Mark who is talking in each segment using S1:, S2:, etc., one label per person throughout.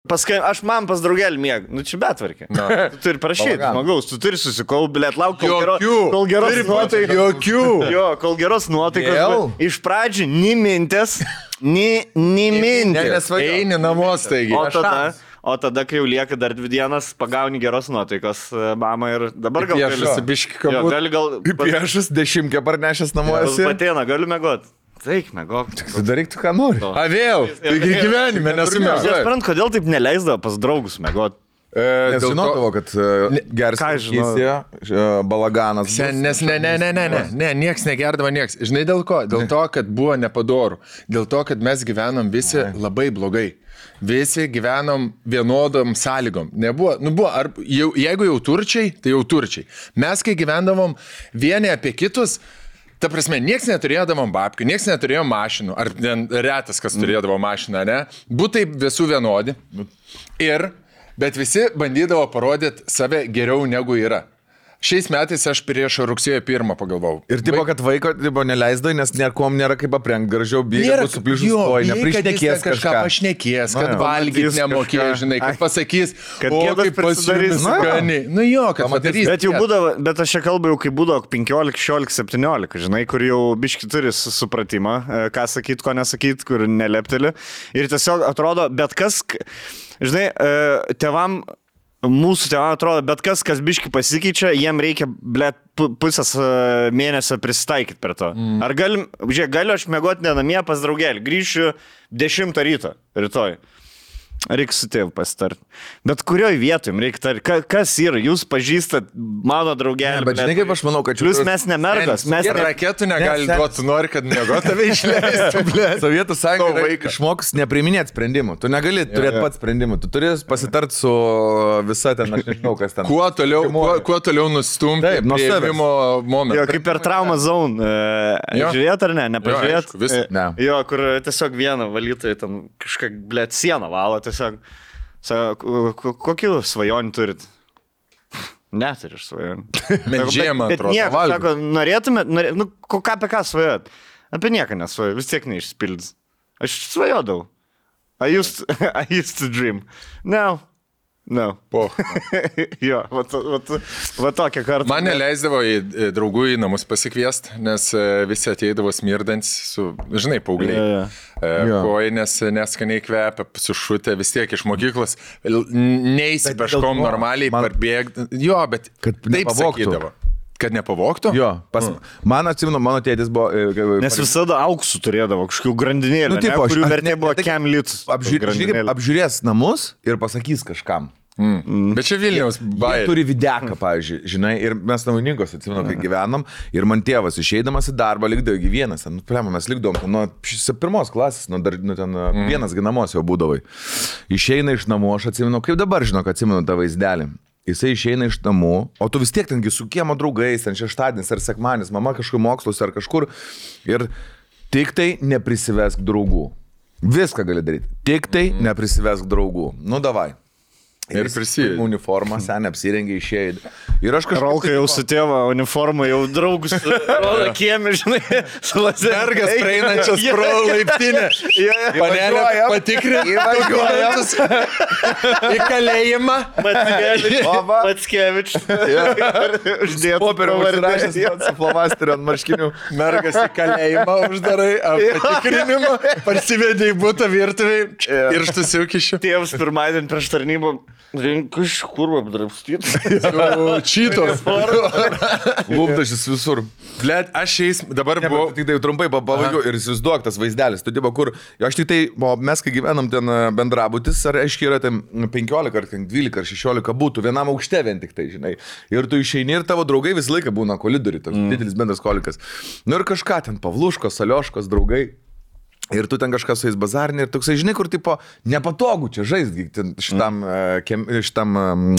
S1: Paskui aš man pas draugelį mėg. Nu čia betvarkė. Tu turi prašyti, žmogaus, tu turi susikaupti, blėt, lauk, kol geros nuotaikos.
S2: Jokių.
S1: Jo, kol geros nuotaikos. Iš pradžių nimintės.
S2: Nes eini namos, taigi.
S1: O tada, kai jau lieka dar 2 dienas, pagauni geros nuotaikos, mama, ir dabar gal
S2: gali piešas 10 parnešęs namuose.
S1: Patėna, galiu mėgot. Taik, mėgok.
S2: Tu daryk tu, ką nori. A vėl, taigi gyvenime nesumėgok.
S1: Aš sprant, kodėl taip neleisdavo pas draugus mėgot.
S2: Nes žinodavo, kad geras kažkysė, balaganas.
S3: Nes ne, nieks negerdavo nieks. Žinai dėl ko? Dėl to, kad buvo nepadorų. Dėl to, kad mes gyvenom visi labai blogai. Visi gyvenom vienodom sąlygom. Nebuvo, jeigu jau turčiai, tai jau turčiai. Mes, kai gyvendavom vieni apie kitus, ta prasme, nieks neturėdavom babkių, nieks neturėjo mašinų, ar retas, kas turėdavo mašiną, ne? Būtai visų vienodi. Bet visi bandydavo parodyti save geriau negu yra. Šiais metais aš prieš rugsėjo 1 pagalvojau.
S2: Ir tipo, kad vaiko neleisdai, nes niekom nėra kaip aprengti gražiau, bėga su pliušus kojų, neprišnekės
S3: kažką pašnekės, kad valgyti nemokė, žinai, kad pasakys, kaip pasidarys skani. Nu jo, kad padarys.
S1: Bet jau būdavo, bet aš čia kalbu jau, kai būdavo 15, 16, 17, žinai, kur jau biški turi supratimą, ką sakyt, ko nesakyt, kur nelepteli. Ir tiesiog atrodo, bet kas, žinai, mūsų tėvam atrodo, bet kas biški pasikeičia, jiem reikia, blėt, pusės mėnesio prisitaikyti per to. Ar galiu aš mėgoti ne namie pas draugelį, grįšiu 10 ryto rytoj. Reikia su tėvu pasitarti. Bet kurioj vietoj reikia tarti? Kas yra? Jūs pažįstat mano draugelį.
S2: Bet žinai, kaip aš manau, kad
S1: plius mes nemergas.
S3: Mes raketų negali duoti, tu nori, kad mėgot tave išleistų.
S2: Sovietų sąjunga išmoks nepriiminėti sprendimų. Tu negali turėti pats sprendimų. Tu turi pasitarti su visa ten, aš nežinau, kas ten.
S3: Kuo toliau nustumti priėmimo momentą.
S1: Jo, kaip per trauma zone. Žiūrėt ar ne? Nepažiūrėt? Jo, kur tiesiog vieną valytojai ten kažką, blėt, sieną valo. Tiesiog, kokių svajonių turit? Neturiu svajonių.
S3: Bet žiemą atrodo.
S1: Sako, norėtumėt, apie ką svajot? Apie nieką nesvajot, vis tiek neišsipildys. Aš svajodavau. I used to dream. No. Jo, va tokia kartą.
S3: Man neleisdavo į draugų į namus pasikviesti, nes visi ateidavo smirdants su, žinai, paaugliai. Kojinės neskaniai kvepia, sušutė vis tiek iš mokyklos. Neįsi peškom normaliai parbėgti. Jo, bet taip sakydavo. Kad nepavoktų?
S2: Jo, man atsimenu, mano tėtis buvo...
S1: Nes visada auksų turėdavo, kažkokių grandinėlį, kurių vertė buvo kem litus.
S2: Apžiūrės namus ir pasakys kažkam.
S3: Bet čia Vilniaus bairė.
S2: Jie turi videką, pavyzdžiui, žinai, ir mes Naujininkos, atsimenu, kai gyvenom, ir man tėvas išeidamas į darbą likdavo gyvienas, mes likdavom nuo 1 klasės, ten vienas ginamos jau būdavai. Išeina iš namų, aš atsimenu, kaip dabar žinau, kad atsimenu tą vaizdelį. Jisai išeina iš namų, o tu vis tiek tengi su kiemo draugais, ten šeštadienis ar sekmadienis, mama kažkur moksluose ar kažkur, ir tik tai neprisivesk draugų. Viską gali daryti, tik tai neprisivesk draugų. Nu, davai.
S3: Ir prisijai.
S2: Uniformą, sen apsirengė, išėjai. Ir aš kažkaip...
S1: Rolka jau su tėva uniformą, jau draugus rodo kiemi, žinai, su
S3: lazergas praeinančias pro laiptinę. Panelė patikrina dokumentus į kalėjimą.
S1: Mackevič.
S2: Uždėtų popierių užrašęs su flomasteriu ant marškinių.
S3: Mergas į kalėjimą uždarai, patikrinimą, parsivedi į butą virtuviai ir štusiukišiu.
S1: Tėvas pirmadienį prieš tarnybą. Iš kur apdrapstyt?
S3: Čytos.
S2: Lūpdašis visur.
S3: Blet, aš šiais dabar buvau...
S2: Tik tai trumpai pabaigiau ir įsivaizduok tas vaizdelis. Tu dirba, kur... Aš tik tai... Mes, kai gyvenam ten bendrabutis, ar aiškiai yra ten 15, ar 12, ar 16 būtų, vienam aukšte vien tik tai, žinai. Ir tu išeini ir tavo draugai visą laiką būna kolidoriui, toks didelis bendras kolikas. Nu ir kažką ten, Pavluškos, Alioškos, draugai. Ir tu ten kažkas su jais bazarinė ir toksai, žinai, kur tipo nepatogu čia žaisti, šitam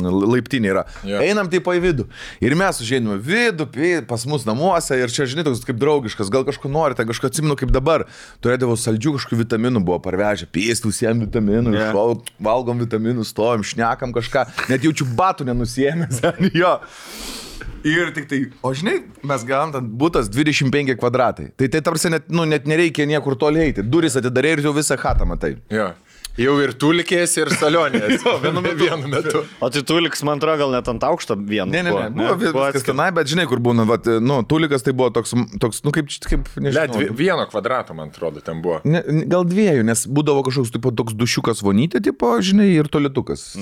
S2: laiptinė yra. Einam tipo į vidų. Ir mes užėjome vidų, pas mus namuose ir čia, žinai, toks kaip draugiškas, gal kažko norite, kažko atsimenu kaip dabar. Turėdavo saldžių kažkokių vitaminų, buvo parvežę, pėstų visiems vitaminų, valgom vitaminų, stovim, šnekam kažką, net jaučiu batų nenusėmęs. Jo. Ir tik tai, o žinai, mes gavom ten būtas 25 kvadratai. Tai tarsi net nereikia niekur toli eiti. Duris atidarė ir jau visą chatą matai.
S3: Jo. Jau ir tulikės, ir salionės. Vienu metu.
S1: O tai tuliks, man atrodo, gal net ant aukšto vienu.
S2: Ne. Buvo viskas tenai, bet žinai, kur būna, tulikas tai buvo toks kaip nežinau.
S3: 1 kvadrato, man atrodo, ten buvo.
S2: Gal 2, nes būdavo kažkoks toks dušiukas vonytė, tipo, žinai, ir tolitukas.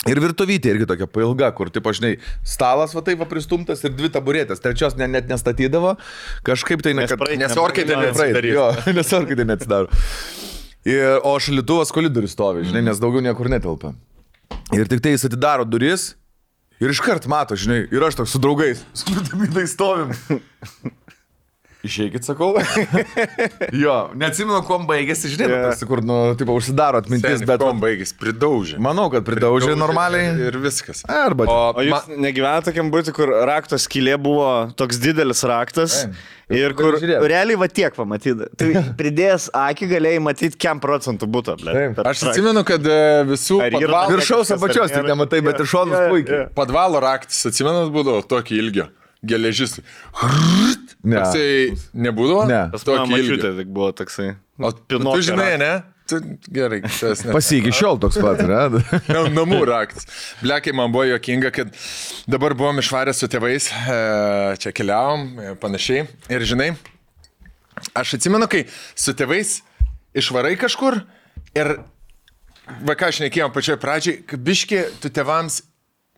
S2: Ir virtuvytė irgi tokia pailga, kur, tipo, žinai, stalas va taip pristumtas ir 2 taburetės, 3 net nestatydavo, kažkaip tai
S3: nes orkaitė neatsidaro.
S2: Nes orkaitė neatsidaro. O šaldytuvas koridorius stovi, žinai, nes daugiau niekur netelpa. Ir tik tai jis atidaro duris ir iškart mato, žinai, ir aš toks su draugais, skrūdamydai stovim. Išeikit, sakau. Jo, neatsimenu, kuom baigėsi, žinai, tarsi, kur, tipo, užsidaro atmintis, bet...
S3: Kuom baigėsi, pridaužė.
S2: Manau, kad pridaužė normaliai.
S3: Ir viskas.
S2: Arba...
S1: O jūs negyvenate tokiam būti, kur rakto skylė buvo toks didelis raktas ir kur realiai va tiek pamatyti. Tai pridėjęs akį galėjai matyti, kiam procentų būtų.
S3: Aš atsimenu, kad visų
S2: padvalo... Viršaus apačios tik nematai, bet ir šonus puikiai.
S3: Padvalo raktas, atsimenat, būdavo tokį ilgio. Geležis.
S2: Ne.
S3: Toksai nebūdavo?
S2: Ne.
S1: Pas mano mačiutė tik buvo toksai.
S3: O tu žinai, ne? Tu, gerai.
S2: Pasiki šiol toks pat, ne?
S3: Namų raktas. Blekai, man buvo juokinga, kad dabar buvom išvarę su tėvais, čia keliavom, panašiai. Ir žinai, aš atsimenu, kai su tėvais išvarai kažkur ir, va ką aš nekėjom pačioj pradžiai, kad biški tu tėvams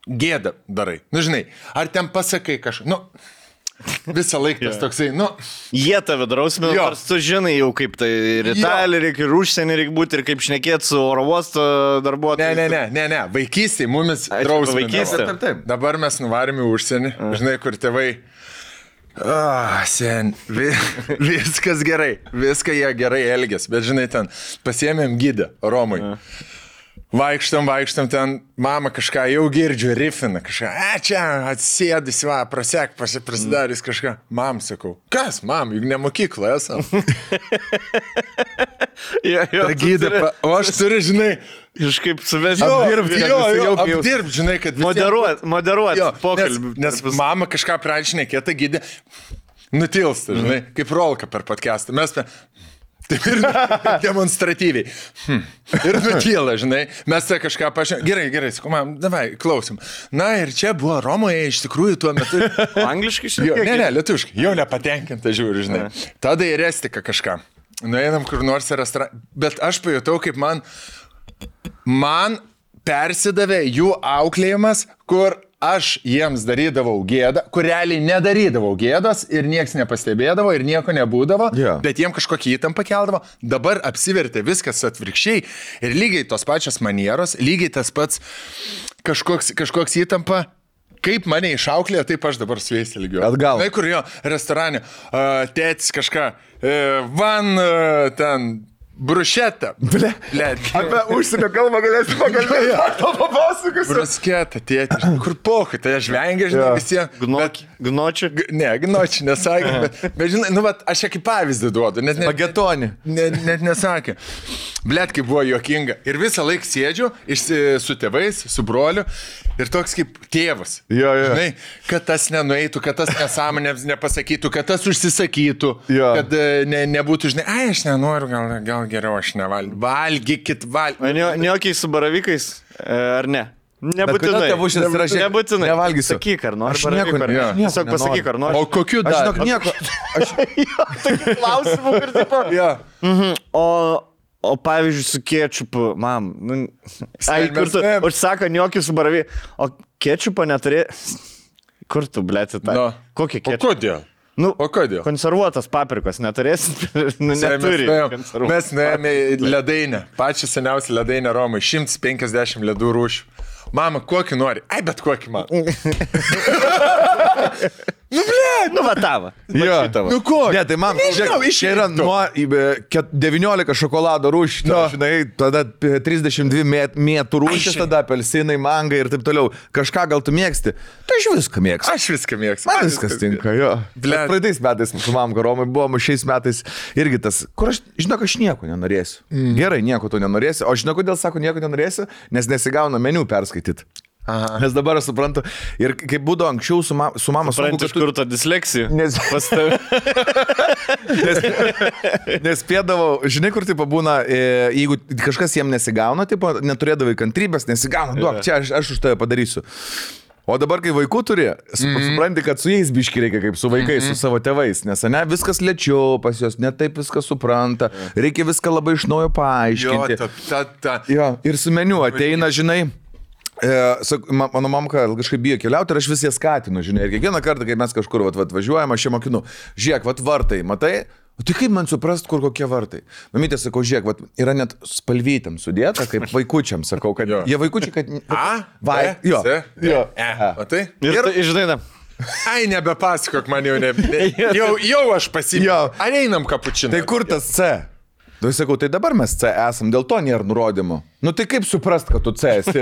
S3: gėda darai. Nu, žinai, ar ten pasakai kažką, visą laiką tas toksai,
S1: Jie tave drausmina, nors tu žinai jau kaip tai ir Italija, reikia ir užsienį reikia būti, ir kaip šnekėti su oro uosto darbuotojais.
S3: Ne, vaikystėje mumis drausmina.
S1: Vaikystė.
S2: Taip.
S3: Dabar mes nuvarėme į užsienį, žinai, kur tėvai, viskas gerai, viską jie gerai elgės, bet žinai, ten pasiėmėm gidą Romui. Vaikštam ten, mama kažką jau girdžiu, rifina kažką, čia atsėdys, prasek, prasidarys kažką. Mam, sakau, kas, mam, juk ne mokykla esam. Ta gyda, o aš turiu, žinai,
S1: kažkaip suvesti.
S3: Apdirbt, žinai, kad
S1: moderuot pokalbį.
S3: Nes mama kažką pradžinėkė, ta gyda nutilsta, žinai, kaip rolka per podcastą. Mes taip ir demonstratyviai. Ir nutyla, žinai. Mes tai kažką pažiūrėjom. Gerai, sakau, mam, davai, klausim. Na ir čia buvo Romoje iš tikrųjų tuo metu.
S1: Angliškai šiek tiek?
S3: Ne, lietuviškai. Jau nepatenkinta žiūri, žinai. Tada į Restiką kažką. Nueinam kur nors į restoraną. Bet aš pajutau, kaip man persidavė jų auklėjimas, kur aš jiems darydavau gėdą, kur realiai nedarydavau gėdos ir nieks nepastebėdavo ir nieko nebūdavo, bet jiem kažkokią įtampą keldavo. Dabar apsivertė viskas atvirkščiai ir lygiai tos pačios manieros, lygiai tas pats kažkoks įtampa. Kaip mane išauklėjo, taip aš dabar su jais ilgiau.
S2: Atgal.
S3: Tai kur jo restorane, tėtis kažką, ten... Brušeta. Ble.
S2: Apie užsienio kalbą galėsi pakalbėti. To papasakosiu.
S3: Brusketa, tėti. Kur pohai, tai aš vengiu, žinai, visiems.
S1: Gnočių?
S3: Ne, gnočių nesakė. Bet žinai, aš čia kaip pavyzdį duodu.
S2: Pagetonį.
S3: Net nesakė. Blet, kaip buvo juokinga. Ir visą laiką sėdžiu su tėvais, su broliu. Ir toks kaip tėvas. Žinai, kad tas nenueitų, kad tas nesąmonėms nepasakytų, kad tas užsisakytų. Kad nebūtų, žinai, aš nenoriu, gal geriau aš nevalgysiu. Valgykit.
S1: Neokiai su baravikais, ar ne? Nebūtinai. Nebūtinai.
S2: Nevalgysiu.
S1: Sakyk, ar nori.
S2: Aš nieko nenoriu.
S1: Tiesiog pasakyk, ar nori.
S3: O kokiu dar?
S2: Aš žinok nieko.
S1: Tokių klausimų ir taip. O pavyzdžiui, su kečupu, mam, kur tu užsako gniokių su baravykai, o kečupo neturi, kur tu, blėti, tą? Kokį kečupą?
S3: O kodėl? O kodėl?
S1: Konservuotas paprikos neturėsit, neturi.
S3: Mes nuėjome į ledainę, pačią seniausią ledainę Romai, 150 ledų rūšių. Mama, kokį nori? Ai, bet kokį man.
S1: Va tavo.
S3: Nu ko?
S2: Ne, tai man, čia yra nuo 19 šokolado rūšių, žinai, tada 32 mėtų rūšis, tada apelsinai, mangai ir taip toliau. Kažką gal tu mėgsti? Tai aš viską mėgstu.
S3: Aš viską mėgstu.
S2: Man viskas tinka, jo. Praeitais metais su mamka Romai buvom, šiais metais irgi tas, kur aš, žinok, aš nieko nenorėsiu. Gerai, nieko tu nenorėsi. O žinok, kodėl sako nieko nenorėsiu? Nes nesigauna meniu perskaityti.
S3: Aha.
S2: Nes dabar aš suprantu. Ir kaip būdavo anksčiau su mama...
S1: Supranti, iš kur ta disleksija? Pas tave.
S2: Nes spėdavau, žinai, kur tipo būna, jeigu kažkas jiem nesigauna, tipo, neturėdavai kantrybės, nesigauna, duok, čia aš už tave padarysiu. O dabar, kai vaikų turi, supranti, kad su jais biški reikia kaip su vaikais, su savo tėvais, nes ne, viskas lėčiau pas juos, ne taip viskas supranta, reikia viską labai iš naujo paaiškinti. Jo, ir su meniu ateina, žinai, mano mamka kažkaip bijo keliauti ir aš vis ją skatinu, žinai, ir kiekvieną kartą, kai mes kažkur važiuojam, aš ją mokinu, žiūrėk, vartai, matai? O tai kaip man suprast, kur kokie vartai? Mamytė, sakau, žiūrėk, yra net spalvytėm sudėta, kaip vaikučiam, sakau, kad jie vaikučiai, kad... Jo.
S3: O tai?
S1: Ir žinai,
S3: ai, nebepasakok man jau aš pasimėjau. Ar einam kapučiną?
S2: Tai kur tas C? Tai sakau, tai dabar mes C esam, dėl to nėra nurodymų. Nu tai kaip suprast, kad tu C esi?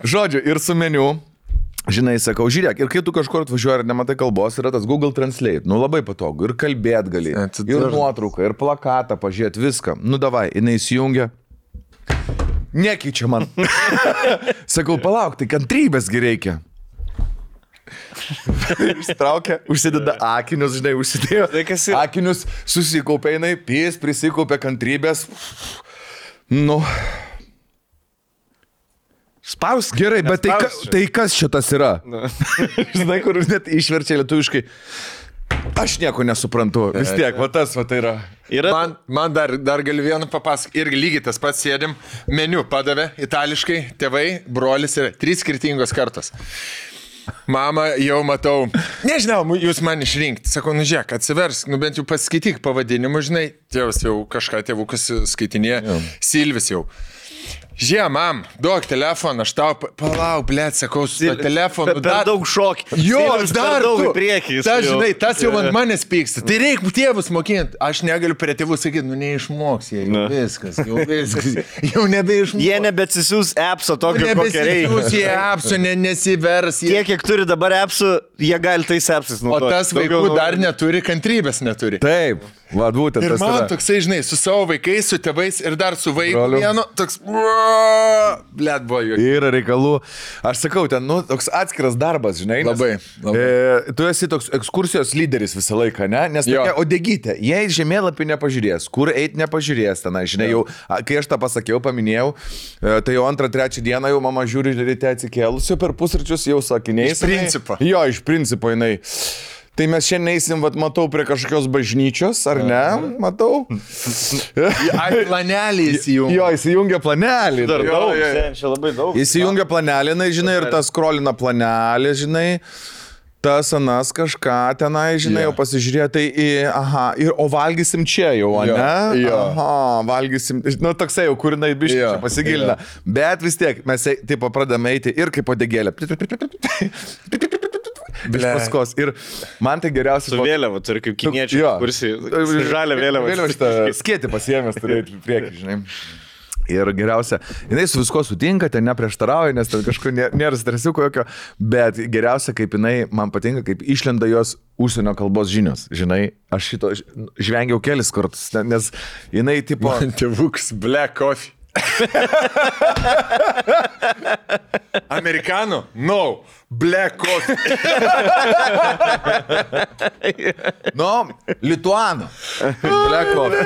S2: Žodžiu, ir su meniu. Žinai, sakau, žiūrėk, ir kai tu kažkur atvažiuoji ir nematai kalbos, yra tas Google Translate, nu labai patogu, ir kalbėt gali, ir nuotrauką, ir plakatą pažiūrėt, viską. Nu davai, jinai įsijungia, nekeičia man. Sakau, palauk, tai kantrybėsgi reikia. Ištraukia, užsideda akinius, žinai, užsidėjo akinius, susikaupė jinai, prisikaupė kantrybės. Nu...
S1: Spausk.
S2: Gerai, bet tai kas šitas yra? Žinai, kur net išverčia lietuviškai. Aš nieko nesuprantu. Vis tiek, va tas va tai yra.
S3: Man dar galiu vieną papasakoti. Irgi lygiai tas pats sėdim. Meniu padavė itališkai, tėvai, brolis yra 3 skirtingos kartos. Mama, jau matau, nežinau, jūs man išrinkti. Sakau, nu žiūrėk, atsiversk, nu bent jau paskaityk pavadinimu, žinai. Tėvas jau kažką tėvukas skaitinėje, Silvis jau. Žiūrėk, mam, duok telefoną, aš tau palauk, blėt, sakau, su to telefonu.
S1: Per daug šokį.
S3: Jo, dar
S1: daug į priekį.
S3: Tas, žinai, tas jau ant manęs pyksta. Tai reikia tėvus mokinti. Aš negaliu prie tėvų sakyti, nu neišmoks jie. Viskas. Jau nebeišmoks.
S1: Jie nebesisiūs appso tokio, kokia reikia.
S3: Nebesisiūs jie appso, nesivers.
S1: Tiek, kiek turi dabar appsų, jie gali tais appsais naudoti.
S3: O tas vaikų dar neturi, kantrybės neturi.
S2: Taip. Va, būtent,
S3: ir man toksai, žinai, su savo vaikais, su tėvais ir dar su vaiku vienu, toks, blėt, buvo jų.
S2: Yra reikalų. Aš sakau, ten, nu, toks atskiras darbas, žinai.
S3: Labai.
S2: Tu esi toks ekskursijos lyderis visą laiką, ne? Nes tokia odegytė, jei žemėlapį nepažiūrės, kur eiti nepažiūrės tenai, žinai, jau, kai aš tą pasakiau, paminėjau, tai jau 2-3 dieną jau mama žiūri ryte atsikėlusi, per pusryčius jau sakiniais.
S3: Iš principo.
S2: Jo, iš principo, jinai. Tai mes šiandien eisim, vat, matau, prie kažkokios bažnyčios, ar ne? Matau.
S3: Ai, planelį įsijungia.
S2: Jo, įsijungia planelį.
S1: Dar daug, čia labai daug.
S2: Įsijungia planelį, žinai, ir tas skrolina planelį, žinai. Tas anas kažką tenai, žinai, jau pasižiūrėjo, tai, o valgysim čia jau, ne? Aha, valgysim, nu, toksai jau, kur jinai biškai čia pasigilina. Bet vis tiek, mes taip pradame eiti ir kaip odegėlė. Iš paskos. Ir man tai geriausias...
S1: Su vėliava, turi kaip kiniečiai, kursi žalia vėliava.
S2: Vėliava šitą skėtį pasiėmęs turėti priekį, žinai. Ir geriausia, jinai su visko sutinka, ten neprieštarauja, nes ten kažkur nėra stresiuko jokio, bet geriausia, kaip jinai, man patinka, kaip išlenda jos užsienio kalbos žinios, žinai, aš šito žvengiau kelis kartus, nes jinai tipo...
S3: Tėvuks black coffee. Amerikanų? No. Black coffee.
S2: No, lituano. Black coffee.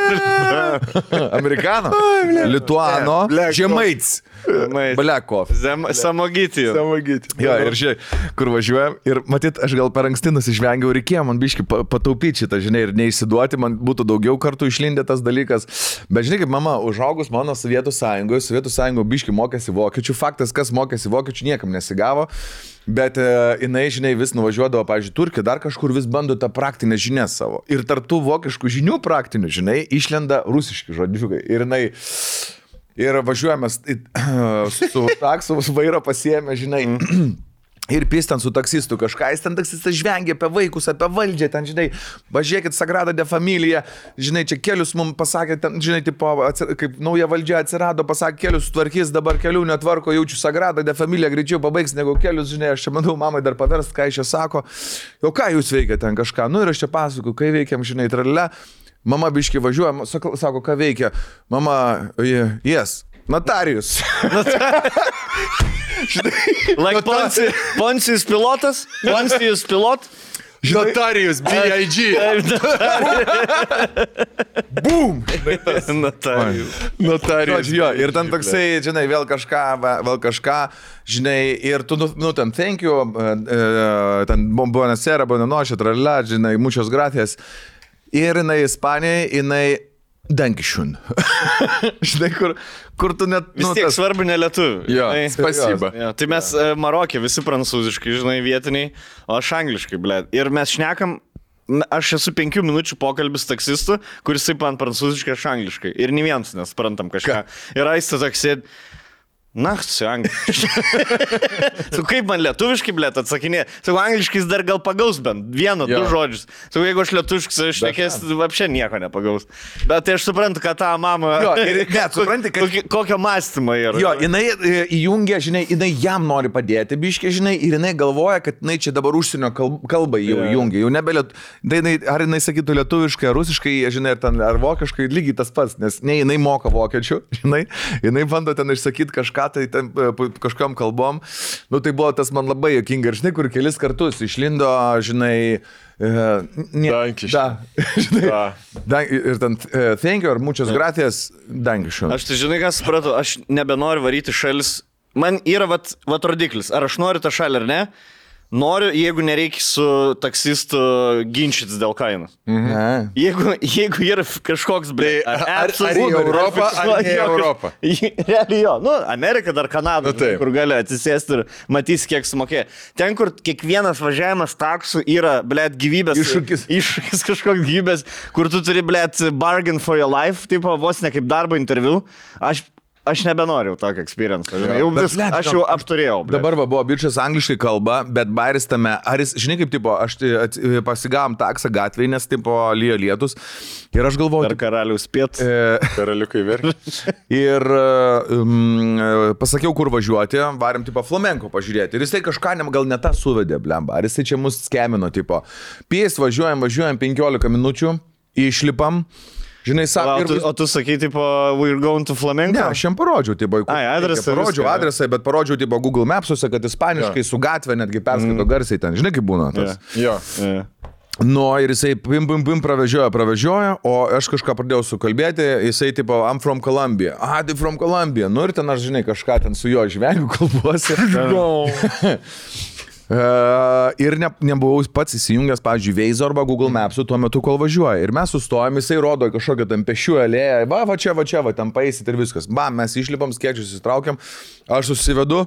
S2: Amerikano. Lituano. Žemaits. Black coffee.
S1: Samogyti.
S2: Jo, ir žiūrėk, kur važiuojam. Ir matyt, aš gal per anksti nusižvengiau, reikėjo man biški pataupyti šitą, žinai, ir neišsiduoti, man būtų daugiau kartų išlindė tas dalykas. Bet žinai, kaip mama užaugus mano Sovietų Sąjungoje biški mokėsi vokiečių. Faktas, kas mokėsi vokiečių, niekam nesigavo. Bet jinai, žinai, vis nuvažiuodavo, pavyzdžiui, Turkiją, dar kažkur vis bando tą praktinę žinią savo. Ir tartų vokiškų žinių praktinių, žinai, išlenda rusiški žodžiukai. Ir jinai, ir važiuojame su taksu, vairo pasiėmė, žinai, ir pistant su taksistu kažką, jis ten taksistas žvengia apie vaikus, apie valdžią, ten, žinai, važiuokit Sagrada de Familia, žinai, čia kelius mums pasakė, ten, žinai, tipo, kaip nauja valdžia atsirado, pasakė, kelius tvarkys, dabar kelių netvarko, jaučiu Sagrada de Familia, greičiau pabaigs negu kelius, žinai, aš čia manau, mamai dar paverst, ką iš čia sako, jau ką jūs veikia ten kažką, nu ir aš čia pasakoju, kai veikiam, žinai, tralė, mama biški važiuoja, sako, ką veikia, mama, yes. Notarius.
S1: Like Poncijus pilotas? Poncijus pilot?
S3: Notarius, B.I.G.
S2: Boom!
S1: Notarius.
S2: Jo, ir ten toksai, žinai, vėl kažką, žinai, ir tu, ten, thank you, ten, buonasera, buonanoche, tralala, žinai, muchos gracias. Ir jinai Ispanijai, jinai Dankišun. Žinai, kur tu net...
S1: Vis tiek svarbu ne lietuvių.
S3: Jo, spasiba.
S1: Jo, tai mes Marokė visi prancūziškai, žinai, vietiniai, o aš angliškai, blėt. Ir mes šnekam, aš esu 5 minučių pokalbis taksistu, kuris taip man prancūziškai, aš angliškai. Ir nei vienas nesprantam kažką. Ir aistą taksėd. Na, su angliškai. Su kaip man lietuviškai, blėt, atsakinė. Su angliškais dar gal pagaus bent 1-2 žodžius. Su jeigu aš lietuviškai šnekės, apšė nieko nepagaus. Bet tai aš suprantu, kad tą mamą...
S2: Jo, ir net supranti, kad...
S1: Kokio mąstymo yra.
S2: Jo, jinai įjungia, žinai, jinai jam nori padėti, biškiai, žinai, ir jinai galvoja, kad jinai čia dabar užsienio kalbą jau įjungia. Jau nebe ar jinai sakytų lietuviškai, ar rusiškai, žinai, ar vokiškai, lygiai tas pats, nes ne jinai moka vokiečių, žinai, jinai bando ten išsakyti kažką tai ten, kažkam kalbom. Nu, tai buvo tas man labai jokinga. Ir žinai, kur kelis kartus išlindo, žinai...
S3: Dankiškai.
S2: Ir ten, thank you, ar muchas gracias, dankiškai.
S1: Aš tai žinai, ką supratau, aš nebenoriu varyti šalis. Man yra vat rodiklis, ar aš noriu tą šalį ar ne. Noriu, jeigu nereikia su taksistu ginčytis dėl kainos. Jeigu yra kažkoks,
S3: ar į Europą, ar ne į Europą.
S1: Realiai jo. Nu, Amerika dar Kanada, kur gali atsisėsti ir matys, kiek sumokė. Ten, kur kiekvienas važiavimas taksų yra, blėt, gyvybės. Iššūkis kažkoks gyvybės, kur tu turi, blėt, bargain for your life, tipo, vos ne kaip darbo interviu. Aš nebenoriu tokio experience. Aš jau apturėjau.
S2: Dabar buvo bičias angliškai kalba, bet bairis tame, ar jis, žinai kaip, tipo, aš pasigavom taksą gatvėje, nes, tipo, lyjo lietus. Ir aš galvoju...
S1: Per karalius piet.
S3: Karaliukai verk.
S2: Ir pasakiau, kur važiuoti, varėm, tipo, flamenko pažiūrėti. Ir jisai kažką gal ne tą suvedė, blemba. Ar jisai čia mus skemino, tipo. Pies važiuojam 15 minučių, išlipam. Žinai,
S1: o tu sakai, tipo, we're going to flamenco?
S2: Ne, aš jam parodžiau, tipo,
S1: adresą.
S2: Parodžiau adresą, bet parodžiau, tipo, Google Mapsuose, kad ispaniškai su gatvė netgi perskaito garsiai ten. Žinai, kaip būna tas?
S3: Jo.
S2: Nu, ir jisai pim pravežioja, o aš kažką pradėjau sukalbėti, jisai, tipo, I'm from Colombia. Tai from Colombia. Nu, ir ten aš, žinai, kažką ten su jo žvengiu kalbuosi. Ir nebuvau pats įsijungęs, pavyzdžiui, Waze arba Google Maps'u tuo metu, kol važiuoja. Ir mes sustojom, jisai rodo kažkokią ten pešių alėją, va čia, ten paeisit ir viskas. Mes išlipam, skėčius įstraukiam, aš susivedu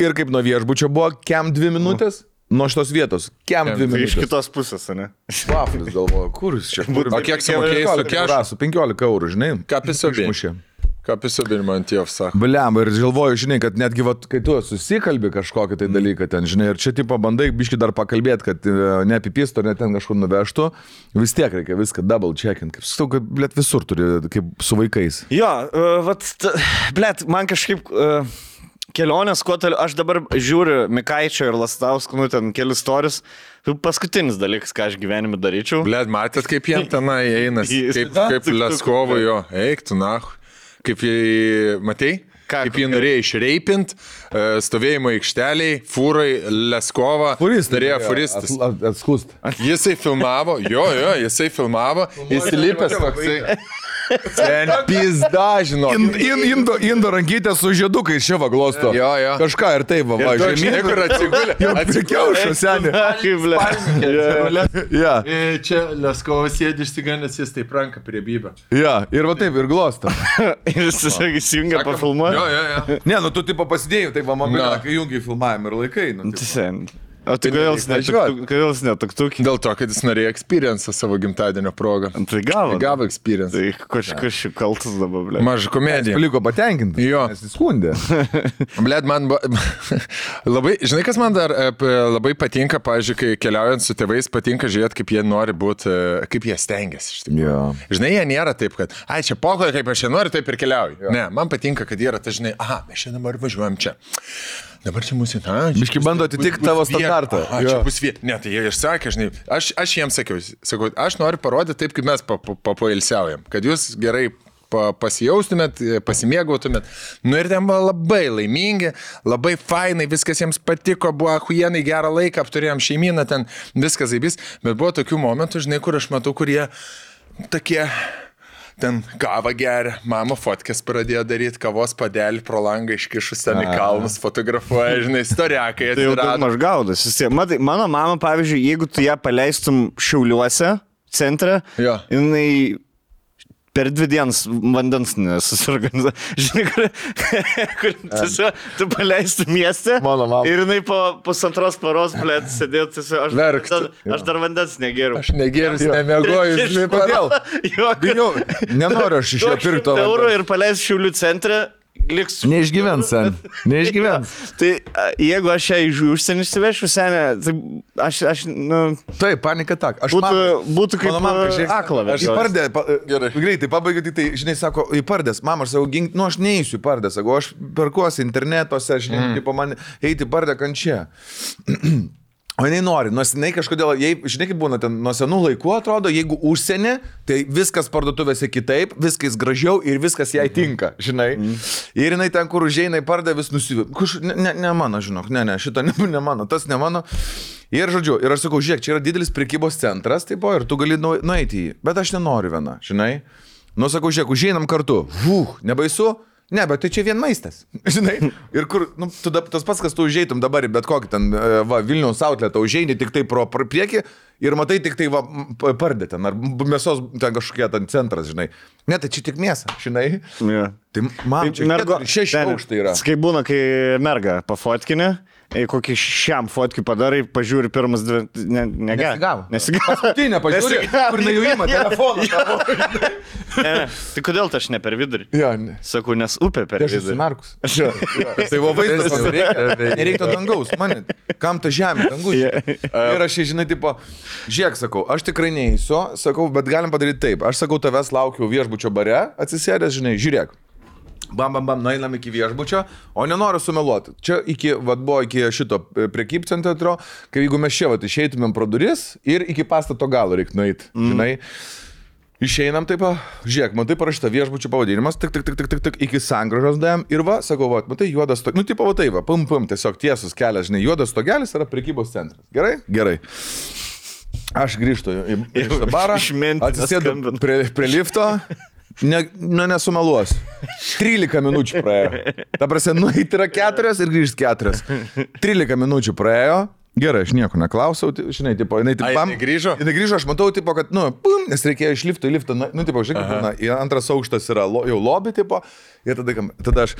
S2: ir kaip nuo viešbučio buvo, kem 2 minutės. Nuo šitos vietos, kem 2 minutės.
S1: Iš kitos pusės, ne?
S2: Vaflis galvoju, kur jis čia?
S3: O kiek sumokėjai su kešu?
S2: Su 15 eurų, žinai.
S3: Ką pisobinimą ant jo sako?
S2: Bliam, ir galvoju, žinai, kad netgi, kai tu susikalbi kažkokį tai dalyką ten, žinai, ir čia tipo bandai biški dar pakalbėti, kad neapipistų, ar net ten kažkur nuvežtų, vis tiek reikia viską double checkint, kaip su, kad, blėt, visur turi, kaip su vaikais.
S1: Jo, blėt, man kažkaip... Kelionės, kuo toliau, aš dabar žiūriu Mikaičio ir Lastausko, nu ten kelius storius, paskutinis dalykas, ką aš gyvenime daryčiau.
S3: Blėt, matėt, kaip jiem tenai einas, kaip Leskovui jo, eik tu nahu, kaip jį, matei? Kaip jį norėjo išreipint, stovėjimo aikšteliai, fūrai, Leskovą, darėjo furistas.
S2: Atskust.
S3: Jisai filmavo, jisai filmavo, įsilipęs toksai. Ten pizda, žinok.
S2: Indo rankytė su žiedukais čia va glosto.
S3: Jo.
S2: Kažką ir taip va.
S3: Žinai, kur atsigulė.
S2: Atsikiaušo, senė.
S3: Čia Leskovas sėdi išsigandęs, jis taip ranka prie bybę.
S2: Ja, ir va taip, ir glosto.
S1: Ir jis tiesiog įsijungia pafilmuoti.
S3: Jo.
S2: Ne, nu tu tipo pasidėjai, taip va, mobilą, kai jungiai filmavimą ir laikai.
S1: O tai kodėl jis netuktukė?
S3: Dėl to, kad jis norėjo experience savo gimtadienio progą.
S1: Tai gavo
S3: experience.
S1: Tai kažkas šių kaltas dabar, blėt.
S3: Maža komedija.
S2: Paliko patenkinti.
S3: Jo.
S2: Nes jis skundė.
S3: Blėt, man labai, žinai, kas man dar labai patinka, pavyzdžiui, kai keliaujant su tėvais, patinka žiūrėti, kaip jie nori būti, kaip jie stengiasi.
S2: Jo.
S3: Žinai, jie nėra taip, kad, čia pokoje, kaip aš čia noriu, taip ir keliauju. Jo. Ne, man patinka, kad jie yra, tai žinai, mes čia dabar važiuojam čia. Dabar čia mūsų...
S2: Biški bando atitikti tavo standartą.
S3: Čia bus vieta. Ne, tai jie išsakė, žinai, aš jiems sakau, aš noriu parodyti taip, kaip mes papoilsiaujam, kad jūs gerai pasijaustumėt, pasimėgautumėt. Nu ir ten buvo labai laimingi, labai fainai, viskas jiems patiko, buvo achujienai, gerą laiką, apturėjom šeimyną, ten viskas zaibys, bet buvo tokių momentų, žinai, kur aš matau, kurie tokie... Ten kavą geria, mama fotkės pradėjo daryti, kavos padelį pro langą iškišus ten į kalnus, fotografuoja, žinai, istoriakai atsirado.
S1: Tai jau daug gaudas. Matai, mano mama, pavyzdžiui, jeigu tu ją paleistum Šiauliuose, centre, jinai per 2 dienas vandens nesusorganizuoja. Žinai, kur tu paleistum mieste ir jinai po 2 paros, blėt, sėdėtų, aš dar vandens negeriu.
S3: Aš negeriu, nemiegoju, žinai, kodėl.
S2: Bijau, nenoriu aš iš jo pirkti to.
S1: Eurų ir paleisiu Šiaulių centre. Liks...
S2: Neišgyvens, sen. Neišgyvens.
S1: Tai jeigu aš ją iš užsienį išsivešiu, senė, tai aš
S2: Taip, panika tak.
S1: Būtų kaip akla.
S2: Aš įpardė, greitai pabaigiu, tai, žinai, sako, įpardės, mama, aš savo gink, aš neįsiu įpardės, sako, aš perkuosi internetuose, žinai, tipo man eiti įpardė kančia. O jinai nori, nors jinai kažkodėl, žinai, kaip būna ten, nuo senų laikų atrodo, jeigu užsienį, tai viskas parduotuvėse kitaip, viskas gražiau ir viskas jai tinka, žinai. Ir jinai ten, kur užeina į pardą, vis nusivė. Ne mano, žinok, šito ne mano, tas ne mano. Ir žodžiu, ir aš sakau, žiūrėk, čia yra didelis prekybos centras, taip, ir tu gali nueiti į jį, bet aš nenoriu viena, žinai. Nu, sakau, žiūrėk, užeinam kartu, nebaisu? Ne, bet tai čia vien maistas, žinai, ir kur, tas pats, kas tu užeitum dabar į bet kokį ten, Vilniaus outletą, užeini tik tai pro priekį ir matai tik tai, pardė ten, ar mėsos ten kažkokie ten centras, žinai. Ne, tai čia tik mėsa, žinai.
S1: Yeah.
S2: Tai man čia 6 aukštai yra.
S1: Kaip būna, kai merga pafotkinė, kokį šiam fotkių padarai, pažiūri pirmas 2,
S2: Nesigavo.
S1: Paskutinę
S2: pažiūri, kur nejuima telefoną.
S1: Tai kodėl aš ne per vidurį? Sakau, nes upė per vidurį.
S2: Aš esu Markus. Tai buvo vaizdas, nereiktų dangaus, man, kam ta žemė, dangus. Ir aš, žinai, tipo, žiūrėk, sakau, aš tikrai neįsiu, sakau, bet galim padaryti taip. Aš sakau, tavęs laukiu viešbučio bare, atsisėdęs, žinai, žiūrėk. Bam, nueinam iki viešbučio, o nenoriu sumeluoti. Čia buvo iki šito prekybcentro, kai jeigu mes čia išeitumėm pro duris ir iki pastato galo reiktų nueiti, žinai. Išeinam taip, žiūrėk, matai parašyta viešbučio pavadinimas, tik, iki sangražos dėjom ir sakau, matai, juodas stogelis, tipo, pum, tiesiog tiesus kelias, žinai, juodas stogelis yra prekybos centras. Gerai? Gerai. Aš grįžtu į barą, atsisėdu prie lifto. Nesumeluosiu. 13 minučių praėjo. Ta prasme, nueiti yra 4 ir grįžti 4. 13 minučių praėjo. Gerai, aš nieko neklausiau, žinai, tipo, jinai
S3: grįžo?
S2: Jinai grįžo, aš matau, tipo, kad, pum, nes reikėjo iš lifto į liftą, tipo, žinai, antras aukštas yra jau lobby, tipo, ir tada aš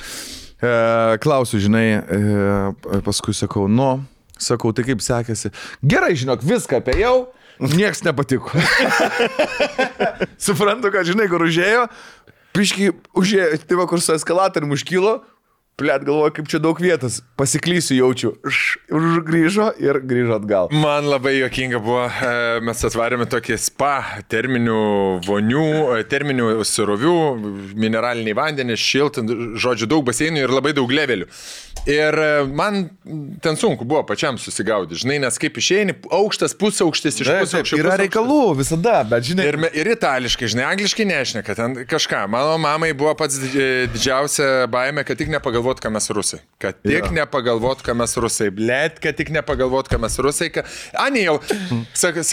S2: klausiu, žinai, paskui sakau, sakau, tai kaip sekėsi. Gerai, žinok, viską apėjau. Niekas nepatiko. Suprantu, kad žinai, kur užėjo, piškiai užėjo, tai va, kur su eskalatorium užkilo, plėt galvoju, kaip čia daug vietos, pasiklysiu jaučiu, grįžo ir grįžo atgal.
S3: Man labai juokinga buvo, mes atvarėme tokį spa, terminių vonių, terminių surovių, mineraliniai vandenys, šiltą, žodžiu, daug baseinų ir labai daug levelių. Ir man ten sunku buvo pačiam susigaudyti, žinai, nes kaip išeini, aukštas, pusaukštis, iš pusaukščio.
S2: Yra reikalų visada, bet žinai.
S3: Ir itališkai, žinai, angliškai nešneka, ten kažką. Mano mamai buvo pats didžiausia baimė, kad tik nepagalvot, ką mes rusai. Kad tik nepagalvot, ką mes rusai. Blet, kad tik nepagalvot, ką mes rusai. Ani jau, sako,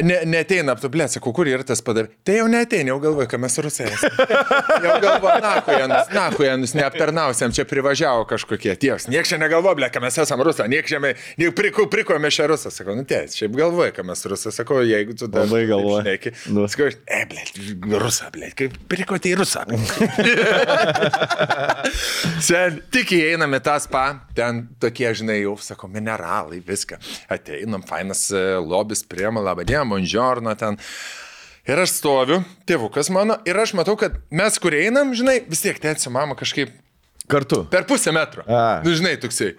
S3: neteina, blet, sako, kur yra tas padarė. Tai jau neteina, jau galvoju, ką mes rusai. Jau galvoju, nahujanus, neaptarnausiam, čia privažiavo kažkokie tieks. Nieks čia negalvoja, ble, ką mes esam rusą, nieks čia prikojame šią rusą. Sakau, ties, šiaip galvoja, ką mes rusą. Sakau, jeigu tu dar šneki. Sakau, ble, rusą, ble, kaip prikoti į rusą. Sen, tik įeiname tą spa, ten tokie, žinai, jau, sakau, mineralai, viską. Ateinam, fainas lobis, priema, labadiena, buongiorno ten. Ir aš stoviu, tėvukas mano, ir aš matau, kad mes, kur einam, žinai, vis tiek tėti su mama kažkaip
S2: kartu.
S3: Per pusę metro. Nu, žinai, toksai.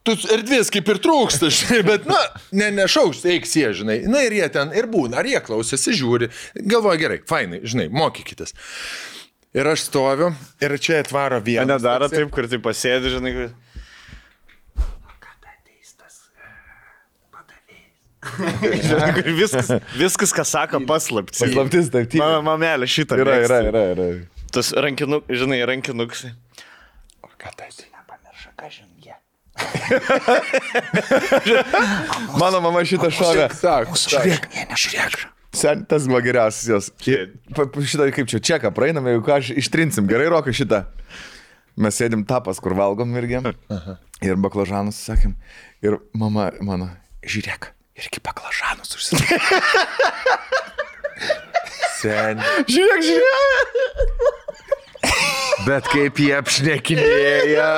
S3: Tu erdvės kaip ir trūksta, žinai, bet, nešauks, eiks jie, žinai. Na ir jie ten ir būna, ar jie klausėsi, žiūri. Galvoja, gerai, fainai, žinai, mokykitės. Ir aš stoviu, ir čia atvaro vienas.
S1: Nedaro taip, kur tai pasėdi, žinai.
S4: Kada ateis tas padavėjas?
S1: Viskas, ką sako, paslaptis.
S2: Paslaptis, taip.
S1: Mano mamelė šitą.
S2: Yra.
S1: Tas rankinukas.
S3: O ką tai?
S1: Nepamirša, ką žinai.
S2: Mano mama šitą šovė.
S3: Žiūrėk.
S2: Sen, tas buvo geriausias jos. Šitą kaip čia čeką praeiname, jeigu ką aš ištrinsim. Gerai, Rokai, šitą. Mes sėdim tapas, kur valgom irgi. Ir baklažanus sakėm. Ir mama mano, žiūrėk, irgi baklažanus užsakė.
S3: Sen.
S2: Žiūrėk.
S3: Bet kaip jie apšnekinėja.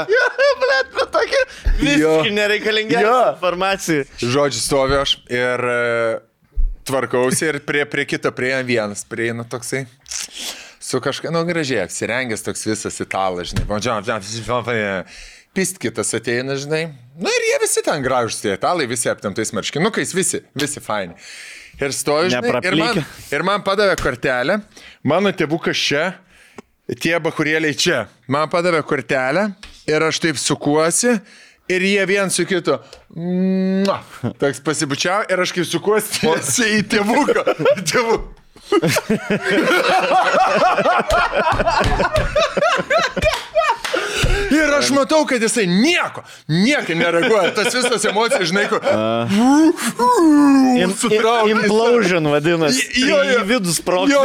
S1: Blet, bet tokia visiškai nereikalingiausia informacija.
S3: Žodžiu, stoviu aš ir tvarkausi ir prie kito prieina vienas. Prieina toksai. Su kažką, gražiai apsirengęs toks visas italas, žinai. Pist kitas ateina, žinai. Ir jie visi ten gražus, tie italai, visi aptemtais marškinukais, visi faini. Ir stoju, žinai, ir man padavė kortelę. Mano tėvukas čia, tie bachurėliai čia. Man padavė kortelę ir aš taip sukuosi ir jie vien su kitu. Toks pasibučiau ir aš kaip sukuosi į tėvuką. Ir aš matau, kad jisai nieko nereaguoja. Tas visas emocijas, žinai, kur...
S1: Implosion vadinasi. Į vidų sprogti.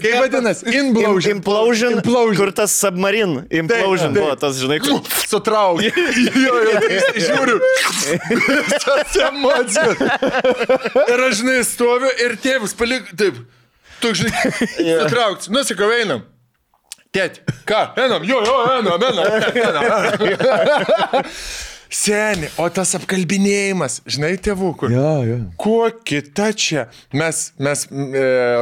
S3: Kaip vadinasi?
S1: Implosion. Kur tas submarine. Implosion buvo tas, žinai, kur...
S3: Sutraukti. Žiūriu. Tas emocijas. Ir aš, žinai, stoviu ir tėvus palik... Taip. Tu, žinai, sutraukti. Nusikau, einam. Tėti, ką? Einam, einam. Seni, o tas apkalbinėjimas, žinai, tėvų, kur?
S2: Jo.
S3: Kuo kita čia? Mes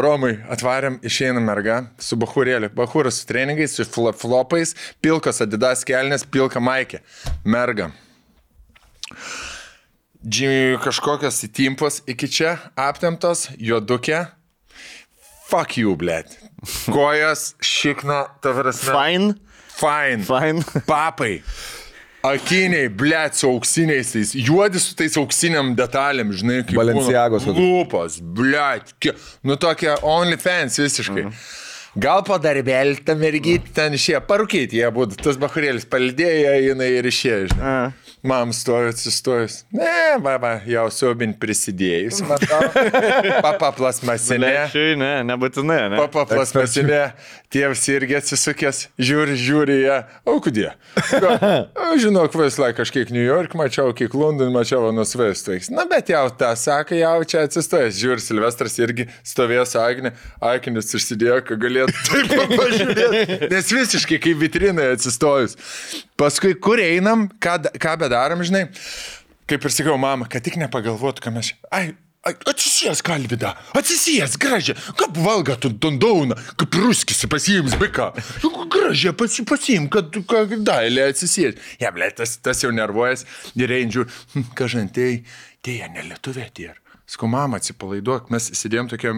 S3: Romui atvarėm, išeinam mergą su bachurėliu. Bachuras su treningais, su flopais, pilkas Adidas kelnės, pilka maikė. Merga. Kažkokios įtimpos iki čia aptemtos, juodukė. Fuck you, blėt. Kojas, šikna, tavrasme. Fine. Papai. Akiniai, blėt, su auksiniais tais. Juodi su tais auksiniam detalėm, žinai, kaip
S2: Balenciagos.
S3: Lūpos, blėt. Tokia OnlyFans visiškai. Gal po darbelį tą mergytį ten išėjo. Parūkyti jie būtų. Tas bachurėlis palidėjo, jinai ir išėjo, žinai. Mam stovi atsistojus. Ne, jau siaubin prisidėjus, matau. Papa plasmasinė.
S1: Ne, nebūtinai, ne.
S3: Papa plasmasinė. Tėvs irgi atsisukęs, žiūri ją. O kudė? Žinau, visą laiką kažkiek New York mačiau, kiek London mačiau, nusvestais. Na, bet jau tą sako, jau čia atsistojęs. Žiūri, Silvestras irgi stovėjo su Agne. Akinis užsidėjo, kad galėtų taip pažiūrėti. Nes visiškai kaip vitrinai atsistojus. Paskui, kur einam, ką bedarom, žinai, kaip ir sakiau, mama, kad tik nepagalvotų, ką mes... Atsisės, Kalvidą, atsisės, gražią, kaip valga tu dondauna, kaip ruskisi pasiims biką. Gražią pasiim, kad dailė atsisės. Ja, ble, tas jau nervuojas ir eindžiu, kažantai, tėja nelietuvė tie. Sakau, mama, atsipalaiduok, mes sėdėjom tokia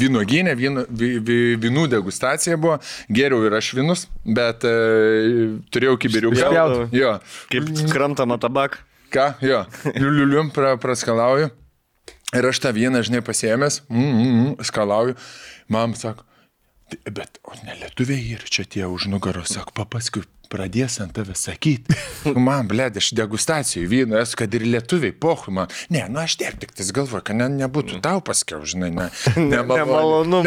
S3: vynuoginė, vynų degustacija buvo, geriau ir aš vynus, bet turėjau kibiriuką. Jo.
S1: Kaip krantama tabak.
S3: Ką? Jo. Liuliulium praskalauju. Ir aš tą vyną, žinai, pasiėmęs, skalauju. Mam sako, bet ne lietuviai ir čia tie už nugaros, sako, paskui pradės ant tave sakyti. Man, blėd, aš degustacijų vyno esu, kad ir lietuviai, pohui man. Ne, aš tik tais galvoju, kad nebūtų tau paskiau, žinai, nemalonu.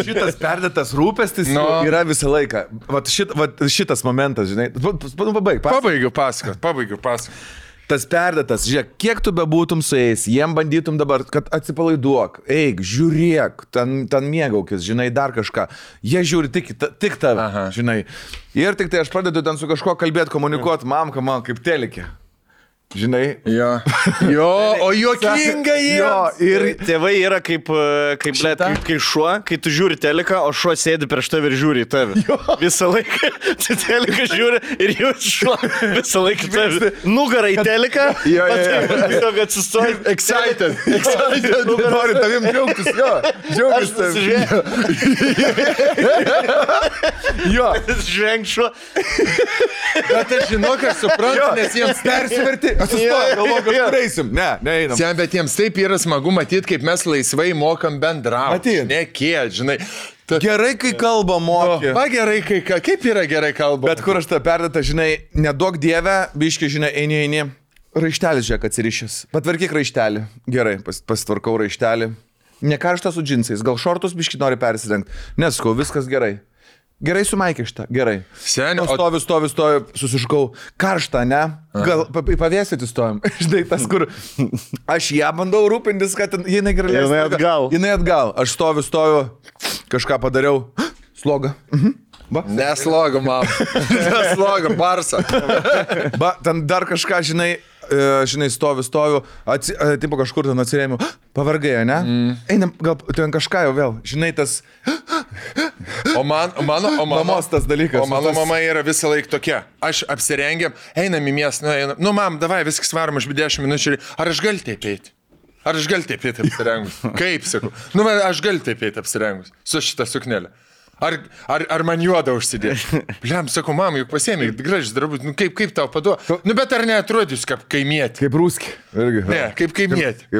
S2: Šitas perdėtas rūpestis yra visą laiką. Vat šitas momentas, žinai.
S3: Pabaigiu pasakot.
S2: Tas perdėtas, žiūrėk, kiek tu bebūtum su jais, jiem bandytum dabar, kad atsipalaiduok, eik, žiūrėk, ten mėgaukis, žinai, dar kažką. Jie žiūri tik tave, žinai. Ir tik tai aš pradedu ten su kažko kalbėti, komunikuoti, mamka man kaip telikė. Žinai?
S3: Jo, o juokinga jie.
S1: Ir tėvai yra kaip šuo, kai tu žiūri teliką, o šuo sėdi prieš tave ir žiūri į tave. Visą laiką tu teliką žiūri ir jūs šuo visą laiką tave. Nugarą į teliką, tiesiog atsistoji.
S3: Excited.
S2: Nori tavim džiaugtis, džiaugtis tavim.
S1: Žvenk šuo.
S3: Bet aš žinau, kad suprantu, nes jiems persiverti.
S2: Galvoju, kad eisim. Ne, neeinam.
S3: Sen, bet jiems taip yra smagu matyti, kaip mes laisvai mokam bendrauti.
S2: Matyt.
S3: Nekėt, žinai.
S2: Gerai, kai kalba moki.
S3: Gerai, kaip yra gerai kalba.
S2: Bet kur aš tą perdėtą, žinai, neduok dievę, biški, žinai, eini. Raištelis, žiūrėk, atsirišęs. Patvarkyk raištelį. Gerai, pasitvarkau raištelį. Nekaršta su džinsais, gal šortus biški nori persirengti. Neskau, viskas gerai. Gerai sumaikė šitą, gerai.
S3: Seniai,
S2: stoviu, susiškau. Karšta, ne? Gal pavėsyti stovim. Žinai, tas, kur aš ją bandau rūpintis, kad jinai gerai leistų. Jinai atgal. Aš stoviu, kažką padariau. Sloga.
S3: Nesloga, mam. Nesloga, barsa.
S2: Ten dar kažką, žinai, stoviu, tipo kažkur ten atsirėmiau, pavargai, ne? Einam, gal ten kažką jau vėl, žinai, tas...
S3: O mamos
S2: tas dalykas.
S3: O mano mama yra visą laiką tokia. Aš apsirengiam, einam į miestą, nu, mam, davai, viskas varom, aš 10 minučių, ar aš galiu taip eiti? Ar aš galiu taip eiti apsirengus? Kaip, sakau? Nu, aš galiu taip eiti apsirengus su šitą suknelę. Ar man juodą užsidėti? Bliam, sakau, mam, juk pasiėmė, gražus drabužis, nu kaip tau paduoda? Nu, bet ar neatrodys kaip kaimietį?
S2: Kaip rūski.
S3: Ne, kaip kaimietį.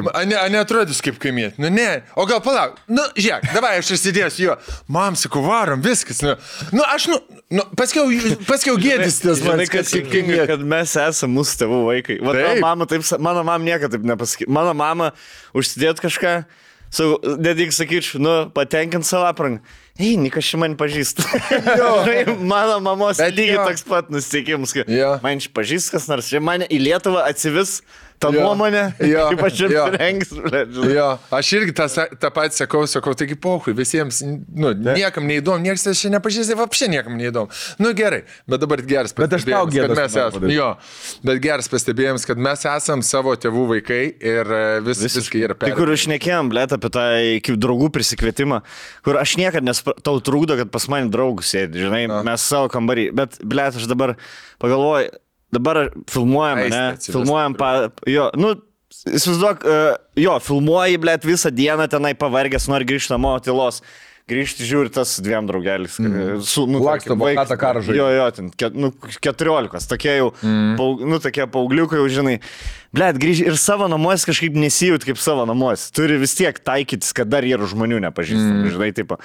S3: Neatrodys kaip kaimietį. Nu, ne. O gal palauk. Nu, žiūrėk, davai, aš įsidėsiu jo. Mam, sakau, varom, viskas. Nu, aš, paskiau gėdis tas man,
S1: kad mes esame mūsų tėvų vaikai. Mano mama niekada taip nepasakė. Mano mama užsidėt kažką, nedik sakyčiau, patenkint savo aprangą. Nikas čia man pažįsta. Mano mamos lygiai toks pat nusiteikimas, kad man čia pažįsta kas nors. Čia mane į Lietuvą atsivis tą nuomonę, kaip aš čia rengis.
S3: Aš irgi tą patį sakau, taigi pohui, visiems, niekam neįdomu, niekas čia nepažįsta, apšė niekam neįdomu. Nu gerai, bet dabar geras pastebėjimas, kad mes esame. Bet geras pastebėjimas, kad mes esame savo tėvų vaikai ir viskai yra perėję.
S1: Tai kur šnekėjom, blėt, apie tą kaip draugų prisikvietimą, kur aš niekada tau trūkdo, kad pas mane draugus sėdi, žinai, mes savo kambarį, bet blėt, aš dabar pagalvoju, dabar filmuojam, ne? Filmuojam, įsivaizduok, filmuoji, blėt, visą dieną tenai pavargęs, nori grįžti namo, tylos. Grįžti žiūri tas 2 draugelis.
S2: Laksto, bokatą karžai.
S1: Ten 14, tokie jau, tokie paaugliukai jau, žinai. Blėt, grįžti ir savo namuose kažkaip nesijūt kaip savo namuose. Turi vis tiek taikytis, kad dar yra žmonių nepažįstami, žinai, tipo.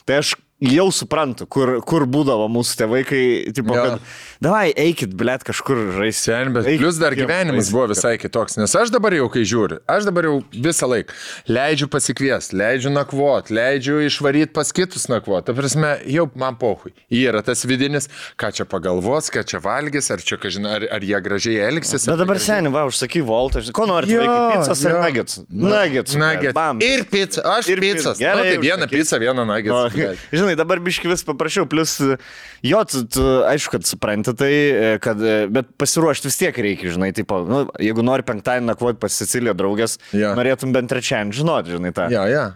S1: Tai aš jau suprantu, kur būdavo mūsų tėvai, kai, tipo, kad davai, eikit, blėt, kažkur žaisti.
S3: Bet plus dar gyvenimas buvo visai kitoks, nes aš dabar jau, kai žiūriu, aš dabar jau visą laiką leidžiu pasikviesti, leidžiu nakvot, leidžiu išvaryti pas kitus nakvot. Ta prasme, jau man pohui. Yra tas vidinis, ką čia pagalvos, ką čia valgys, ar čia, ar jie gražiai elgsis.
S1: Bet dabar seniai, užsaky voltą, ko nori, pizzas ar nuggets? Nuggets.
S3: Ir pizza, aš ir pizzas. Tai vieną pizzą, vieną nuggets.
S1: Žinai, dabar biški vis paprašiau, plus tu aišku, kad supranti tai, bet pasiruošti vis tiek reikia, žinai, tipo, jeigu nori penktadienį nakvoti pas Siciliją draugės, norėtum bent trečiadienį žinoti, žinai, tą.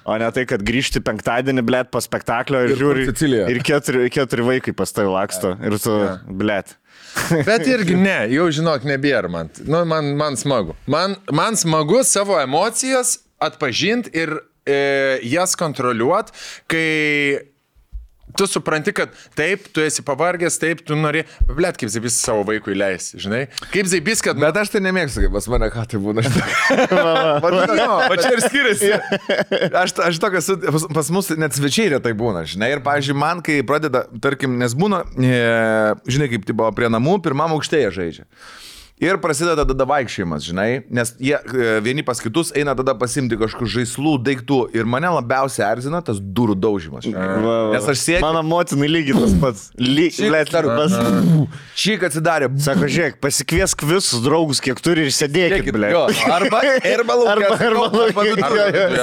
S1: O ne tai, kad grįžti penktadienį, blėt, po spektaklio ir žiūri, ir 4 vaikai pas tai laksto, ir tu, blėt.
S3: Bet irgi ne, jau žinok, nebėra man. Man smagu. Man smagu savo emocijas atpažinti ir jas kontroliuoti, kai tu supranti, kad taip, tu esi pavargęs, taip, tu nori, blėt, kaip Zaibys savo vaikui leis, žinai? Kaip Zaibys, kad...
S2: Bet aš tai nemėgstu, kaip pas mane, ką tai būna. O čia ir skiriasi. Aš tokias, pas mus net svečiai retai būna, žinai? Ir, pavyzdžiui, man, kai pradeda, tarkim, nes būna, žinai, kaip tipo, prie namų, pirmam aukštėje žaidžia. Ir prasideda tada vaikščiojimas, žinai, nes jie vieni pas kitus eina tada pasimti kažkokių žaislų, daiktų. Ir mane labiausiai erzina tas durų daužimas. Nes aš sėdžiu.
S1: Mano motinai lygiai tas pats.
S2: Šik atsidarė.
S1: Sako, žiūrėk, pasikviesk visus draugus, kiek turi ir sėdėkit, blė.
S2: Arba laukia.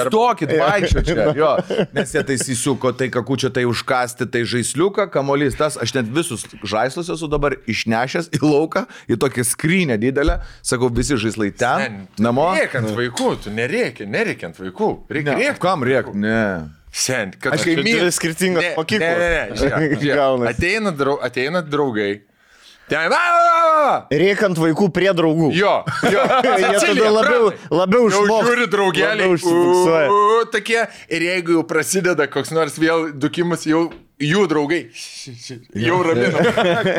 S2: Stokit, vaikščio čia. Jo. Nes jie tai įsiuko, tai kakučia, tai užkasti, tai žaisliuką, kamolys tas. Aš net visus žaislus esu dabar išnešęs į lauką, į tokį skrynį didelę, sakau, visi žaislai ten, namo.
S3: Rėkiant vaikų, tu nereikiant vaikų. Reikia.
S2: Kam rėk? Ne.
S3: Sen, kad
S1: aš kaip myliu skirtingos mokyklos.
S3: Ateina draugai.
S1: Rėkant vaikų prie draugų.
S3: Jo.
S1: Jie tada labiau išmoksta.
S3: Žiūri draugelį. Tokie. Ir jeigu jau prasideda koks nors vėl dukimas, jau jų draugai. Jau ramina.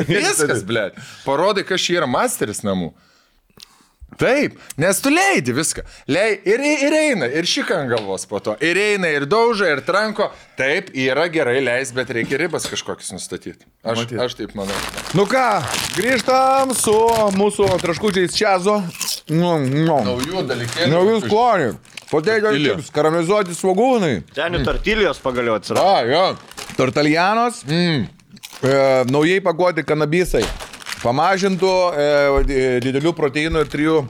S3: Viskas, blėt. Parodai, kas čia yra masteris namų. Taip, nes tu leidi viską. Ir eina, ir šika ant galvos po to. Ir eina, ir dauža, ir tranko. Taip, yra gerai leis, bet reikia ribas kažkokius nustatyti. Aš taip manau.
S2: Nu ką, grįžtam su mūsų traškučiais čiazo.
S3: Naujų dalykėlių.
S2: Naujų sklonių. Potato chips, karamelizuoti svogūnai.
S1: Ten tortilijos pagaliau atsirado.
S3: Jo.
S2: Tortaljanos. Naujai pakuoti kanabisai. Pamažintų didelių proteinų ir 3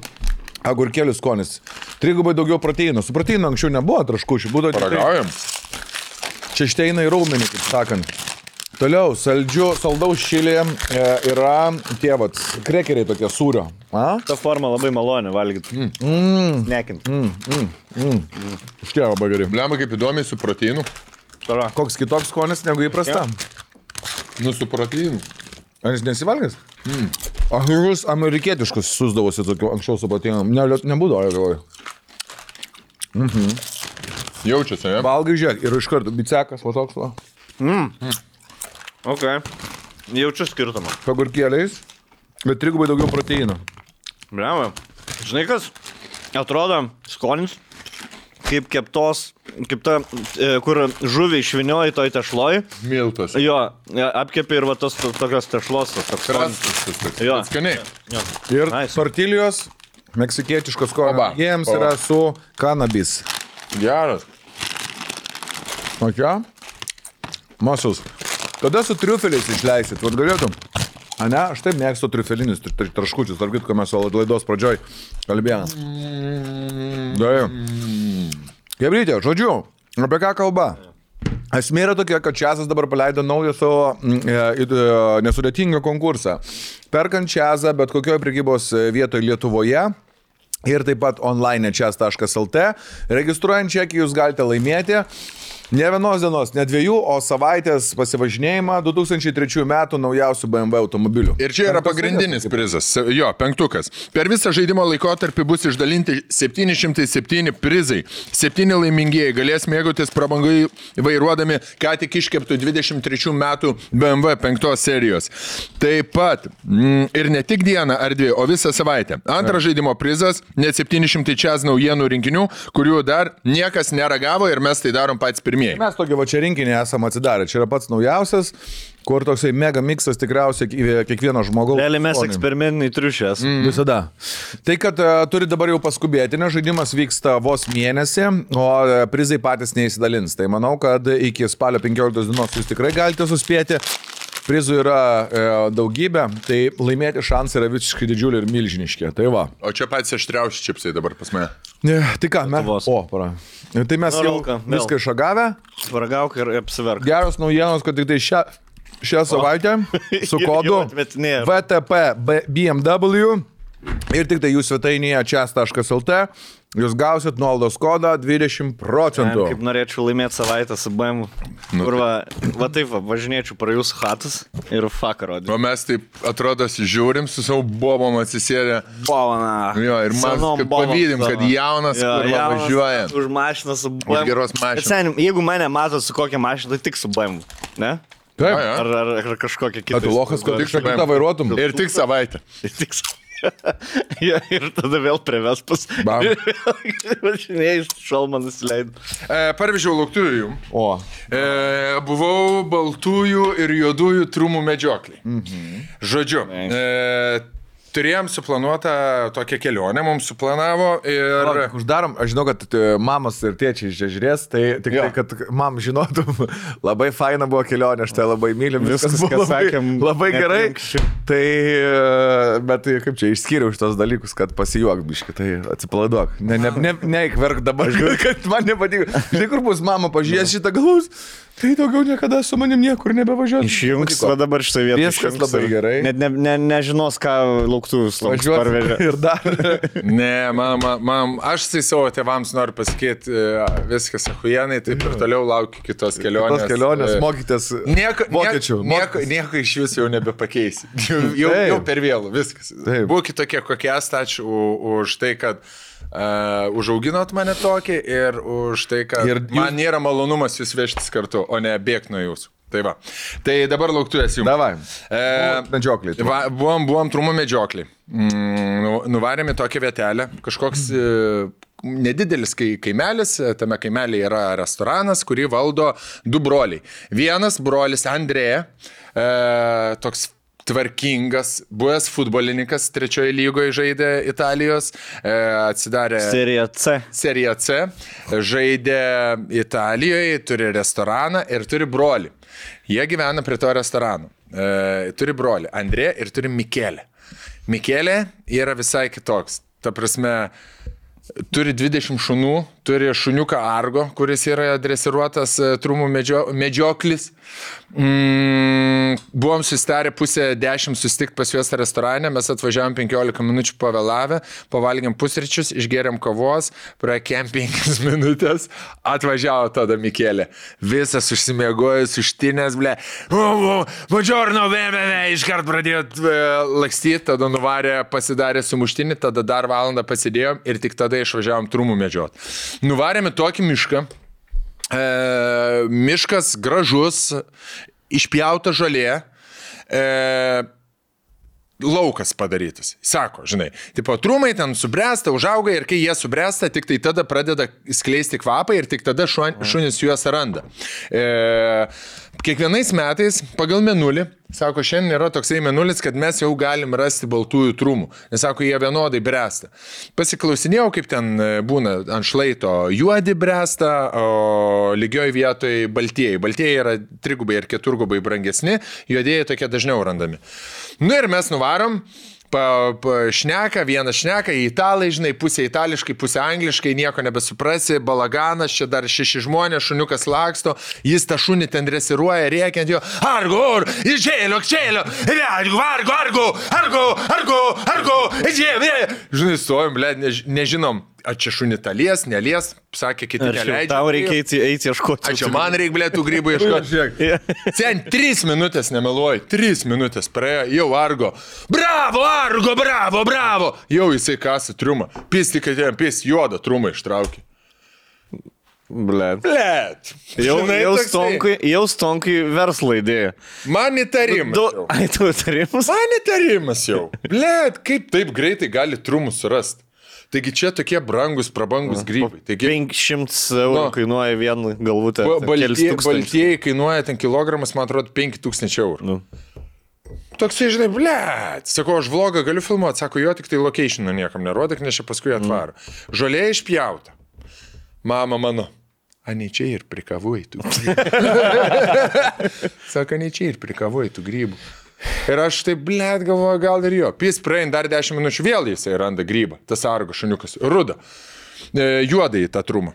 S2: agurkėlių skonis. 3 daugiau proteinų. Su proteinu anksčiau nebuvo traškučių.
S3: Paragaujam.
S2: Čia šteina į raumenį, kaip sakant. Toliau, saldaus šilė yra tie krekeriai tokie sūrio.
S1: Ta forma labai malonė valgyti. Nekint.
S2: Štie labai gerai.
S3: Blemba kaip įdomiai su proteinu.
S2: Koks kitoks skonis negu įprasta?
S3: Nu, su proteinu.
S2: Ar jis nesivalgęs? Aš jūs amerikietiškus susdavosi tokiu anksčiau su proteinu. Nebūdavo, aš galvoju.
S3: Jaučiasi, ne?
S2: Valgai, žiūrėk, ir iš karto bicekas, va toks, va.
S1: Ok. Jaučiu skirtumą.
S2: Pagurkėliais, bet 3 daugiau proteinų.
S1: Bravo. Žinai kas? Atrodo skonis kaip keptos, kaip ta, kur žuvį išvinioji toj tešloj.
S3: Miltas.
S1: Jo, apkepi ir va tos tokios tešlos. Jo.
S3: Skaniai.
S1: Jo.
S2: Ir
S1: Nice.
S2: tortilijos, meksikietiškos skonio. Jiems yra su kanabis.
S3: Geras.
S2: O čia? Muscles. Kada su triufeliais išleisit? Vat galėtum? A ne, aš taip mėgstu triufelinius traškučius. Tarp kitko mes laidos pradžioj kalbėjome. Gebrytė, žodžiu, apie ką kalba? Esmė yra tokia, kad Čiazas dabar paleido naują savo nesudėtingą konkursą. Perkant Čiazą bet kokioje prekybos vietoje Lietuvoje ir taip pat online čiaz.lt, registruojant čekį jūs galite laimėti ne vienos dienos, ne 2, o savaitės pasivažinėjimą 2003 metų naujausių BMW automobilių.
S3: Ir čia yra pagrindinis prizas. Jo, 5. Per visą žaidimo laikotarpį bus išdalinti 707 prizai. 7 laimingieji galės mėgautis prabangai vairuodami ką tik iškeptų 23 metų BMW 5 serijos. Taip pat ir ne tik dieną ar 2, o visą savaitę. Antras žaidimo prizas net 700 čiaz naujienų rinkinių, kurių dar niekas neragavo ir mes tai darom patys pirmieji.
S2: Mes tokį va čia rinkinį esame atsidarę. Čia yra pats naujausias, kur toksai mega miksas tikriausiai kiekvieno žmogaus.
S1: Realiai mes eksperimentiniai triušės.
S2: Visada. Tai, kad turi dabar jau paskubėti, nes žaidimas vyksta vos mėnesį, o prizai patys neįsidalins. Tai manau, kad iki spalio 15 dienos jūs tikrai galite suspėti. Prizų yra daugybė, tai laimėti šansai yra visiškai didžiuliai ir milžiniški. Tai va.
S3: O čia patys aštriausi čipsai dabar pas mane.
S2: Tai ką, mes? Tai mes jau viską išagavę.
S1: Svargauk ir apsiverk.
S2: Geros naujienos, kad tik tai šią savaitę su kodu VTP BMW ir tik tai jūs svetainėje čiaz.lt jūs gausit nuolaidos kodą 20%.
S1: Kaip norėčiau laimėti savaitę su BMW. Kur va taip, važinėčiau pra jūsų chatus ir fuck rodžiu.
S3: O mes taip atrodo žiūrim su savo bobom atsisėdę.
S1: Bovana.
S3: Jo, ir mes pavydim, kad jaunas, kur važiuoja.
S1: Už mašiną su BMW.
S3: Už geros mašinos.
S1: Sen, jeigu mane mato su kokia mašina, tai tik su BMW. Ne?
S2: Taip.
S1: Ar kažkokia kita.
S2: Tu lochas, kad tik šakutą vairuotum.
S3: Ir tik savaitę.
S1: Ja, ir tada vėl prie Vespas. Važinėjai, šalmą nusileidau.
S3: Parvežiau lauktuvų jum.
S2: O.
S3: Buvau baltųjų ir juodųjų trumų medžioklį. Žodžiu, turėjom suplanuotą tokią kelionę, mums suplanavo ir...
S2: Uždarom, aš žinau, kad mamos ir tėčiai žiūrės, tai tik tai, kad mam žinotum, labai faina buvo kelionė, aš tai labai mylim, viskas buvo labai gerai. Tai, bet kaip čia, išskyriau šitos dalykus, kad pasijuok biškai, tai atsipalaiduok. Neikverk dabar, kad man nepatiko. Žinai, kur bus mama pažiūrės šitą galus, tai daugiau niekada su manim niekur nebevažiuos.
S1: Išjungs, va dabar šitą vietą.
S2: Viskas labai gerai.
S1: Net nežinos, ką lauktuvus parvežė.
S2: Ir dar.
S3: Ne, aš tai savo tėvams noriu pasakyti, viskas achujenai, taip ir toliau laukiu kitos kelionės.
S2: Kitos kelionės, mokytės vokiečių.
S3: Nieko iš jūsų jau nebepakeisi. Jau per vėlų, viskas. Būkit tokie, kokie esate, ačiū už tai, kad užauginot mane tokį ir už tai, kad man nėra malonumas jūs vežtis kartu, o ne bėgti nuo jūsų. Tai va. Tai dabar lauktuvės jums.
S2: Davai. Medžiokliai.
S3: Buvom trumų medžiokliai. Nuvarėme tokią vietelę. Kažkoks nedidelis kaimelis. Tame kaimelėje yra restoranas, kurį valdo 2 broliai. Vienas brolis Andrėja, toks tvarkingas, buvęs futbolininkas 3 lygoje žaidė Italijos, atsidarė Serija C, žaidė Italijoje, turi restoraną ir turi brolį. Jie gyvena prie to restorano. Turi brolį Andrė ir turi Mikelę. Mikelė yra visai kitoks. Ta prasme, turi 20 šunų, turi šuniuką Argo, kuris yra dresiruotas trumų medžioklis. Buvom susitarę 9:30 susitikti pas juos restorane, mes atvažiavom 15 minučių pavėlavę, pavalgėm pusryčius, išgėrėm kavos, praekėm 5 minutės, atvažiavo tada Mikelė. Visas užsimiegojus, užtinės, ble. Buongiorno, iškart pradėjo lakstyti, tada nuvarė, pasidarė sumuštinį, tada dar valandą pasidėjom ir tik tada išvažiavom trumų medžiot. Nuvarėme tokį mišką. Miškas gražus, išpjauta žolė, laukas padarytas. Sako, žinai, tipo, trumai ten subręsta, užauga ir kai jie subręsta, tik tai tada pradeda skleisti kvapą ir tik tada šunis juos randa. Kiekvienais metais pagal mėnulį, sako, šiandien yra toksai mėnulis, kad mes jau galim rasti baltųjų trumų. Nes, sako, jie vienodai bręsta. Pasiklausinėjau, kaip ten būna ant šlaito juodi bręsta, o lygioj vietoj baltieji. Baltieji yra 3 ir 4 brangesni, juodieji tokie dažniau randami. Nu ir mes nuvarom. Šneka, vienas šneka, italai, žinai, pusė itališkai, pusė angliškai, nieko nebesuprasi, balaganas, čia dar 6 žmonės, šuniukas laksto, jis tą šunį ten dresiruoja, rėkiant jo, argo, žinai, stovim, ble, nežinom, ar čia šunį talies, nelies, sakė, kiti neleidžia.
S1: Tau reikia eiti ieškoti.
S3: Čia man reikia, ble, tų grybų ieškoti. Sen 3 minutės nemeluoju, 3 minutės praėjo, jau Argo. Bravo, Argo, bravo. Jau jisai kasa triumą. Pis tik atėjom, pis juodą trumą ištraukė.
S1: Blet.
S3: Žinai,
S1: Jau stonkai verslo idėja.
S3: Man įtarimas.
S1: Ai, tu įtarimas?
S3: Man įtarimas jau. Blet, kaip taip greitai gali trumus surasti? Taigi čia tokie prabangus grybai. Taigi,
S1: 500 eurų kainuoja vieną galvutę.
S3: Baltieji kainuoja ten kilogramas, man atrodo, 5000 eurų. Toksai, žinai, blėt. Sako, aš vlogą galiu filmuoti. Sako, jo, tik tai locationą niekam nerodyk, nes čia paskui atvaro. Žolė išpjauta. Mama mano. Ani čia ir prikavoji tų grybų. Sako, ani čia ir prikavoji tų grybų. Ir aš taip, blėt, galvoju, gal ir jo. Pis praein dar 10 minučių, vėl jisai randa grybą. Tas Argo šuniukas. Ruda. Juodai tą trumą.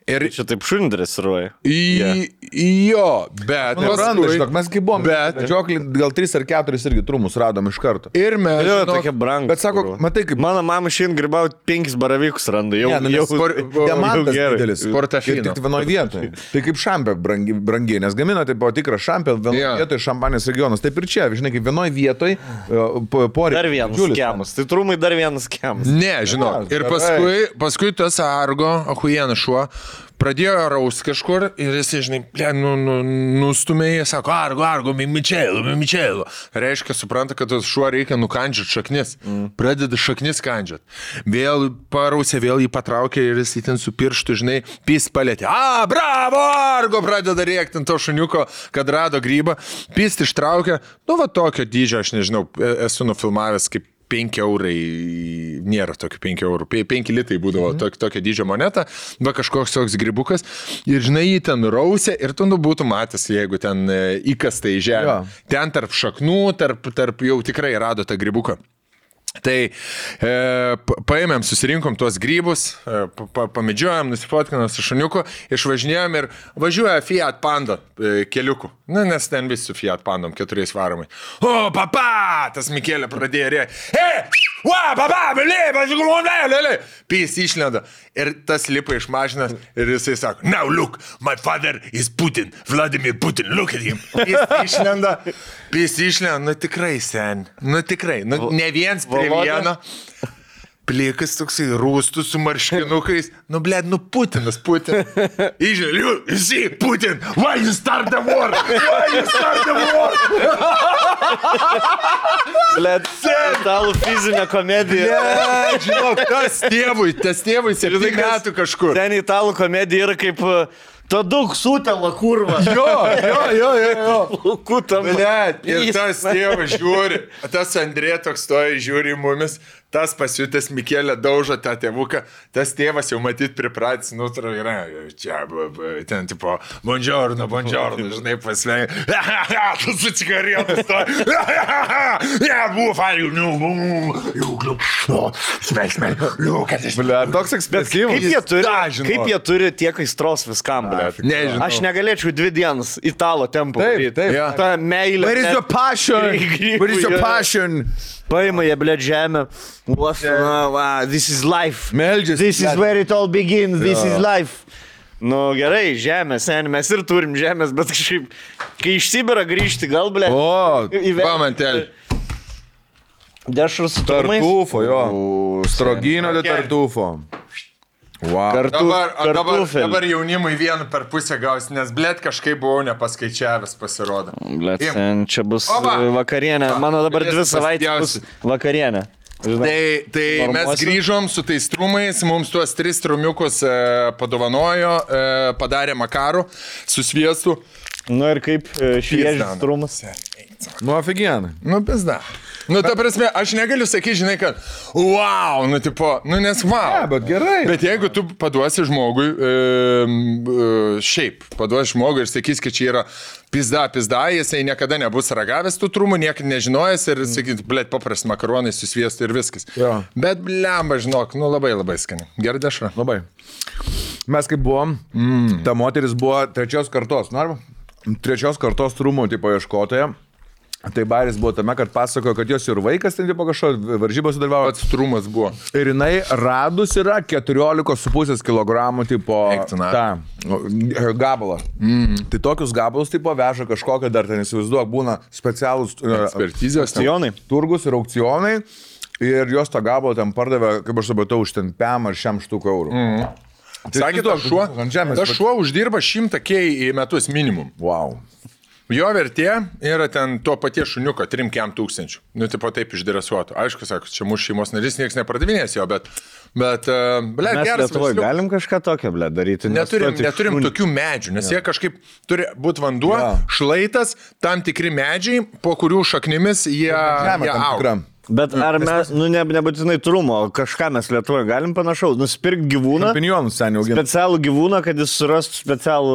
S3: Ir
S1: čia taip šunį dresiruoja.
S3: Jo, bet...
S2: Mes kaip buvom, medžioklį gal 3 ar 4 irgi trumus radom iš karto.
S3: Ir mes...
S1: Jo, tokie brangus.
S2: Bet sako, matai kaip...
S1: Mano mama šiandien grybauti 5 baravykus randa. Jau
S2: diamantas didelis.
S3: Portafino.
S2: Ir tik vienoje vietoje. Tai kaip šampė brangiai, nes gamina tai buvo tikras šampė, vienoje vietoje Šampanijos regionas. Taip ir čia, žinai, kaip vienoje vietoje poreikia.
S1: Dar vienas skemas. Tai trumai dar vienas skemas.
S3: Ne, žinau. Ir paskui tas Argo, ahujienas šuo, pradėjo raus kažkur ir jis, žinai, nustumėjo, sako, Argo, Mičelo. Reiškia, supranta, kad tas šuo reikia nukandžiat šaknis. Pradeda šaknis kandžiat. Vėl parausė, vėl jį patraukė ir jis ten su pirštu, žinai, pis palėtė. Bravo, Argo, pradeda rėkti ant to šuniuko, kad rado grybą. Pis ištraukė, nu va tokio dydžio, aš nežinau, esu nufilmavęs kaip 5 eurai, nėra tokių 5 eurų, 5 litai būdavo tokio dydžio moneta, va kažkoks toks grybukas, ir žinai, jį ten rausė, ir tu būtų matęs, jeigu ten įkasta į žemę. Ten tarp šaknų, tarp jau tikrai rado tą grybuką. Tai paėmėm, susirinkom tuos grybus, pamedžiojom, nusifotkinom su šuniuku, išvažinėjom ir važiuoja Fiat Panda keliuku. Nes ten visi su Fiat Pandom 4 varomai. O, papa! Tas Mikelė pradėjo rėkti. Pys išlenda. Ir tas lipa iš mašinas ir jisai sako, now look, my father is Putin, Vladimir Putin, look at him. Pys išlenda, nu tikrai, sen, nu tikrai, nu ne viens prie vieno. plikas toksai rūstus su marškinukais. Nu, blėd, nu Putinas. Įžiūrėjau, visi, Putin, why you start the war?
S1: Blėt, italų fizinė komedija.
S3: Ne, žinok, tas tėvui 7 metų kažkur.
S1: Ten italų komedija yra kaip Taduk sutela kurva.
S3: Jo.
S1: Kutam.
S3: Blėd, ir tas tėvas žiūri, tas Andrė toks stoja, žiūri į mumis, tas pasiutęs Mikėlė daužo tą tėvuką, tas tėvas jau matyt pripratęs, yra, čia, ten tipo, buongiorno, žinai, pasvei, tu su cigaretą stoja, buvo fail, smėksmė, kad iš...
S2: Toks ekspresyvus.
S1: Kaip jie turi tiek aistros viskam, blė?
S3: Nežinau.
S1: Aš negalėčiau 2 dienas italo tempo.
S2: Taip.
S1: Ta meilė.
S2: Where is your passion?
S1: Paima jie, blė, žemę. This is life.
S2: Meldžiasi.
S1: This is where it all begins. This is life. Nu gerai, žemė, sen, mes ir turim žemės, bet kažkaip, kai iš Sibiro grįžti, gal, blė.
S3: Pamantelį.
S1: Dešrų su turmais.
S2: Tartufo, jo. Strogino de tartufo. Wow.
S3: Dabar jaunimui 1 per pusę gaus, nes blėt kažkaip buvau nepaskaičiavęs pasirodo.
S1: Blėt, sen, čia bus vakarienė. Mano dabar 2 savaitės bus vakarienė.
S3: Tai mes grįžom su tais trumais, mums tuos 3 trumiukus padovanojo, padarė makarų su sviestu.
S1: Nu ir kaip šviežias trumas.
S2: Nu, aфиgenai.
S3: Nu, pizda. Nu, ta prasme, aš negaliu sakyti, žinai, kad wow, nu, tipo, nu, nes wow.
S2: Ne, bet gerai.
S3: Bet jeigu tu paduosi žmogui, paduosi žmogui ir sakys, kad čia yra pizda, jisai niekada nebus ragavęs tų trumų, niekada nežinojęs ir sakyt, blėt, paprasti makaronai su sviestu ir viskas.
S2: Jo.
S3: Bet blemba, žinok, nu, labai skani. Gerai dešra.
S2: Labai. Mes kaip buvom, ta moteris buvo 3 kartos, nu, arba? 3 kartos trumų, tipo, ieškotoja. Tai Baris buvo tame, kad pasakojo, kad jos ir vaikas ten tipo kažko varžybose dalyvavo.
S3: Pats trumas buvo.
S2: Ir jinai radus yra 14,5 kg tipo gabalą. Tai tokius gabalus tipo veža kažkokią dar ten įsivaizduok, būna specialūs
S3: ekspertizės,
S2: turgus ir aukcionai. Ir jos tą gabalą ten pardavė, kaip aš supratau, už ten 5 ar 100 eurų.
S3: Sakė, tas šuo uždirba 100K į metus minimum.
S2: Wow.
S3: Jo vertė yra ten to paties šuniuko 3-4 tūkstančių. Nu, tipo taip išdresuotų. Aišku, sako, čia mūsų šeimos narys, niekas nepardavinės jo, bet blėt,
S1: mes
S3: geras.
S1: Lietuvoje galim kažką tokio, blėt, daryti.
S3: Neturim tokių medžių, nes jie kažkaip turi būti vanduo, šlaitas, tam tikri medžiai, po kurių šaknimis jie auga.
S1: Bet ar mes, nebūtinai trumo, kažką mes Lietuvoje galim panašaus, nusipirkti gyvūną, specialų gyvūną, kad jis surastų specialų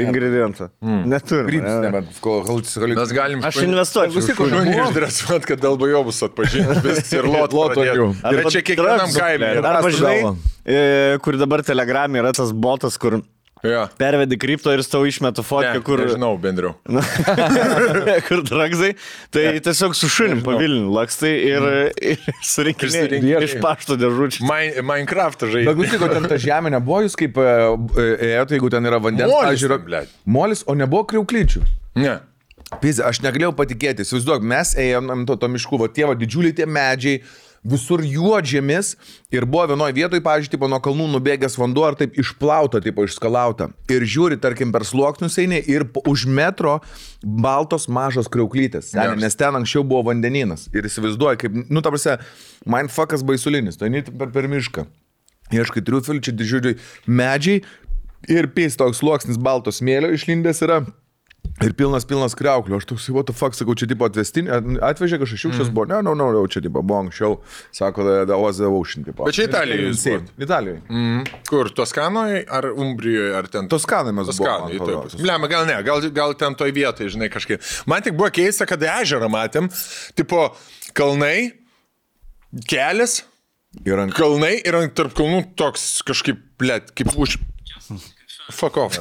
S1: ingredientą. Neturim.
S3: Mes galim...
S1: Aš investuočiau.
S3: Šunį išdresuot, kad dalbajobus atpažinti ir lotų. Ir čia kiekvienam kaime.
S1: Arba žinai, kur dabar Telegram'e yra tas botas, kur... Pervedi kripto ir tau išmetu fotkę, kur...
S3: Nežinau, bendriau.
S1: Kur dragzai, tai tiesiog su šunim pavilniu lakstai ir surinkinėjai iš pašto dėžučių.
S3: Minecraft'ą žaidži.
S2: Bet gusiko, ten ta žemė nebuvo, jūs kaip ėjote, jeigu ten yra vandens, pažiūrė, molis, o nebuvo kriauklyčių.
S3: Ne.
S2: Pizė, aš negalėjau patikėti, įsivaizduok, mes ėjom to miškų, va tie didžiuliai tie medžiai, visur juodžėmis ir buvo vienoje vietoje, pavyzdžiui, nuo kalnų nubėgęs vanduo ar taip išplauta, išskalauta. Ir žiūri, tarkim, per sluoksnius eini ir už metro baltos mažos kriauklytės. Nes ten anksčiau buvo vandeninas. Ir įsivaizduoji, kaip, nu, ta prasme, mindfuckas baisulinis, tai eini per mišką. Ieškai triufelių, čia didžiuliai medžiai ir pys toks sluoksnis balto smėlio išlindęs yra. Ir pilnas kriauklių. Aš toks, what the fuck, sakau, čia tipo atvežė kažkas šiukščias buvo. Ne, čia tipo buvo anksčiau, sako, the ocean tipo.
S3: Bet čia Italijoje jūs buvo?
S2: Italijoje.
S3: Kur, Toskanoje ar Umbrijoje, ar ten?
S2: Toskanoje mes buvo.
S3: Blema, gal ne, gal ten toj vietoje, žinai, kažkaip. Man tik buvo keista, kad ežerą matėm, tipo kalnai, kelias, kalnai ir tarp kalnų toks kažkaip, blėt, kaip už... Fuck off.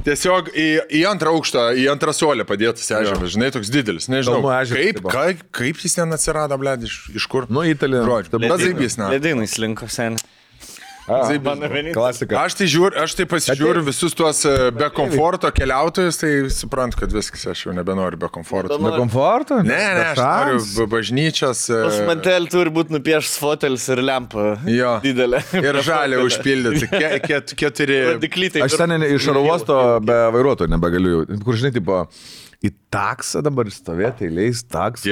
S3: Tiesiog į antrą aukštą, į antrą suolę padėtas ežeras, žinai, toks didelis. Nežinau, kaip jis ten atsirado, blėd, iš kur?
S2: Nu, Italija.
S1: Ledynai slinko, seniai. Mano vienintelis.
S2: Klasika.
S3: Aš tai pasižiūriu visus tuos be komforto keliautojus, tai suprantu, kad viskas, aš jau nebenoriu be komforto.
S2: Be komforto?
S3: Ne, aš noriu bažnyčios.
S1: Pas mantel turi būti nupiešęs fotelis ir lempa.
S3: Jo.
S1: Didelė.
S3: Ir žalė užpildyti. Keturi.
S1: Diklytai.
S2: Aš ten iš oro uosto be vairuotojo nebegaliu. Kur žinai, tipo, į taksą dabar stovėti, eiliais taksą.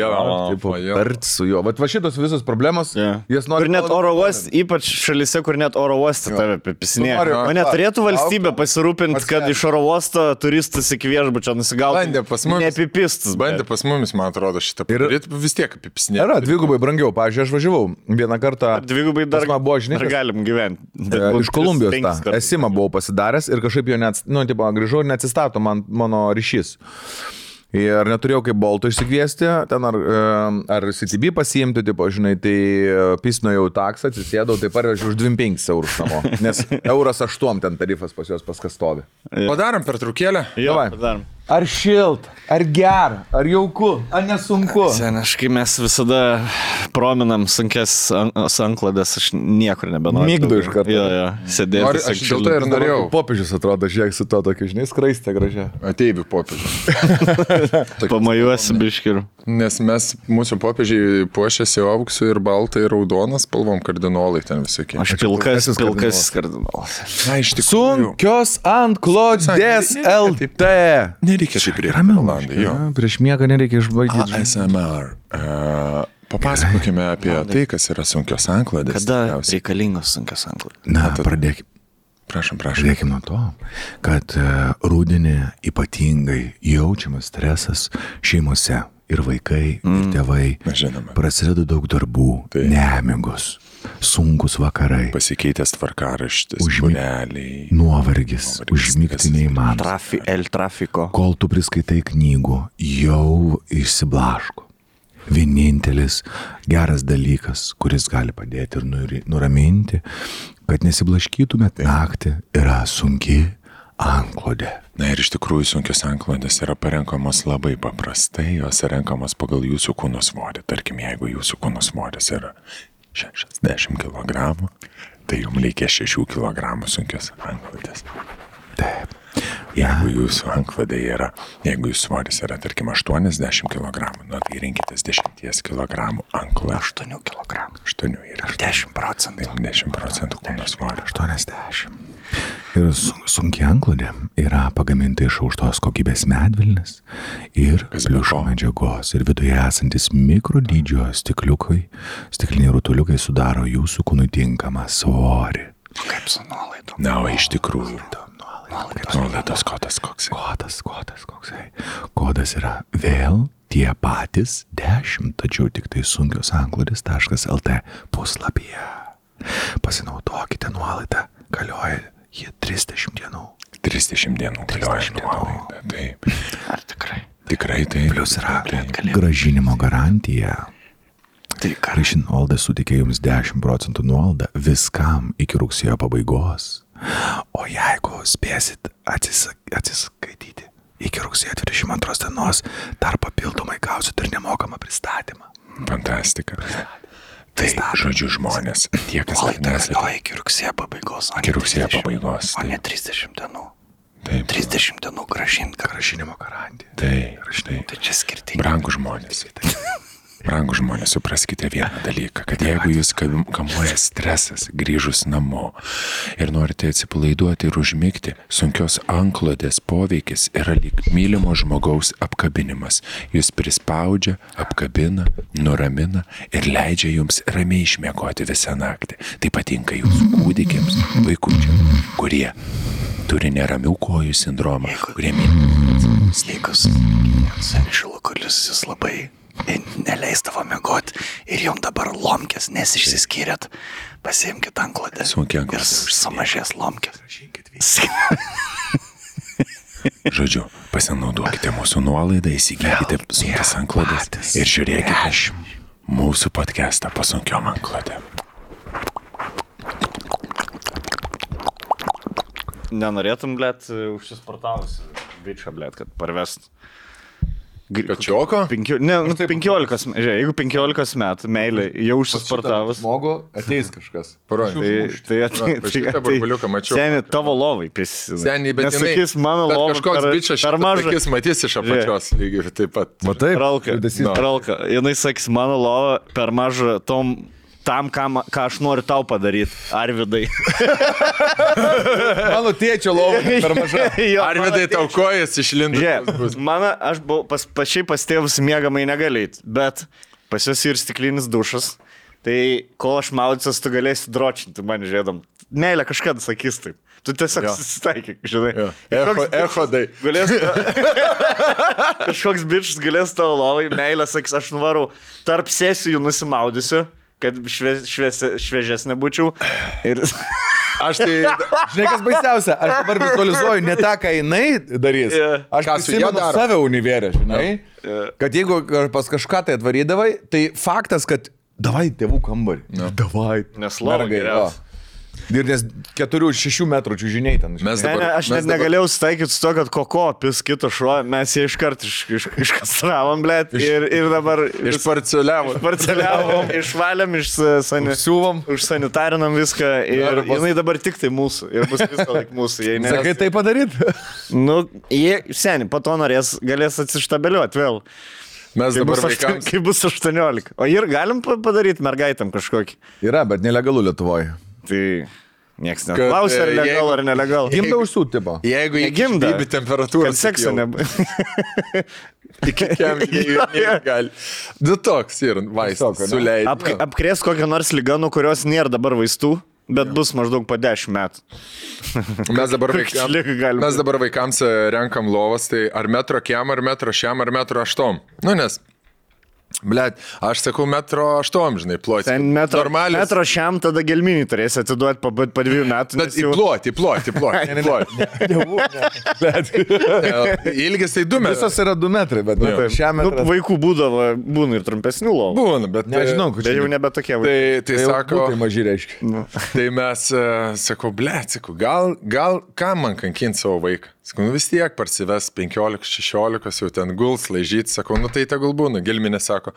S2: Tarti su juo. Va šitos visos problemos. Jas nori.
S1: Ir net oro uoste, ypač šalyse, kur net oro uoste tave apipisinėja. O neturėtų valstybė pasirūpinti, kad iš oro uosto turistas iki viešbučio nusigautų.
S3: Bandė pas mumis.
S1: Neapipistas.
S3: Bandė pas mumis, man atrodo, šitą padaryti. Vis tiek apipisinėja.
S2: Yra dvigubai brangiau. Pavyzdžiui, aš važiavau vieną kartą.
S1: Dvigubai dar
S2: galim
S1: gyventi.
S2: Iš Kolumbijos tą esimą buvau pasidaręs ir kažkaip jo grįžau ir neatsistato mano ryšys. Ir neturėjau kaip Bolto išsikviesti, ten ar CTB pasiimti, tipo, žinai, tai pisnojau taksą, atsisėdau, tai parvežiau už 25 eurus namo, nes euras 8 ten tarifas pas juos paskastovi.
S3: Padarom pertraukėlę?
S1: Jo, padarom.
S2: Ar šilt, ar gera, ar jauku, ar nesunku?
S1: Seniškai mes visada prominam sunkes anklodės, aš niekur nebenoriu.
S2: Mygdu iš karto.
S1: Jo, sėdėti.
S3: Aš dėl to ir norėjau.
S2: Popiežius atrodo, žiūrėk su to tokiu, žinai, skraistė gražia.
S3: Ateivių popiežius.
S1: Pamajuosi biškiriu.
S3: Nes mūsų popiežiai puošiasi auksu ir baltai ir raudonas spalvom kardinolai ten visokie.
S1: Aš pilkas kardinolas.
S3: Na, iš tikrųjų.
S2: Sunkios anklodės LT.
S3: Nereikia taip ramiai.
S2: Prieš miegą nereikia išbaigti.
S3: ASMR. Papasakokime apie tai, kas yra sunkios anklodės.
S1: Kada reikalingos sunkios anklodės?
S2: Na, pradėkime.
S3: Prašom.
S2: Pradėkime nuo to, kad rudenį ypatingai jaučiamas stresas šeimose ir vaikai, ir tėvai. Prasideda daug darbų, nemigos, sunkus vakarai.
S3: Pasikeitęs tvarkaraštis, būreliai.
S2: Nuovargis, užmigti neįmanoma.
S1: Trafiko.
S2: Kol tu priskaitai knygų, jau išsiblaško. Vienintelis geras dalykas, kuris gali padėti ir nuraminti, kad nesiblaškytumėt naktį, yra sunki anklodė.
S3: Na ir iš tikrųjų sunkios anklodės yra parenkamos labai paprastai, jos yra renkamos pagal jūsų kūno svorį. Tarkim, jeigu jūsų kūno svoris yra 60 kg, tai jums reikia 6 kg sunkios anklodės.
S2: Taip.
S3: Jeigu jūsų anklodė yra, jeigu jūsų svoris yra, tarkim, 80 kg, nu, tai rinkitės 10 kg anklodę.
S1: 8 kg.
S3: 8 ir
S1: 10%.
S3: 10% kūno svorio.
S2: 80. Ir sunki anklodė yra pagaminta iš aukštos kokybės medvilnės ir pliušo medžiagos. Ir viduje esantis mikrodydžio stikliniai rutuliukai sudaro jūsų kūnui tinkamą svorį.
S1: Kaip su nuolaidom?
S3: Na, o iš tikrųjų. Nuolaidos kodas koksai.
S2: Kodas yra vėl tie patys 10, tačiau tik tai sunkios anklodės.lt puslapyje. Pasinaudokite nuolaidą, galioja jie 30 dienų.
S3: 30 dienų galioja nuolaida, taip.
S1: Ar tikrai?
S3: Tikrai taip.
S2: Plius yra grąžinimo garantija.
S1: Tai
S2: Raišin nuolaida suteikia jums 10% nuolaidą viskam iki rugsėjo pabaigos. O jeigu spėsit atsiskaityti iki rugsėjo 22 dienos, dar papildomai gausit ir nemokamą pristatymą.
S3: Fantastika. Tai, žodžiu, žmonės, tie, kas
S1: nesate. Iki rugsėjo pabaigos.
S3: Iki rugsėjo pabaigos.
S1: O ne 30 dienų.
S3: Taip.
S1: 30 dienų
S2: grąžinimo garantija.
S3: Tai
S1: čia skirtingai.
S3: Brangūs žmonės. Brangūs žmonės, supraskite vieną dalyką, kad jeigu jūs kamuoja stresas grįžus namo ir norite atsipalaiduoti ir užmigti, sunkios anklodės poveikis yra lyg mylimo žmogaus apkabinimas. Jūs prispaudžia, apkabina, nuramina ir leidžia jums ramiai išmiegoti visą naktį. Tai patinka jūsų kūdikiams, vaikučiams, kurie turi neramių kojų sindromą, kurie
S1: Steikus, šilukulis jis labai neleisdavo miegoti ir jom dabar lomkės, nes išsiskyrėt, pasiimkit anklodę ir sumažės lomkės.
S3: Žodžiu, pasinaudokite mūsų nuolaidą, įsigykite sunkias anklodės ir žiūrėkite mūsų podcastą pasunkiom anklodėm.
S1: Nenorėtum, blėt, užsisportavusi bičą, blėt, kad parvest
S3: Kačioko?
S1: 15, jeigu 15 metų meilė jau užsisportavus.
S2: Žmogų ateis kažkas.
S3: Burbuliuką mačiau.
S1: Seniai, tavo lovai prisideda.
S3: Seniai, bet
S1: sakys, mano lovai
S3: kažkoks bičias
S1: per mažas.
S3: Jis matys iš apačios lygiai taip pat.
S2: Matai?
S1: Ralka. Jinai sakys, mano lova per maža tam, ką aš noriu tau padaryti. Arvidai.
S2: Mano tėčio lova per maža.
S3: Arvidai tau kojas išlindo.
S1: Aš buvau pačiai pas tėvus miegamai negalėti, bet pas jos ir stiklinis dušas. Tai kol aš maudysiuos, tu galėsi dročinti man žiūrėdam. Meilė kažkada sakys taip. Tu tiesiog susitaikyk, žinai.
S3: Echodai.
S1: Kažkoks bičas galės tavo lovai, meilė sakys, aš nuvarau tarp sesijų nusimaudysiu, kad šviežesnė būčiau. Ir...
S2: Aš tai, žinai, kas baisiausia, aš dabar vizualizuoju ne tą, ką jinai darys. Aš prisimenu save univerę, žinai. Kad jeigu pas kažką tai atvarydavai, tai faktas, kad davai tėvų kambarį. Davai.
S1: Nes lova geriausia.
S2: Ir nes 4-6 metrų čiūžiniai ten.
S1: Aš net negalėjau sutaikyti su to, kad koko pis kito šuo, mes jį iškart iškastravom, blėt, ir dabar išparceliavom, išvalėm, užsanitarinam viską ir jinai dabar tik tai mūsų ir bus visą laik mūsų.
S2: Sakai tai padaryt?
S1: Nu, seniai, po to galės atsištabeliuoti vėl.
S3: Mes dabar vaikams.
S1: Kai bus 18. O ir galim padaryti mergaitam kažkokį?
S2: Yra, bet nelegalu Lietuvoje.
S1: Tai nieks neklausia, ar legal, ar nelegal.
S2: Gimda užsūt, tipo.
S3: Jeigu įgimda temperatūrą.
S1: Kad sekso nebūtų.
S3: Gali. Du toks ir vaistas suleidai.
S1: Apkrės kokią nors ligą, nuo kurios nėra dabar vaistų, bet bus maždaug po 10 metų.
S3: Mes dabar vaikams renkam lovas, tai ar metro kiem, ar metro šiam, ar metro aštom. Nu, nes... Blet, aš sakau 1,8 m, žinai, ploti.
S1: Metro šiam tada gelminį turėsi atiduoti po 2 metų.
S3: Bet įploti. Ilgis tai 2 metrai.
S2: Visos yra 2 metrai, bet šiam metrą.
S1: Vaikų būna ir trumpesnių lovų.
S3: Būna, bet
S2: nežinau,
S1: tai jau nebe tokie vaikai.
S3: Tai sako,
S2: tai maži reiškia.
S3: Tai mes, sakau, blet, gal ką man kankinti savo vaiką? Sakau, vis tiek parsives 15-16, jau ten guls, laižyti, sakau, nu tai tegul būna. Gelminė sako,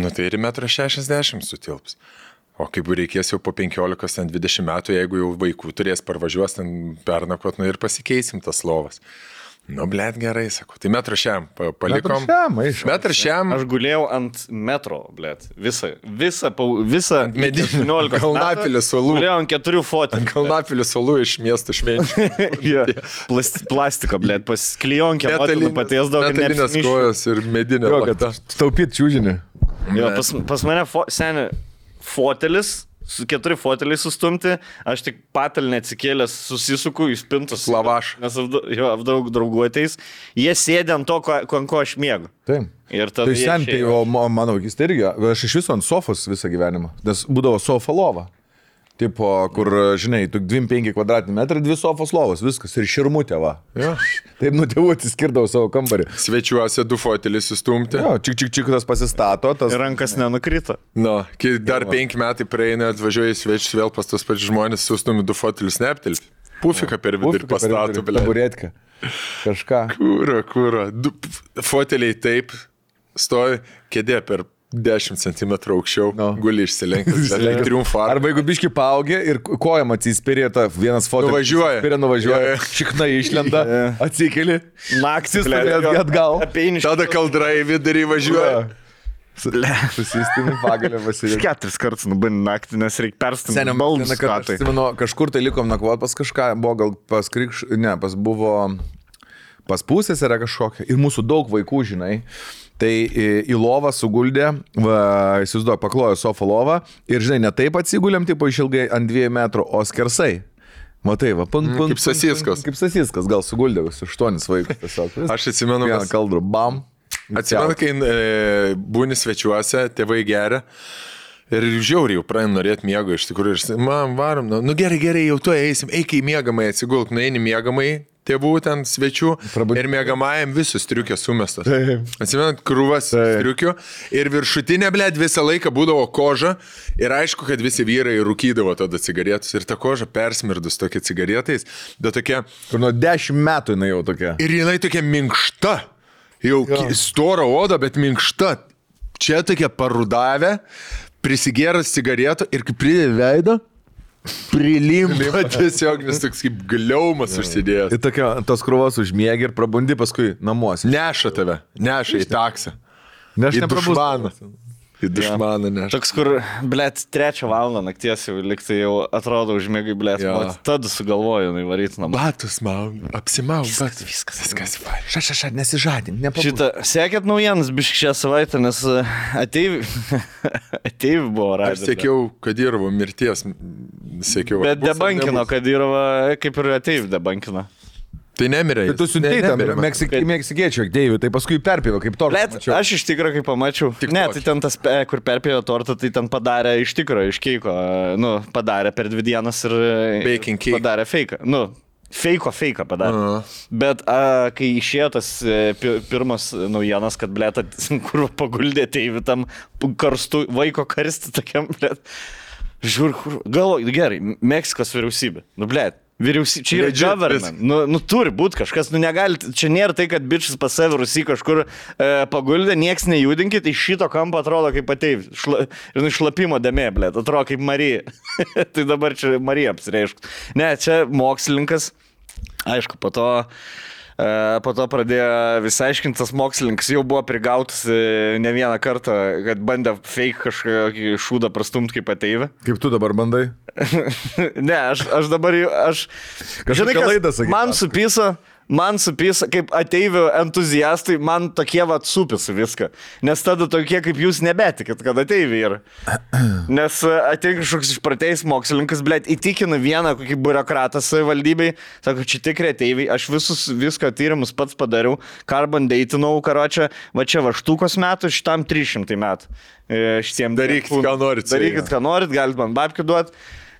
S3: nu tai ir 1,60 m sutilps. O kaip reikės jau po 15-20 metų, jeigu jau vaikų turės parvažiuos ten pernakot, nu ir pasikeisim tas lovas. Nu, blėt, gerai, sakau. Tai 1,5 m palikom. 1,5 m.
S1: Aš gulėjau ant metro, blėt. Visą
S3: medinį Kalnapilio salų.
S1: Gulėjau ant 4 fotelių.
S3: Ant Kalnapilio salų iš miesto švenčių.
S1: Plastika, blėt, pas klijonkę motinų patiesdavo.
S3: Metalinės kojos ir medinė lata.
S2: Taupyt čiūžinį.
S1: Jo, pas mane seniai fotelis. Su 4 foteliai sustumti, aš tik patalnę atsikėlęs susisuku į spintus.
S3: Lavaš.
S1: Nes daug draugų ateis. Jie sėdė ant to, ant ko aš miegu.
S2: Taip.
S1: Ir tada
S2: tai seniai, mano vaikystė irgi, aš iš viso ant sofos visą gyvenimą, nes būdavo sofa lova. Tipo, kur, žinai, 2-5 kvadratiniai 2 sofos lovos, viskas, ir širmutė, va.
S3: Ja.
S2: Taip nuo tėvų atsiskirdavo savo kambarį.
S3: Svečiuose 2 foteliai sustumti.
S2: Jo, čik tas pasistato.
S1: Ir rankas nenukrito.
S3: Nu, kai dar 5 metai praeina, atvažiuoja į svečius vėl pas tos pačius žmonės, sustumi 2 fotelius neaptilpti. Pufiką per vidurį pastato,
S2: blė. Taburetką. Kažką.
S3: Kūro. Foteliai taip stovi, kėdė per 10 cm aukščiau, guli išsilenkęs, triumfą.
S2: Arba jeigu biški paaugė ir kojam atsispirė, vienas fotelis nuvažiuoja, šikna išlenda, atsikeli,
S1: naktis
S2: atgal,
S3: tada kaldra į vidurį važiuoja.
S2: Susistimi pagalę vasilį.
S1: 4 kartus nubandė naktį, nes reikia perstumti baldus.
S2: Kažkur tai likom nakvot pas kažką, buvo gal pas pas pusės yra kažkokia ir mūsų daug vaikų, žinai. Tai į lovą suguldė, įsivaizduoju, paklojo sofą lovą ir, žinai, ne taip atsigulėm, tipo išilgai ant 2 metrų, o skersai. Matai, va,
S3: kaip sasiskas.
S2: Kaip sasiskas, gal suguldė visus 8 vaikus tiesiog.
S3: Aš atsimenu,
S2: vieną kaldrų, bam.
S3: Atsimenu, kai būni svečiuose, tėvai geria. Ir žiauriai jau pradėjom norėti miego iš tikrųjų. Ir man varom, nu gerai, jau tuo eisim, eik į miegamai, atsigulk, nueini miegamai, tėvų ten svečių ir miegamajam visus striukės sumestas. Atsimenat, krūvas striukių ir viršutinė, blėt, visą laiką būdavo koža ir aišku, kad visi vyrai rūkydavo tada cigaretus ir ta koža persmirdus tokia cigaretais, bet tokia...
S2: Kur nuo 10 metų jinai jau tokia.
S3: Ir jinai tokia minkšta. Jau storo oda, bet minkšta. Čia tokia parudavę, prisigėręs cigaretų ir kaip pridė veidą, prilimpa tiesiog, nes toks kaip gliaumas užsidėjęs.
S2: Ir tokia, tos krūvos užmiegi ir prabundi paskui namuose.
S3: Neša tave, neša į taksą.
S2: Ne, aš
S3: Į dušmaną. Į dušmaną neša.
S1: Toks, kur, blėt, 3 valandą nakties jau liktai jau atrodo užmėgai, blėt, tada sugalvoju, varyti namą.
S3: Batus mau, apsimau, batus.
S1: Viskas.
S2: Ša, nesižadink, nepabūs.
S1: Šitą, sekėt naujienas biškai šią savaitę, nes ateivi buvo radęs.
S3: Aš sėkiau Kadirovo mirties, sėkiau.
S1: Bet debankino Kadirovą, kaip ir ateivi debankino.
S3: Tai nemirė.
S2: Tai tu siuntei tam meksikiečių Deiviui, tai paskui perpėvė kaip tortą.
S1: Bet aš iš tikro, kai pamačiau, ne, tai ten tas, kur perpėjo tortą, tai ten padarė iš tikro, iš keiko, padarė per 2 dienas ir padarė feiką. Feiko padarė. Bet kai išėjo tas pirmas naujienas, kad, blėt, kur paguldė Deiviui tam karstu, vaiko karsti tokiam, blėt, žiūr, galvoju, gerai, Meksikos vyriausybė, blėt. Čia yra government, turi būti kažkas, negali, čia nėra tai, kad bičias pas save Rusy kažkur paguldė, nieks nejudinkit, iš šito kampo atrodo kaip ateiv, šlapimo dėmė, blėt, atrodo kaip Marija, tai dabar čia Marija apsireišk. Ne, čia mokslininkas, aišku, po to pradėjo visai aiškinti, tas mokslininkas jau buvo prigautas ne vieną kartą, kad bandė fake kažkokį šūdą prastumti kaip ateivę.
S2: Kaip tu dabar bandai?
S1: Ne, aš dabar jau, žinai, man supisa, kaip ateivių entuziastai, man tokie supisa viską. Nes tada tokie kaip jūs nebetikit, kad ateiviai yra. Nes ateina kažkoks išpratėjęs mokslininkas, blėt, įtikina vieną kokį biurokratą savivaldybei, sako, čia tikrai ateiviai, aš visko tyrimus pats padariau, carbon datinau, karočią, va čia vaštukos metų, šitam 300 metų.
S3: Darykit, ką norit,
S1: galit man babkių duoti.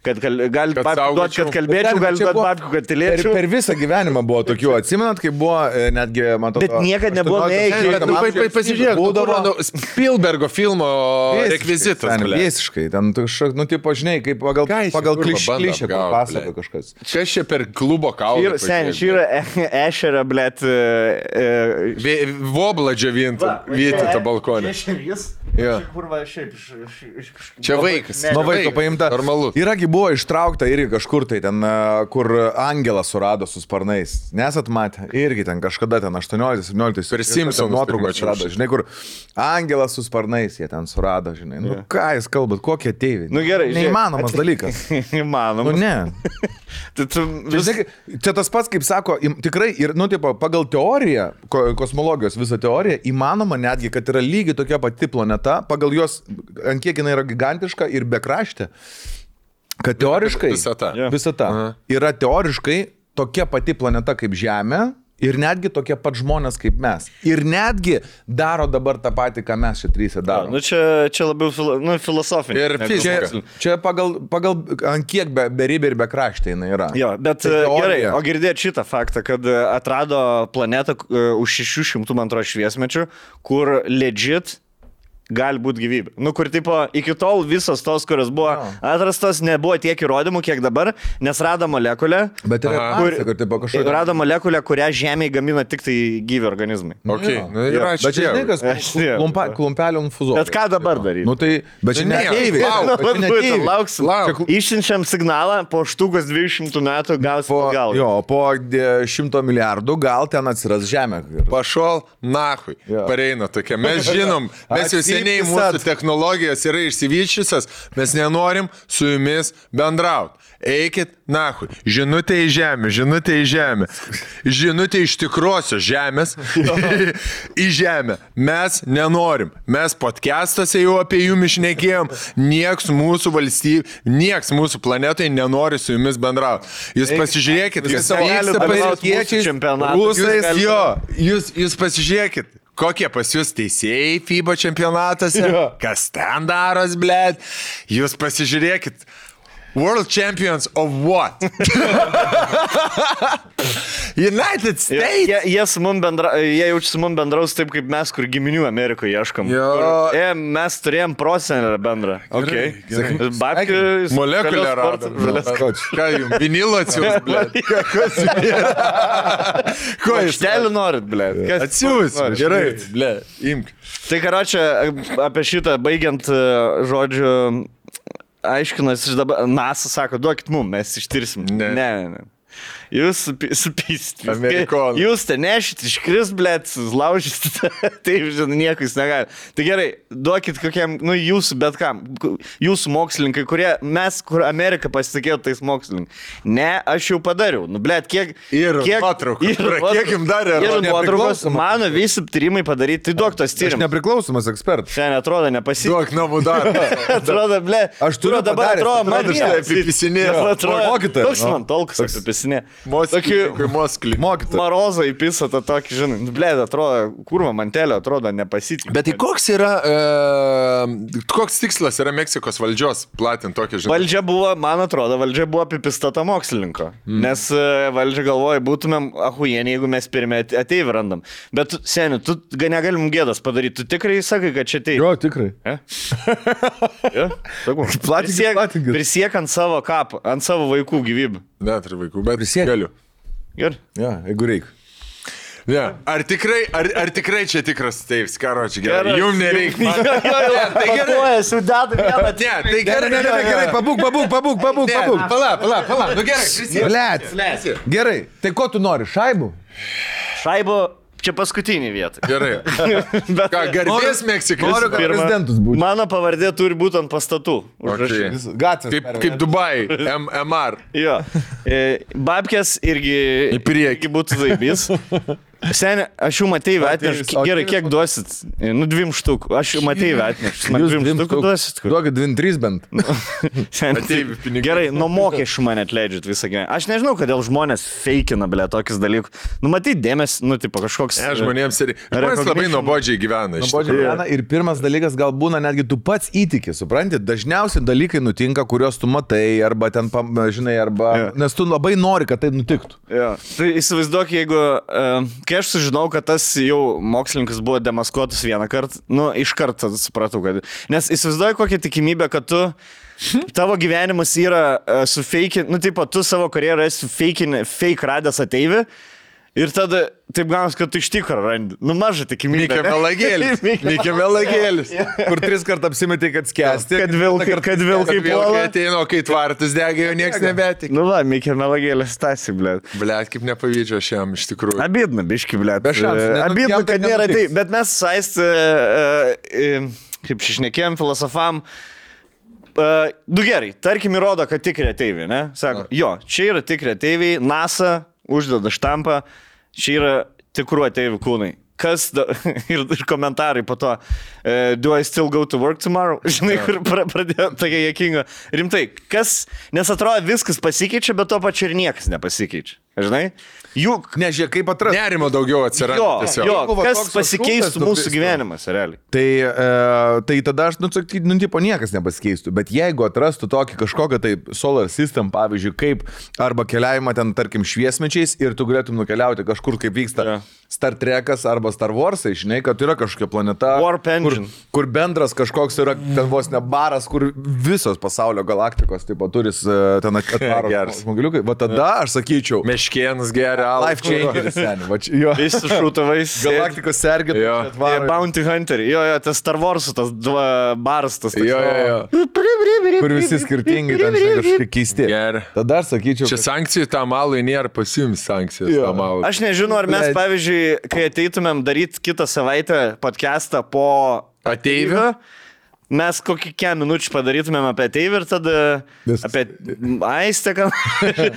S1: Kad galit babkių duoti, kad kalbėčiau, galit duoti babkių, kad tylėčiau.
S2: Per visą gyvenimą buvo tokių, atsimenat, kai buvo netgi, man atrodo...
S1: Bet niekad nebuvo neįkė.
S3: Pasižiūrėk, būdavo Spielbergo filmo rekvizitas.
S2: Visiškai, ten, tipo, žinai, kaip pagal klišę papasakoja kažkas.
S3: Čia čia per klubo kaulą.
S1: Seniai, čia yra ešerą, blėt...
S3: Voblą džiavintų, vytėtą balkonę. Čia vaikas.
S2: Nuo vaiko paimta.
S3: Normalu.
S2: Iragi buvo ištraukta irgi kažkur tai ten, kur angelą surado su sparnais. Nesat matę? Irgi ten kažkada ten 18-17.
S3: Per Simpsonus
S2: nuotrauką surado. Žinai, kur angelas su sparnais jie ten surado, žinai. Nu ką jūs kalbat, kokie ateiviai?
S1: Nu gerai.
S2: Neįmanomas dalykas.
S1: Įmanomas.
S2: Nu ne. Čia tas pats, kaip sako, tikrai, ir, tipo, pagal teoriją, kosmologijos visą teoriją, įmanoma netgi, kad yra lygiai tokia pati planeta, pagal jos, ant kiek jinai yra gigantiška ir bekraštė, kad teoriškai visata yra teoriškai tokia pati planeta kaip Žemė ir netgi tokie pat žmonės kaip mes. Ir netgi daro dabar tą patį, ką mes čia trysia daro.
S1: Nu čia labiau filosofinė.
S3: Ir fizika.
S2: Čia pagal ant kiek beribė ir bekraštė jinai yra.
S1: Jo, bet gerai, o girdėt šitą faktą, kad atrado planetą už 600 man atrodo šviesmečių, kur legit gali būti gyvybė. Nu, kur, tipo, iki tol visos tos, kurios buvo atrastos, nebuvo tiek įrodymų, kiek dabar, nes rado molekulę.
S2: Bet yra kažkokia.
S1: Rado molekulę, kurią Žemėje gamina tik tai gyvi organizmai.
S3: Okay.
S2: Bet čia žinai, kas klumpelio infuzuoja.
S1: Bet ką dabar daryti?
S2: Nu, tai, bet čia neteiviai.
S1: Lauksim. Išsiunčiam signalą, po štukas 200 metų gausim gal.
S2: Jo, po 100 milijardų gal ten atsiras Žemė.
S3: Pašol, nahui. Pareina tokia. Mes žinom, mes jau seniai mūsų technologijos yra išsivyščiusios, mes nenorim su jumis bendrauti. Eikit, nahui. Žinutė į žemę, žinutė į žemę. Žinutė iš tikrosios žemės į žemę. Mes nenorim. Mes podcastuose jau apie jum išnekėjom. Nieks mūsų valstybė, nieks mūsų planetai nenori su jumis bendrauti. Jūs pasižiūrėkit, kas vyksta pasieniečiais, rusais, jo. Jūs pasižiūrėkit. Kokie pas jūs teisėjai FIBA čempionatuose? Kas ten daros, blėt? Jūs pasižiūrėkit. World champions of what? United States?
S1: Jie jaučiasi su mum bendraus taip, kaip mes, kur giminių Amerikoje ieškom. Mes turėjom prosenelę bendrą. Babkių...
S3: Molekulę rado. Ką jums? Vinilo atsiūs, blėt. Ko jūs
S1: telį norit, blėt?
S3: Atsiūs, gerai, blėt, imk.
S1: Tai karočią, apie šitą baigiant žodžiu, aiškinas iš dabar, NASA sako, duokit mum, mes ištirsim. Ne. Jūs supysit.
S3: Amerikonų.
S1: Jūs te nešit, iškris, blėt, laužysit. Taip, žinai, nieko jūs negali. Tai gerai, duokit kokiam, jūsų bet kam. Jūsų mokslininkai, kurie mes, kur Amerika pasitikėjo tais mokslininkai. Ne, aš jau padariau. Blėt, kiek...
S3: Ir nuotraukų. Kiek jums darė?
S1: Ir nuotraukos. Mano visi tyrimai padaryti. Tai duok tos tyrimus.
S2: Aš nepriklausomas ekspertas.
S1: Šiandien atrodo nepasitikėjo.
S3: Duok namų darbą.
S1: Atrodo, blėt.
S2: Aš turiu
S1: dabar atrodo, man
S2: Mokytojas.
S1: toks man tolkas apipisinė.
S3: Moskly.
S1: Marozą įpisa tą tokį, žinai, blėd, atrodo, kurva mantelio, atrodo, nepasitikė.
S3: Bet tai koks yra, koks tikslas yra Meksikos valdžios platinti tokį, žinai?
S1: Valdžia buvo, man atrodo, apipistata mokslininko. Nes valdžia galvoja, būtumėm ahujieniai, jeigu mes pirmie ateivį randam. Bet, seniai, tu negalim gėdas padaryti. Tu tikrai sakai, kad čia ateivį?
S2: Jo, tikrai.
S1: Prisiek ant savo kapą, ant savo vaikų gyvybių.
S3: Net ir vaikų, bet galiu.
S1: Gerai.
S2: Ja, jeigu reikia.
S3: Ja. Ar tikrai čia tikras teivis, karočiui, gerai. Jums nereikia.
S1: Tai gerai, sudėtų vieną.
S3: Tai gerai,
S2: pabūk.
S3: Pala. Nu gerai,
S2: Blet. Gerai, tai ko tu nori, šaibų?
S1: Šaibų. Čia paskutinį vietą.
S3: Gerai. Ką, garbės Meksikai?
S2: Noriu, kad prezidentus būtų.
S1: Mano pavardė turi būti ant pastatų.
S2: Kaip
S3: Dubai, MR.
S1: Jo. Babkės irgi būtų zaibys. Seniai, aš jau Mateivę atnešu. Gerai, kiek duosit? 2 štukų. Aš jau Mateivę atnešu. Man 2 štukų duosit?
S2: Duokit 2-3 bent.
S1: Gerai, nuo mokesčių mane atleidžiat visą gyvenimą. Aš nežinau, kodėl žmonės feikina, blė, tokius dalykus. Matai, dėmesį, tipo kažkoks...
S3: Žmonėms labai nuobodžiai gyvena.
S2: Ir pirmas dalykas gal būna netgi tu pats įtiki, supranti? Dažniausiai dalykai nutinka, kuriuos tu matai, arba ten, žinai, arba... Nes tu labai nori, kad tai nutiktų.
S1: Tai įsivaizduok, jeigu... Kai aš sužinau, kad tas jau mokslininkas buvo demaskuotas vieną kartą, iš karto supratau, kad... Nes įsivaizduoju kokią tikimybę, kad tavo gyvenimas yra sufeikin... tu savo karjerą esi fake radęs ateivį ir tada taip gaunas, kad tu iš tikro randi. Maža tikimybė.
S3: Mikė melagėlis.
S2: Kur 3 kartą apsimetė, kad skęsti.
S1: Kad vilkai puola.
S3: Ateino, kai tvartas degė, jau nieks nebetik.
S1: Mikė melagėlis tasi, blėt.
S3: Blėt, kaip nepavydžio šiam iš tikrųjų.
S1: Abidna, biški, blėt. Abidna, kad nėra tai. Bet mes saist, kaip šišnekėjom, filosofam, gerai, tarkim įrodo, kad tikri ateiviai, ne? Sako, jo, čia yra tikri ateiviai, NASA uždeda štampą, čia yra tikrų ateivių kūnai. Ir komentarai po to, do I still go to work tomorrow? Žinai, kur pradėjo tokia juokinga. Rimtai, nes atrodo viskas pasikeičia, bet to pačiu ir niekas nepasikeičia. Žinai? Juk...
S2: Nežiūrėk, kaip atrasti.
S3: Nerimo daugiau atsiranda.
S1: Kas pasikeistų mūsų gyvenimas, realiai?
S2: Tai tada aš, tipo, niekas nepasikeistų. Bet jeigu atrastų tokį kažkokią tai solar system, pavyzdžiui, kaip arba keliavimą ten, tarkim, šviesmečiais ir tu galėtum nukeliauti kažkur, kaip vyksta Star Trekas arba Star Warsai, žinai, kad yra kažkokia planeta, kur bendras kažkoks yra ten vos ne baras, kur visos pasaulio galaktikos, tipo, turis ten atvaro žmoguliukai. Va tada aš sakyčiau,
S3: Meškėnas geria.
S2: Life changeris, seniai.
S1: Visi šūtavais.
S2: Galaktikos sergėtų.
S1: Bounty Hunter. Jo, tas Star Wars, tas baras, tas.
S3: Jo.
S2: Kur visi skirtingi, ten kažkokie keisti. Tada aš sakyčiau.
S3: Čia sankcijų tam malui nėra pasiūmis sankcijos tam malui.
S1: Aš nežinau, ar mes, pavyzdžiui, kai ateitumėm daryti kitą savaitę podcastą po
S3: ateivio,
S1: mes kokį minučių padarytumėm apie ateivį ir tada apie Aistę,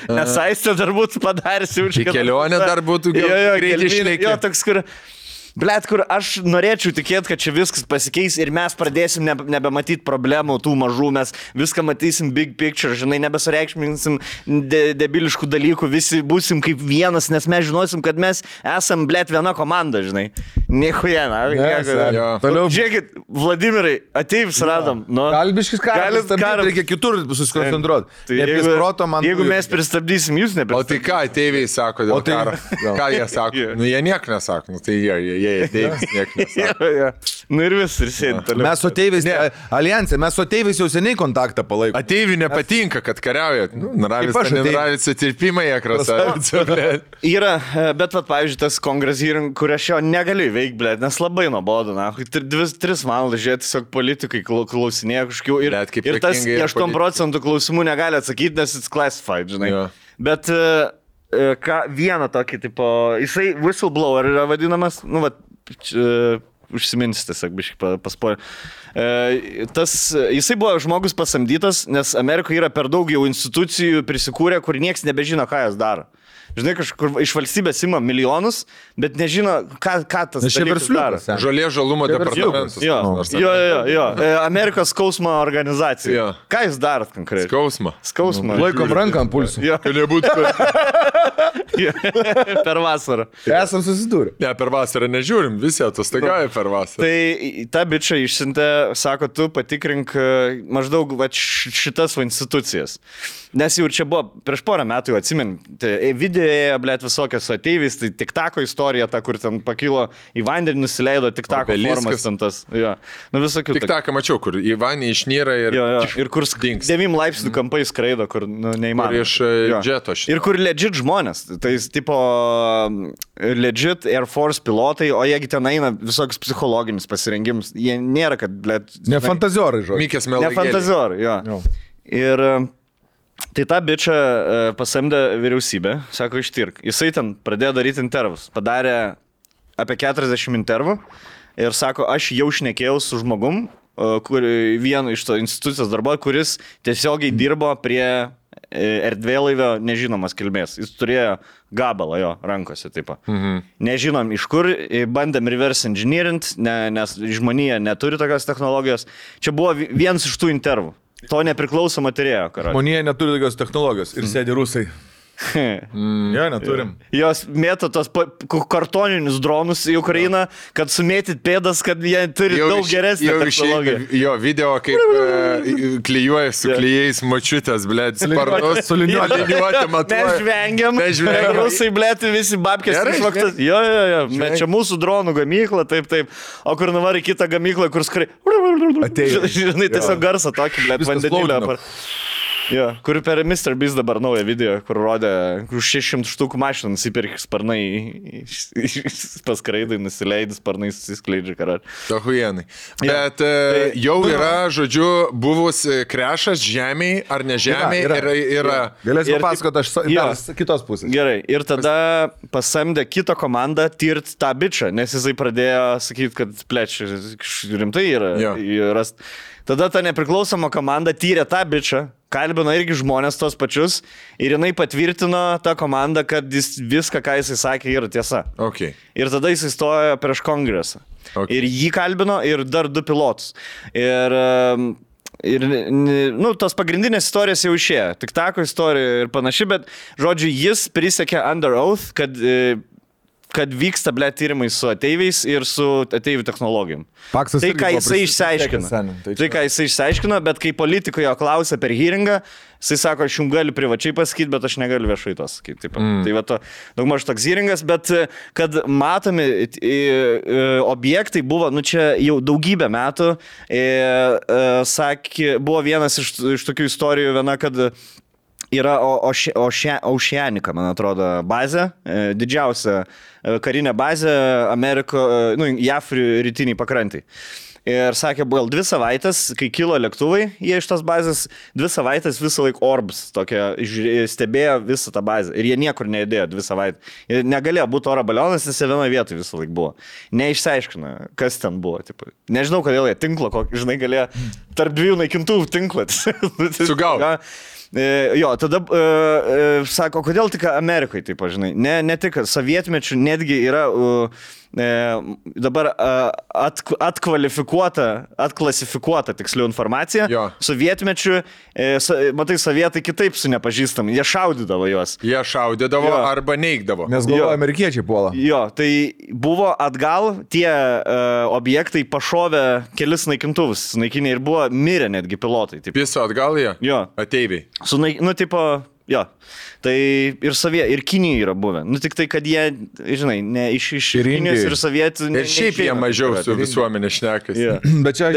S1: nes Aistę dar būtų padaręs jau čia.
S3: Kelionė dar būtų greitai išlėkė.
S1: Jo, toks, kur... Blet, kur aš norėčiau tikėti, kad čia viskas pasikeis ir mes pradėsim nebematyti problemų tų mažų, mes viską matysim big picture, žinai, nebesureikšminsim debiliškų dalykų, visi būsim kaip vienas, nes mes žinosim, kad mes esam, blet, viena komanda, žinai. Niekuja, na.
S2: Toliau.
S1: Žiūrėkit, Vladimirai, ateivis radom. Nu,
S2: Kalbiškis karas, reikia kitur susikoncentruoti.
S1: Jeigu mes pristabdysim, jūs nepristabdysim.
S3: O tai ką ateiviai sako dėl karo? Ką jie sako? Nu, jie nieko nesako, nu, tai jie ateivis nieko nesako.
S1: Nu ir vis, ir sėdi toliau.
S2: Mes su ateiviais, alijansė, mes su ateiviais jau seniai kontaktą palaikome.
S3: Ateiviai nepatinka, kad kariauja. Naravis atsirpimai, krasavicė.
S1: Yra, bet, pavyzdžiui, tas kongres hearing, kur aš jo negaliu veikti, blėt, nes labai nuobodu, na. 3 valandas žiūrėti, tiesiog politikai klausinėja kažkokių ir tas 8% klausimų negali atsakyti, nes it's classified, žinai. Jo. Bet vieną tokį, tipo, jisai whistleblower yra vadinamas, nu, užsiminsi tiesiog biškai paspoilė. Jisai buvo žmogus pasamdytas, nes Amerikoje yra per daug jau institucijų prisikūrę, kur nieks nebežino, ką jas daro. Žinai, kažkur iš valstybės ima milijonus, bet nežino, ką tas dalykas daro.
S3: Žolė žalumo departamentas.
S1: Jo. Amerikos skausmo organizacija. Jo. Ką jūs darot konkrečiai? Skausmą.
S2: Laikom ranką ant pulsų.
S1: Per vasarą.
S2: Esam susidūrę.
S3: Ne, per vasarą nežiūrim, visi atostogauja per vasarą.
S1: Tai ta bičia išsiuntė, sako, tu patikrink maždaug šitas institucijas. Nes jau čia buvo prieš porą metų, jau atsimin, videoje, blėt, visokios su ateiviais, tai TikToko istorija, ta, kur ten pakilo į vandenį, nusileido TikToko formas ten tas. Jo. Nu, visokių.
S3: TikToką mačiau, kur į vandenį išnyra ir...
S1: Ir kur 9 laipsnių kampai skraido, kur neįmanoma.
S3: Ir iš džeto šitą.
S1: Ir kur legit žmonės, tai tipo legit Air Force pilotai, o jiegi ten eina visokius psichologinius pasirengimus, jie nėra, kad, blėt...
S2: Ne fantaziorai, žodžiu.
S3: Mikės melagėlė.
S1: Ne fantaziorai, jo. Ir... Tai tą bičą pasamdė vyriausybė, sako, ištirk. Jisai ten pradėjo daryti intervus. Padarė apie 40 intervų ir sako, aš jau šnekėjau su žmogum, vienu iš to institucijos darbo, kuris tiesiogiai dirbo prie erdvėlaivio nežinomas kilmės. Jis turėjo gabalą jo rankose, taip. Nežinom iš kur, bandėm reverse engineering, nes žmonija neturi tokios technologijos. Čia buvo vienas iš tų intervų. To nepriklausoma turėjo, karai.
S2: Žmonija neturi tokios technologijos ir sėdi rusai. Jo, neturim.
S1: Jos mėto tos kartoninius dronus į Ukrainą, kad sumėtit pėdas, kad jie turi daug geresnį technologiją.
S3: Jo, video kaip klijuoja su klijais mačiutės, blėt, sparnus, su liniuotė matuoja.
S1: Mes žvengiam. Rusai, blėt, visi babkės išvaktas. Jo. Čia mūsų dronų gamykla, taip. O kur nuvari kitą gamyklą, kur skrai... Žinai, tiesiog garsą tokį, blėt, vandenilę. Jo, kur per Mr. Beast dabar naują video, kur rodė, už 600 štukų mašiną nusipirkė sparnai, paskraidai, nusileidai, sparnai susiskleidžia karar.
S3: Tohujenai. Bet jau yra, žodžiu, buvus krešas žemėj ar ne žemėj. Yra.
S2: Galėsiu papasakoti, aš kitos pusės.
S1: Gerai, ir tada pasamdė kitą komandą tirt tą bičą, nes jisai pradėjo sakyti, kad plečia rimtai yra. Tada ta nepriklausoma komanda tyrė tą bičą, kalbino irgi žmonės tos pačius ir jinai patvirtino tą komandą, kad viską, ką jisai sakė, yra tiesa.
S3: Okay.
S1: Ir tada jisai stojo prieš kongresą. Okay. Ir jį kalbino ir dar 2 pilotus. Ir tos pagrindinės istorijos jau išėjo. TikToko istorija ir panašiai, bet, žodžiu, jis prisiekė under oath, kad vyksta, blėt, tyrimai su ateiviais ir su ateivių technologijom.
S2: Paksas
S1: tai, ką jisai išsiaiškino, bet kai politikai jo klausė per hearingą, jisai sako, aš jums galiu privačiai pasakyti, bet aš negaliu viešai to sakyti. Tai va to, daugmaž toks hearingas, bet kad matomi objektai buvo, čia jau daugybę metų, buvo vienas iš tokių istorijų, kad yra Oceanica, man atrodo, bazė, didžiausia karinė bazė JAF rytiniai pakrantai. Ir sakė, buvo 2 savaitės, kai kilo lėktuvai, jie iš tos bazės 2 savaitės visą laiką orbs, stebėjo visą tą bazę. Ir jie niekur neįdėjo 2 savaitės. Ir negalėjo būti oro balionas, nes jie vienoje vietoje visą laiką buvo. Neišsiaiškino, kas ten buvo. Tipo. Nežinau, kodėl jie tinklo, žinai, galėjo tarp 2 naikintuvų tinklą.
S3: Sugau.
S1: Jo, tada sako, kodėl tik Amerikoje, taip, žinai, ne tik sovietmečių, netgi yra dabar atklasifikuota tiksliau informacija.
S3: Jo.
S1: Sovietmečiu, matai, sovietai kitaip su nepažįstami, jie šaudydavo juos.
S3: Jie šaudydavo
S1: Jo.
S3: arba neigdavo.
S2: Nes galvoju, amerikiečiai puola.
S1: Jo, tai buvo atgal, tie objektai pašovė kelis naikintuvus, naikinė ir buvo mirę netgi pilotai. Taip.
S3: Piso atgal jie?
S1: Jo.
S3: Ateiviai.
S1: Tipo, jo. Tai ir Kinijai yra buvę. Nu tik tai, kad jie, žinai, ne iš
S2: Ir
S1: Kinijos
S2: Indijoj.
S1: ir sovietų.
S3: Ir šiaip jie mažiau su visuomenė šnekasi.
S1: Jo.
S2: Bet čia...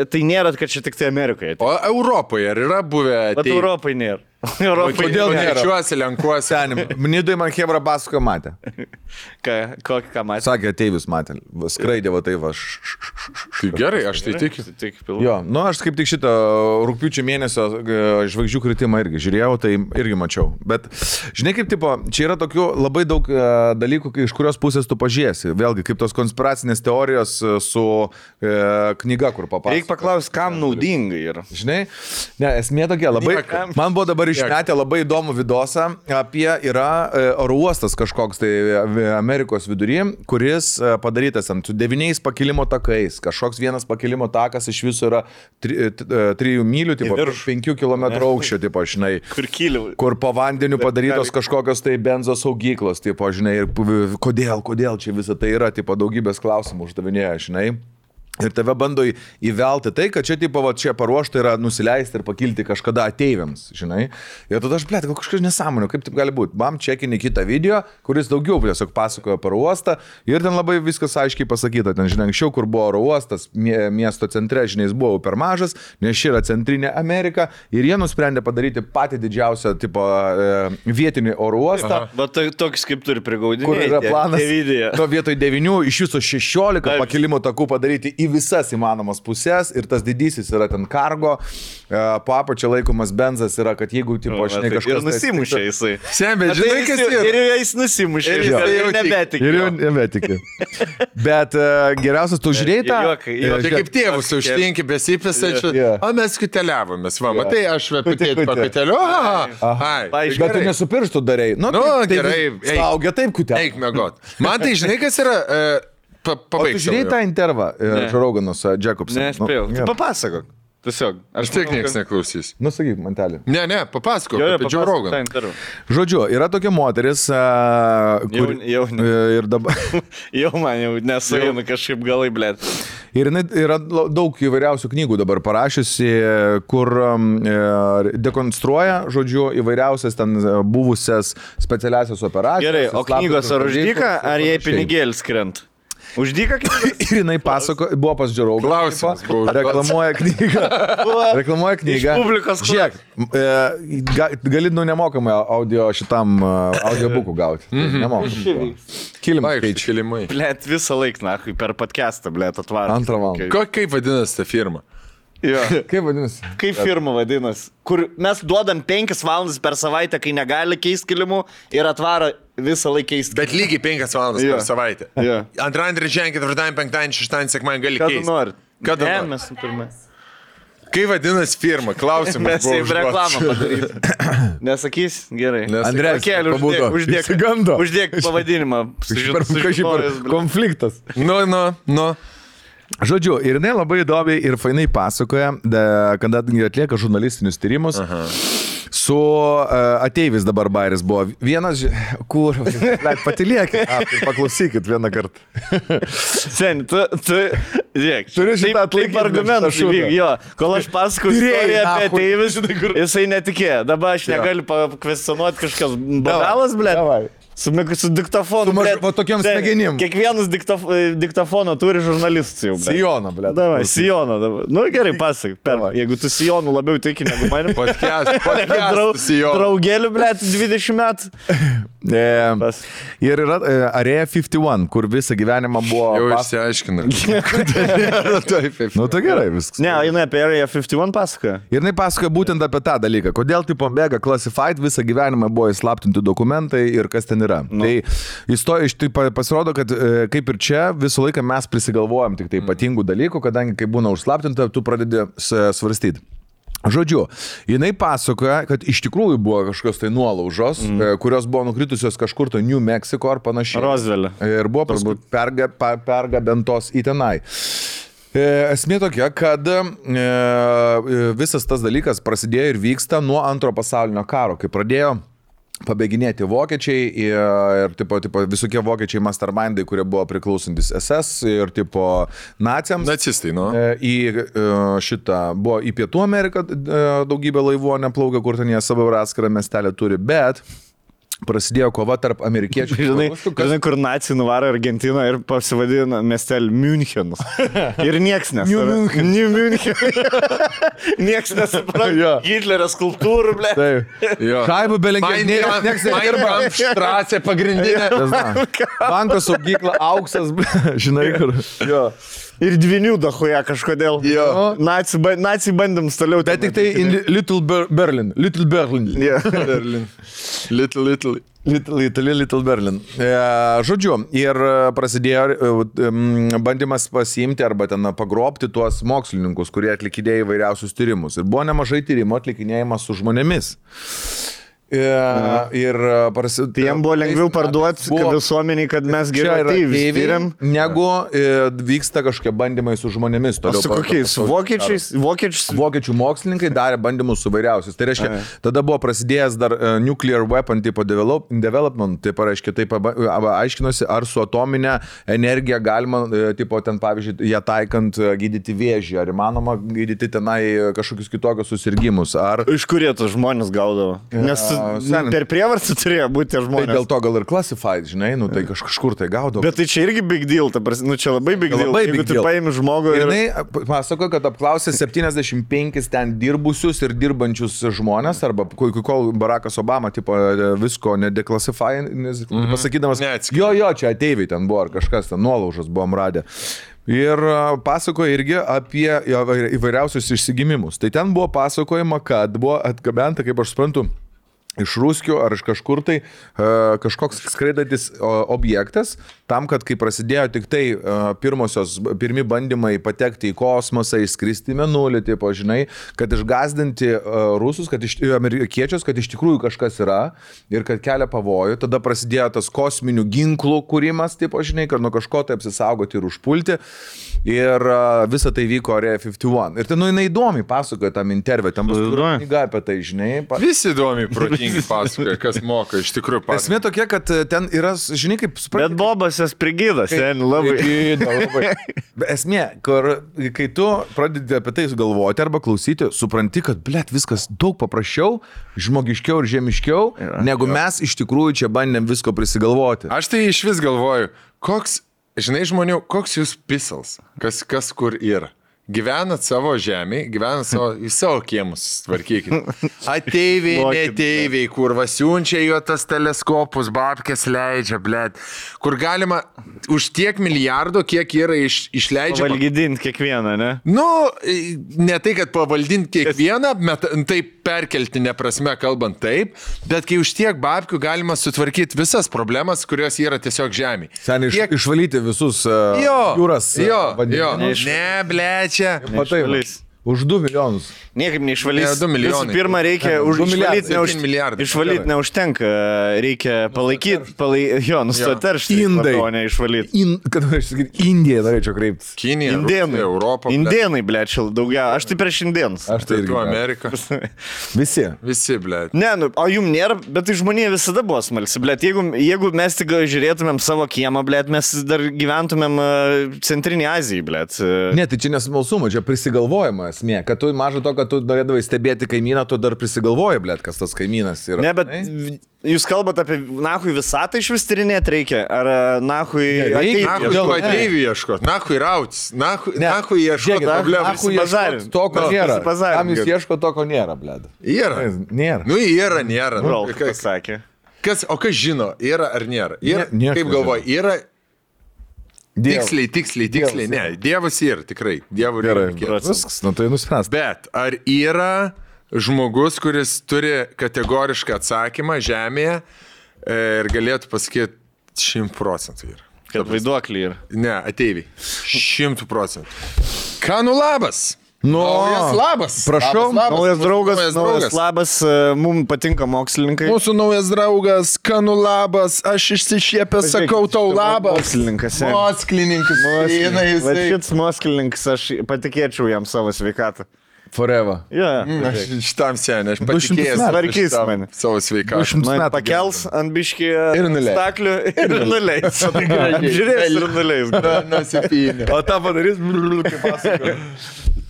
S1: Tai nėra, kad čia tik tai Amerikoje.
S3: O Europoje ar yra buvę
S1: Bet
S3: ateiviai?
S1: Europai nėra. Europai
S2: Kodėl nėra?
S3: Lenkiuosi, lenkuosi.
S2: Senim, Nidai man Hebra pasakojo matė.
S1: Ką matė?
S2: Sakė, ateivis matė. Skraidė va tai va.
S3: Tai gerai, aš tai tikiu.
S2: Jo, nu aš kaip tik šitą rugpjūčio mėnesio žvaigždžių kritimą irgi žiūrėjau, tai irgi mačiau. Bet žinai kaip tipo, čia yra tokių labai daug dalykų, iš kurios pusės tu pažiūrėsi. Vėlgi, kaip tos konspiracinės teorijos su knyga, kur papasakos.
S1: Reikia paklausti, kam naudinga yra.
S2: Žinai, ne, esmė tokia, labai,
S3: Niekam.
S2: man buvo dabar išmetę labai įdomų vidosą apie yra oro uostas kažkoks tai Amerikos vidury, kuris padarytas ant 9 pakilimo takais, kažkoks vienas pakilimo takas iš viso yra 3 mylių, tipo, 5 km aukščio, tipo, žinai,
S1: Kur kyliau.
S2: kur po vandeniu padarytos kažkokios tai benzo saugyklos, tipo, žinai, ir kodėl čia visą tai yra, tipo, daugybės klausimų uždavinėja, žinai. Ir tave bando įvelti tai, kad čia, tipo, va, čia paruošta yra nusileisti ir pakilti kažkada ateiviams, žinai. Ir tada aš, blėt, kažkas nesąmonė, kaip taip gali būti. Bam, čekinį kitą video, kuris daugiau tiesiog pasakojo oro uostą ir ten labai viskas aiškiai pasakyta. Ten, žinai, anksčiau, kur buvo oro uostas, miesto centre, žinai, jis buvo per mažas, nes ši yra centrinė Amerika ir jie nusprendė padaryti patį didžiausią, tipo, vietinį oro uostą.
S1: Va, toks kaip turi prigaudinti.
S2: Kur yra planas?
S1: Video.
S2: To vietoj 9 iš viso 16 pakilimo takų padaryti į visas įmanomas pusės ir tas didysis yra ten kargo, po apačia laikomas benzas yra, kad jeigu, tipo, žinai, kažkas...
S1: Ir nusimušė jisai.
S3: Sembė, žinai, kas yra?
S1: Ir jis nusimušė.
S3: Ir jisai jau
S1: nebetikė.
S2: Ir jau nebetikė. Bet geriausias, tu žiūrėjai tą...
S3: Tai kaip tėvus užtinki besipisačiu, o mes kuteliavomės, va, matai, aš vepitėti pakuteliu,
S2: Bet tu nesupirštų darai. Nu,
S3: gerai,
S2: saugia taip kutelė.
S3: eik mėgot. Man tai žinai, kas yra...
S2: O tu žiūrėjai tą intervą Žoroganos Jacobson?
S1: Ne, aš spėjau. Tu papasakok. Tiesiog.
S3: Aš tiek nieks neklausys.
S2: Nu, sakyk, mantelį.
S3: Ne, papasakok apie Joe Rogan.
S2: Žodžiu, yra tokia moteris, kur...
S1: Jau
S2: Ir dabar...
S1: Jau man jau nesueina kažkaip galai, blėt.
S2: Ir jinai yra daug įvairiausių knygų dabar parašiusi, kur dekonstruoja, žodžiu, įvairiausias ten buvusias specialiasias operacijas.
S1: Gerai, o knygos ar už dyką, ar jai pinigėlis krent? Už dyką knygos?
S2: Ir jinai pasako, buvo pas Joe Rogan.
S3: Klausimas buvo.
S2: Reklamuoja knygą. Reklamuoja knygą.
S1: Iš publikos
S2: Žiūrėk, gali nemokamai audio šitam audiobukų gauti. Nemokamai. Kilimai.
S3: Kilimai.
S1: Blėt, visą laiką, na, per podcastą, blėt, atvarą.
S2: Antrą valandą.
S3: Kaip vadinasi ta firma?
S1: Jo.
S2: Kaip vadinasi?
S1: Kaip firma vadinasi? Kur mes duodam 5 valandas per savaitę, kai negali keisti kilimų ir atvaro visą laiką keisti.
S3: Bet lygiai 5 valandas per savaitę.
S1: Jo.
S3: Antradienį, trečiadienį, ketvirtadienį, penktadienį, šeštadienį, sekmadienį gali
S1: Ką
S3: keisti.
S1: tu nori?
S3: Kada
S1: Ne,
S3: nori?
S1: mes turime.
S3: Kaip vadinasi firma? Klausimas.
S1: Mes jau reklamą padarysime. Nesakys? Gerai.
S2: Andrės,
S1: Pakėlė,
S2: pabudo. Išsigando.
S1: Uždėk pavadinimą.
S2: Kažkaip konfliktas.
S3: Nu.
S2: Žodžiu, ir jinai labai įdomiai ir fainai pasakoja, kada atlieka žurnalistinius tyrimus. Su ateivis dabar bairis buvo. Vienas, kur, patiliekit, paklausykit vieną kartą.
S1: Sen, tu, žiūrėk.
S2: Turiu šitą
S1: taip argumentus įvyk, jo. Kol aš pasakau istoriją apie ateivis, jisai netikėjo. Dabar aš negaliu pakvestionuoti kažkas badalas, blėt. Su diktofonu.
S2: Va tokiam smegenim.
S1: Kiekvienas diktofoną turi žurnalistas jau.
S2: Sijoną, ble.
S1: Davai, Sijoną dabar. Nu gerai, pasak. Jeigu tu Sijonų labiau tiki negu manim.
S3: Podcast Sijoną.
S1: Draugėlių, ble, 20 metų.
S2: Ir yra Area 51, kur visą gyvenimą buvo...
S3: Jau išsiaiškina.
S2: Nu, tai gerai viskas.
S1: Ne, jinai apie Area 51 pasakoja.
S2: Ir jinai pasakoja būtent apie tą dalyką. Kodėl tipo mega classified visą gyvenimą buvo įslaptinti dokumentai ir kas ten yra. Tai iš tai pasirodo, kad kaip ir čia visą laiką mes prisigalvojam tik tai ypatingų dalykų, kadangi kai būna užslaptinta, tu pradedi svarstyti. Žodžiu, jinai pasakoja, kad iš tikrųjų buvo kažkokios tai nuolaužos, kurios buvo nukritusios kažkur to New Mexico ar panašiai.
S1: Roswell.
S2: Ir buvo paskui pergabentos į tenai. Esmė tokia, kad visas tas dalykas prasidėjo ir vyksta nuo Antro pasaulinio karo, kai pradėjo pabėginėti vokiečiai ir tipo, visokie vokiečiai mastermindai, kurie buvo priklausantis SS ir tipo naciams.
S3: Nacistai, nu.
S2: Į šitą buvo į Pietų Ameriką daugybė laivų neplaukia, kur ten jie savo atskirą miestelę turi, bet prasidėjo kova tarp amerikiečių.
S1: Žinai, kur nacijai nuvaro Argentiną ir pasivadina miestelį Münchenas. Ir nieks nesupranta. New München. Nieks nesupranta. Hitlerio skulptūrų, ble.
S2: Šaibų belengė. Nieks nedirba.
S3: Štrasė pagrindinė.
S2: Banko saugykla, auksas, žinai, kur. Jo.
S1: Ir dvinių dahoje kažkodėl. Nacijai bandėm toliau.
S2: Bet tik tai Little Berlin. Little Berlin.
S3: Berlin.
S2: Little Berlin. Žodžiu, ir prasidėjo bandymas pasiimti arba ten pagrobti tuos mokslininkus, kurie atlikinėjo įvairiausius tyrimus. Ir buvo nemažai tyrimų atlikinėjimas su žmonėmis.
S1: Tai jam buvo lengviau parduoti visuomeniai, kad mes gerai tyriam,
S2: negu vyksta kažkokie bandymai su žmonėmis.
S1: O su kokiais? Vokiečiais?
S2: Vokiečių mokslininkai darė bandymus su vairiausiais. Tai reiškia, tada buvo prasidėjęs dar nuclear weapon tipo development, tai pareiškia, taip aiškinosi, ar su atominė energija galima, tipo ten pavyzdžiui, ją taikant gydyti vėžį, ar įmanoma gydyti tenai kažkokius kitokius susirgymus.
S1: Iš kur jie tos žmonės gaudavo? Nes per prievartą turėjo būti tie žmonės.
S2: Tai dėl to gal ir classified, žinai, nu tai kažkur tai gaudavo.
S1: Bet tai čia irgi big deal, nu čia labai big deal. Jeigu tu paimi žmogų ir...
S2: Jinai pasako, kad apklausė 75 ten dirbusius ir dirbančius žmonės, arba kol Barackas Obama tipo visko nedeklassify, pasakydamas, jo, čia ateiviai ten buvo, ar kažkas ten nuolaužas buvom radę. Ir pasakoja irgi apie įvairiausius išsigimimus. Tai ten buvo pasakojama, kad buvo atgabenta, kaip aš suprantu, iš Ruskių ar iš kažkur tai kažkoks skraidantis objektas, tam, kad kai prasidėjo tik tai pirmi bandymai patekti į kosmosą, išskristi į mėnulį, tipo, žinai, kad išgazdinti rusus, amerikiečius, kad iš tikrųjų kažkas yra ir kad kelia pavojų, tada prasidėjo tas kosminių ginklų kūrimas, tipo, žinai, kad nuo kažko tai apsisaugoti ir užpulti. Ir visa tai vyko Area 51. Ir ten, nu, jinai įdomiai pasakoja tam interviu, ten bus knyga apie tai, žinai.
S3: Visi įdomiai protingi pasakoja, kas moka, iš tikrųjų pasakoja.
S2: Esmė tokia, kad ten yra, žinai, kaip supranti.
S1: Bet Bobas jas prigydas, ten labai.
S2: Esmė, kai tu pradedi apie tai galvoti arba klausyti, supranti, kad, blet, viskas daug paprasčiau, žmogiškiau ir žemiškiau, negu mes iš tikrųjų čia bandėm visko prisigalvoti.
S3: Aš tai iš vis galvoju, žinai žmonių, koks jūs pisals, kas kur yra. Gyvenat savo žemėje, į savo kiemus tvarkykit. Ateiviai, neteiviai, kur vasiunčia jo tas teleskopus, babkės leidžia, blėt. Kur galima už tiek milijardų, kiek yra išleidžiama.
S1: Pavaldinti kiekvieną, ne?
S3: Nu, ne tai, kad pavaldinti kiekvieną, taip perkeltinė prasme kalbant taip, bet kai už tiek babkių galima sutvarkyti visas problemas, kurios yra tiesiog žemėje.
S2: Seniai išvalyti visus jūras.
S3: Ne, blėt.
S2: Matai, už 2 milijonus.
S1: Niekaip neišvalys.
S3: 2 milijonai.
S1: Visų pirma, reikia išvalyti neužtenka. Reikia palaikyti, nustoti teršti.
S2: Indai.
S1: O ne išvalyti.
S2: Kad aš sakyti, Indiją norėčiau kreiptis.
S3: Kinija,
S1: Indėnai.
S3: Europa.
S1: Indėnai, blėčiau, daugiau. Aš tai prieš indėnus.
S2: Aš tai irgi.
S3: Amerika. Visi, blėt.
S1: Ne, o jum nėra, bet tai žmonė visada buvo smalsi, blėt. Jeigu mes tik žiūrėtumėm savo kiemą, blėt, mes dar gyventumėm Centrinėje Azijoje, blėt.
S2: Ne, tai čia nesmalsuma, čia prisigalvojama esmė. Kad tu mažo to, kad tu norėdavai stebėti kaimyną, tu dar prisigalvoji, blėt, kas tas kaimynas yra.
S1: Ne, bet jūs kalbate apie nahui visatą iš vis tyrinėti reikia? Ar nahui
S3: ateivių ieškot? Nahui rautis? Nahui ieškot problemų?
S2: Nahui ieškot to, ko nėra. Tam jūs ieško to, ko nėra, blėt.
S3: Yra.
S2: Nėra.
S3: Nu, nėra.
S1: Kas sakė?
S3: O kas žino, yra ar nėra? Kaip galvoji, yra... Tiksliai. Ne, Dievas yra, tikrai. Dievų reikia.
S2: Viskas, nu tai nuspręs.
S3: Bet ar yra žmogus, kuris turi kategorišką atsakymą žemėje ir galėtų pasakyti 100% yra?
S1: Kad vaiduoklį yra.
S3: Ne, ateiviai. 100%. Ką nu labas? Naujas labas.
S2: Prašau,
S1: Naujas draugas,
S3: Naujas
S1: naujas labas, mums patinka mokslininkai.
S3: Mūsų naujas draugas, Kanu labas, aš išsišiepęs sakau tau labas.
S1: Mokslininkas.
S3: Mokslininkas.
S1: Va šits mokslininkas, aš patikėčiau jam savo sveikatą.
S2: Forever.
S1: Yeah.
S3: Aš šitam senė, aš
S2: 200
S3: patikėjęs
S2: metų.
S1: Tvarkys mane.
S3: savo sveikatą.
S2: 200
S1: Man
S2: metų
S1: pakels ant biškį
S3: Ir nuleis.
S1: staklių ir nuleis. Žiūrės ir nuleis.
S3: Nusipynė.
S2: O tą padarys, kaip pasako.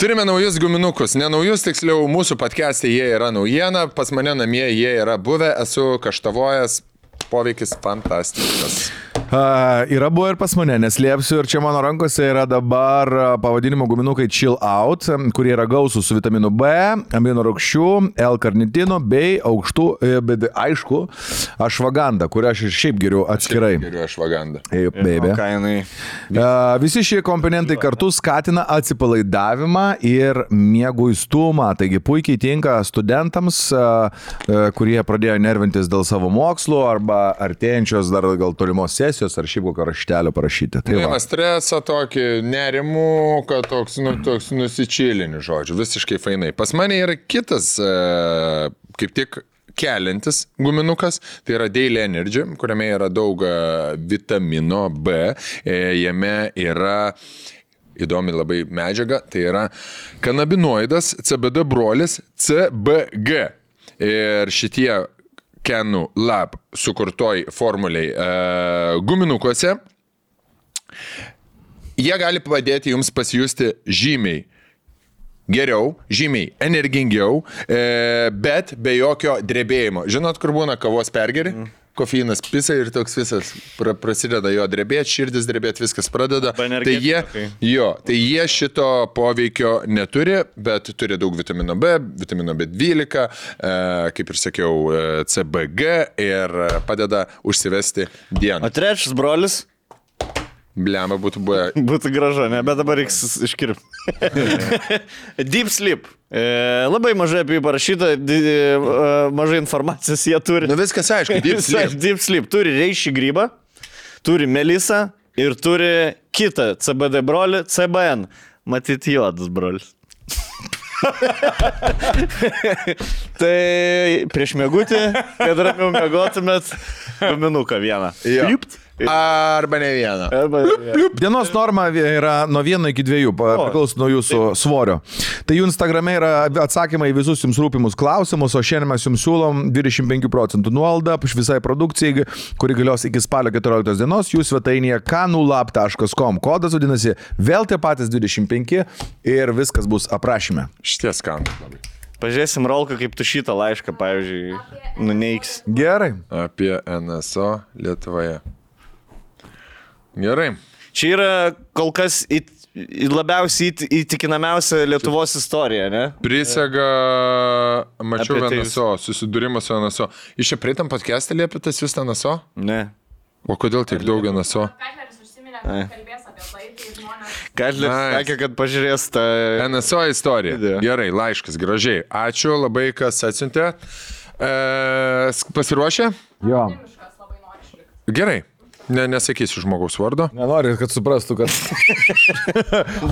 S3: Turime naujus guminukus, ne naujus, tiksliau, mūsų podcast'e jie yra naujiena, pas mane namie jie yra buvę, esu kaštavojęs, poveikis fantastiškas.
S2: Yra buvo ir pas mane, neslėpsiu, ir čia mano rankose yra dabar pavadinimo guminukai Chill Out, kurie yra gausūs su vitaminu B, amino rūgščių, L-karnitino bei aukštų, bet aišku, ašvagandą, kurią aš ir šiaip geriu atskirai.
S3: Geriu ašvagandą.
S2: Baby. Visi šie komponentai kartu skatina atsipalaidavimą ir mieguistumą, taigi puikiai tinka studentams, kurie pradėjo nervintis dėl savo mokslų arba artėjančios dar gal tolimos sesijos ar šiaip kokio raštelio parašyti. Tai
S3: Nuima stresą tokį, nerimų, kad toks nusičilinių žodžių, visiškai fainai. Pas mane yra kitas, kaip tik keliantis guminukas, tai yra Daily Energy, kuriame yra daug vitamino B, jame yra įdomi labai medžiaga, tai yra kanabinoidas, CBD brolis, CBG. Ir šitie Kanu Lab sukurtoj formuliai guminukuose, jie gali padėti jums pasijusti žymiai geriau, žymiai energingiau, bet be jokio drebėjimo. Žinot, kur būna kavos pergeri? Kofeinas pisa ir toks visas prasideda jo drebėti, širdis drebėti, viskas pradeda. Tai jie šito poveikio neturi, bet turi daug vitamino B, vitamino B12, kaip ir sakiau, CBG ir padeda užsivesti dieną.
S1: O trečias brolis?
S3: Blemba būtų buvę.
S1: Būtų gražu, ne, bet dabar reiks iškirpti. Deep Sleep. Labai mažai apie jį parašyta, mažai informacijos jie turi.
S3: Nu viskas aišku, Deep Sleep.
S1: Deep Sleep turi reišį grybą, turi melisą ir turi kitą CBD brolį, CBN. Matyt, juodas brolis. Tai prieš mėgutį, kad ramiau mėgotumėt, guminuką vieną. Liupt.
S3: Arba ne vieną.
S2: Dienos norma yra nuo 1 iki 2, priklauso nuo jūsų svorio. Tai jų Instagrame yra atsakymai į visus jums rūpimus klausimus, o šiandien mes jums siūlom 25% nuolaidą visai produkcijai, kuri galios iki spalio 14 dienos, jų svetainėje kanulab.com. Kodas vadinasi vėl tie patys 25 ir viskas bus aprašyme.
S3: Šities skanus labai.
S1: Pažiūrėsim, Rolka, kaip tu šitą laišką, pavyzdžiui, nuneiks.
S2: Gerai.
S3: Apie NSO Lietuvoje. Gerai.
S1: Čia yra kol kas labiausiai įtikinamiausia Lietuvos istorija, ne?
S3: Prisega, mačiau
S1: Apie tai
S3: NSO, susidūrimas su NSO. Iš čia prieitam podcast'e liepėtas jūs NSO?
S1: Ne.
S3: O kodėl tiek daug NSO?
S4: Katleris užsiminė, kad kalbės apie tai žmonės.
S1: Katleris sakė, kad pažiūrės tą...
S3: NSO istorija.
S1: Video.
S3: Gerai, laiškas, gražiai. Ačiū labai, kas atsiuntė. Pasiruošę?
S2: Jo.
S4: Miškas labai nori išlikti.
S3: Gerai. Nesakysiu žmogaus vardo.
S2: Nenori, kad suprastų, kad...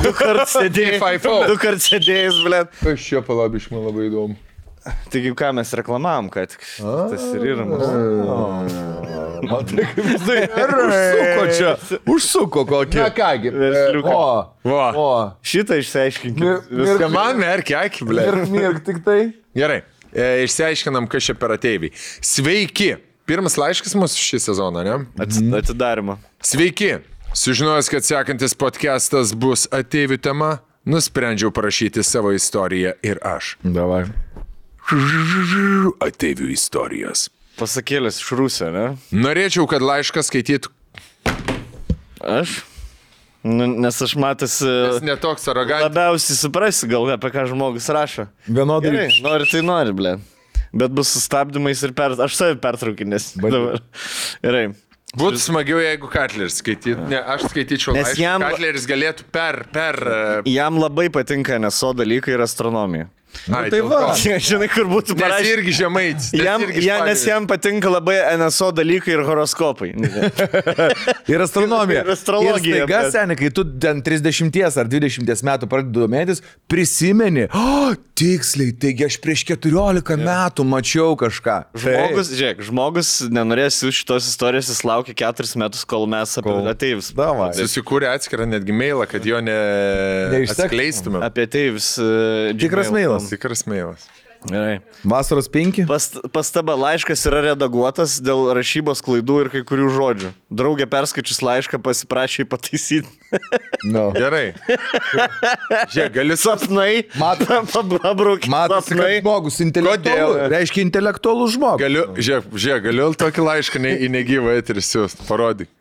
S1: Du kart sėdėjus, blėt.
S3: Aš čia palabiš, man labai įdomu.
S1: Taigi, ką mes reklamavom, kad tas ir yra mūsų.
S2: Matai, kaip jisai užsuko čia. Užsuko kokį.
S3: Na kągi.
S1: Versliuką.
S3: O.
S1: Šitą išsiaiškinkit.
S3: Viską man merkia, akį, blė.
S2: Mirk tik tai.
S3: Gerai. Išsiaiškinam, kas čia per ateiviai. Sveiki. Pirmas laiškas mūsų šį sezoną, ne?
S1: Atidarimo.
S3: Sveiki. Sužinojęs, kad sekantis podcastas bus ateivių tema, nusprendžiau parašyti savo istoriją ir aš.
S2: Davai.
S3: Ateivių istorijos.
S1: Pasakėlės iš Rusio, ne?
S3: Norėčiau, kad laišką skaitytų.
S1: Aš? Nes aš matęs...
S3: Netoks arogantas.
S1: Labiausiai suprasi gal, apie ką žmogus rašo.
S2: Vienodai.
S1: Gerai, nori tai nori, blė. Bet bus sustabdymais ir aš savi pertraukinės. Gerai.
S3: Būtų smagiau, jeigu Katleris skaitytų. Ne, aš skaityčiau
S1: Nes
S3: laišką.
S1: jam-
S3: Katleris galėtų per...
S1: Jam labai patinka NSO dalykai ir astronomija.
S3: Ai,
S2: tai
S3: dėl
S2: va.
S3: to.
S1: Žinai, kur būtų
S3: Nes
S1: parašę.
S3: irgi žemaitis.
S1: Nes jam patinka labai NSO dalykai ir horoskopai.
S2: Ir astronomija.
S1: Ir astrologija,
S2: Ir staiga,
S1: bet-
S2: seniai, kai tu ten 30 ar 20 metų pradedi domėtis, prisimeni, tiksliai, taigi aš prieš 14 metų mačiau kažką.
S1: Žmogus nenorės šitos istorijos, jis laukia 4 metus, kol mes apie ateivis.
S2: Davai.
S3: Susikūrė atskirą netgi mailą, kad jo
S2: Neišsek.
S3: neatskleistume.
S1: Apie ateivis.
S2: Tikras mailas.
S3: Tikras mailas.
S1: Gerai.
S2: Vasaros 5.
S1: Pastaba, laiškas yra redaguotas dėl rašybos klaidų ir kai kurių žodžių. Draugė perskaičius laišką pasiprašė jį pataisyti.
S2: No.
S3: Gerai. Žiūrėk, galiu
S1: Sapnai. Pabrauk.
S2: Matosi, kad
S1: Sapnai.
S2: žmogus intelektualus.
S3: Kodėl?
S2: Reiškia intelektualus žmogus.
S3: Galiu tokį laišką į negyvą eterį siūst, parodyk.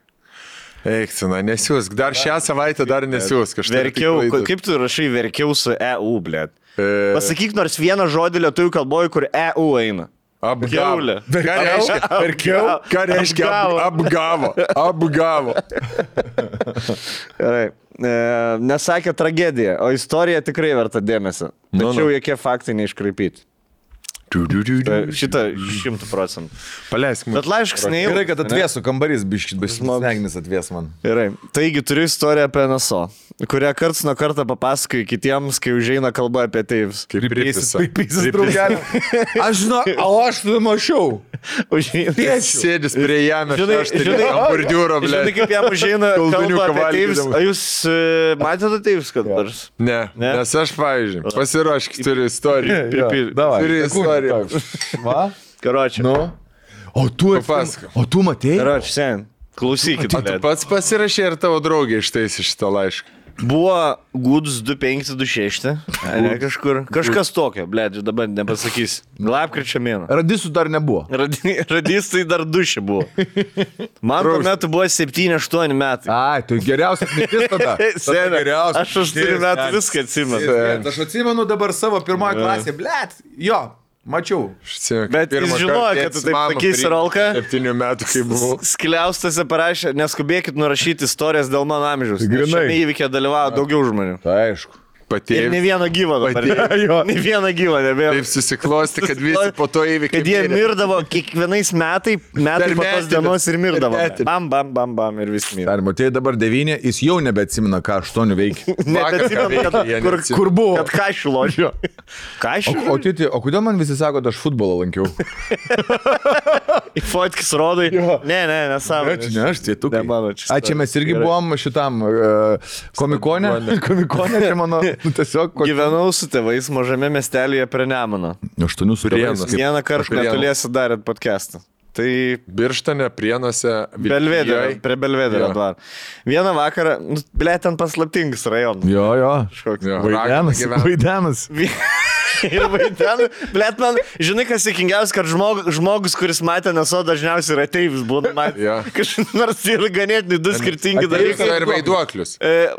S3: Eikcina, nesiūsk. Dar šią savaitę dar nesiūsk.
S1: Verkiau. Kaip tu rašai verkiau su EU, blėt? Pasakyk nors vieną žodį lietuvių kalboje, kur EU eina.
S3: Apgavo.
S1: Kiaulė.
S3: Ką reiškia apgavo? Apgavo.
S1: Gerai. Nesakė tragedija, o istorija tikrai verta dėmesio. Tačiau jokie faktai neiškraipyti. Šitą 100%.
S3: Paleisk man.
S1: Bet laiškas neįvyko.
S2: Gerai, kad atvėsų kambarys, biškit, smegenis atvės man.
S1: Gerai. Taigi turiu istoriją apie NSO, kurią karts nuo karto papasakoju kitiems, kai užeina kalba apie teivis.
S3: Kaip pripisa.
S2: Paisysis draugelį. Aš žinau, o aš tu mačiau.
S3: Sėdis prie jame,
S1: Žinai,
S3: bordiūro, ble.
S1: Žinai, kaip jam užeina
S3: Kolduniuką
S1: kalba apie teivis.
S3: valgydamas.
S1: Ar jūs matėte teivis kad nors?
S3: Ne, nes aš, pavyzdžiui, pasiruošk, turiu istoriją. Turiu istoriją.
S2: Va?
S1: Karočią.
S2: Nu. O tu
S3: Papasakok.
S2: O tu matei?
S1: Karočią, sen. Klausykit.
S3: Tu pats pasirašė ir tavo draugė ištaisė šitą laišką.
S1: Buvo gudus 2526. Ne kažkur. Kažkas tokio, blėdžiu, dabar nepasakys. Lapkričio mėno.
S2: Radisų dar nebuvo.
S1: Radistai dar dušė buvo. Man tuo metu buvo 7-8 metai.
S2: Ai, tai geriausias mintis tada.
S1: Senė, aš 8 metų viską atsimenu.
S2: Aš atsimenu dabar savo pirmoje klasėje, blėt, jo, mačiau.
S1: Bet jis žinojo, kad tu taip sakysi, Rolka.
S3: 7 metų, kai buvau.
S1: Skliaustose parašė, neskubėkit nurašyti istorijas dėl mano amžiaus. Nes
S2: Grynai.
S1: šiame įvykė dalyvavo daugiau žmonių.
S2: Tai aišku.
S1: Ir ne vieną gyvą dabar. Ne vieną gyvą nebėra.
S3: Taip susiklosti, kad visi po to įvykį.
S1: Kad jie mirdavo kiekvienais metai po tos dienos ir mirdavo. Bam, bam, bam, bam ir vis mirė.
S2: Dar matėjai dabar 9, jis jau nebeatsimena, ką 8 veikia.
S1: Kur buvo? Kad kašių ložio. Kašių?
S2: O kodėl man visi sako, kad aš futbolą lankiau?
S1: Į fotkis rodai. Ne, nesąmonė.
S2: Ne, aš tai tu.
S1: Ne mano čia.
S2: Čia mes irgi buvom šitam komikone. Komikone, čia mano. Tiesiog.
S1: Gyvenau su tėvais mažame miestelėje prie Nemuno.
S2: 8 su
S3: Prienuose.
S1: Vieną kartą netoliesi darėt podcastą. Tai
S3: Birštone, Prienuose,
S1: Belvederio, prie Belvederio dvaro. Vieną vakarą, ten paslaptingas rajonas.
S2: Jo.
S3: Vaidenas.
S2: Vaidenas.
S1: Ir vaidenu, blėt man, žinai, kas įkingiausia, kad žmogus, kuris matė NSO, dažniausiai yra ateivis, būna matė.
S3: Jo.
S1: Nors yra ganėtinai du skirtingi dalykai.
S3: Ir vaiduoklius.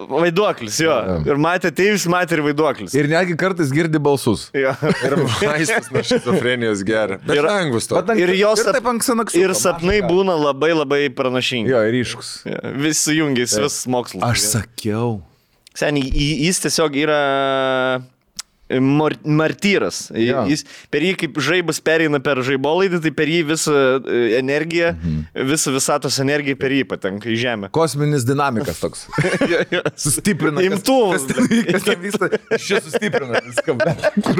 S1: Vaiduoklis, jo. Ir matė ateivis, matė ir vaiduoklis.
S2: Ir netgi kartais girdi balsus.
S1: Jo.
S3: Ir vaistus nuo šizofrenijos geria. Bet lengvus to.
S1: Ir jos
S2: taip anksanaksu.
S1: ir sapnai būna labai labai pranašingi.
S2: Jo, ir ryškus.
S1: Vis sujungęs, vis mokslas.
S2: Aš sakiau.
S1: Seniai, jis tiesiog yra martyras. Jis, per jį kaip žaibas pereina per žaibolaidį, tai per jį visą energiją, visą visatos energiją per jį patenka į žemę.
S2: Kosminis dinamikas toks. Sustiprina.
S1: Imtuvas.
S2: Kas ten vyksta? Šia sustiprina viską.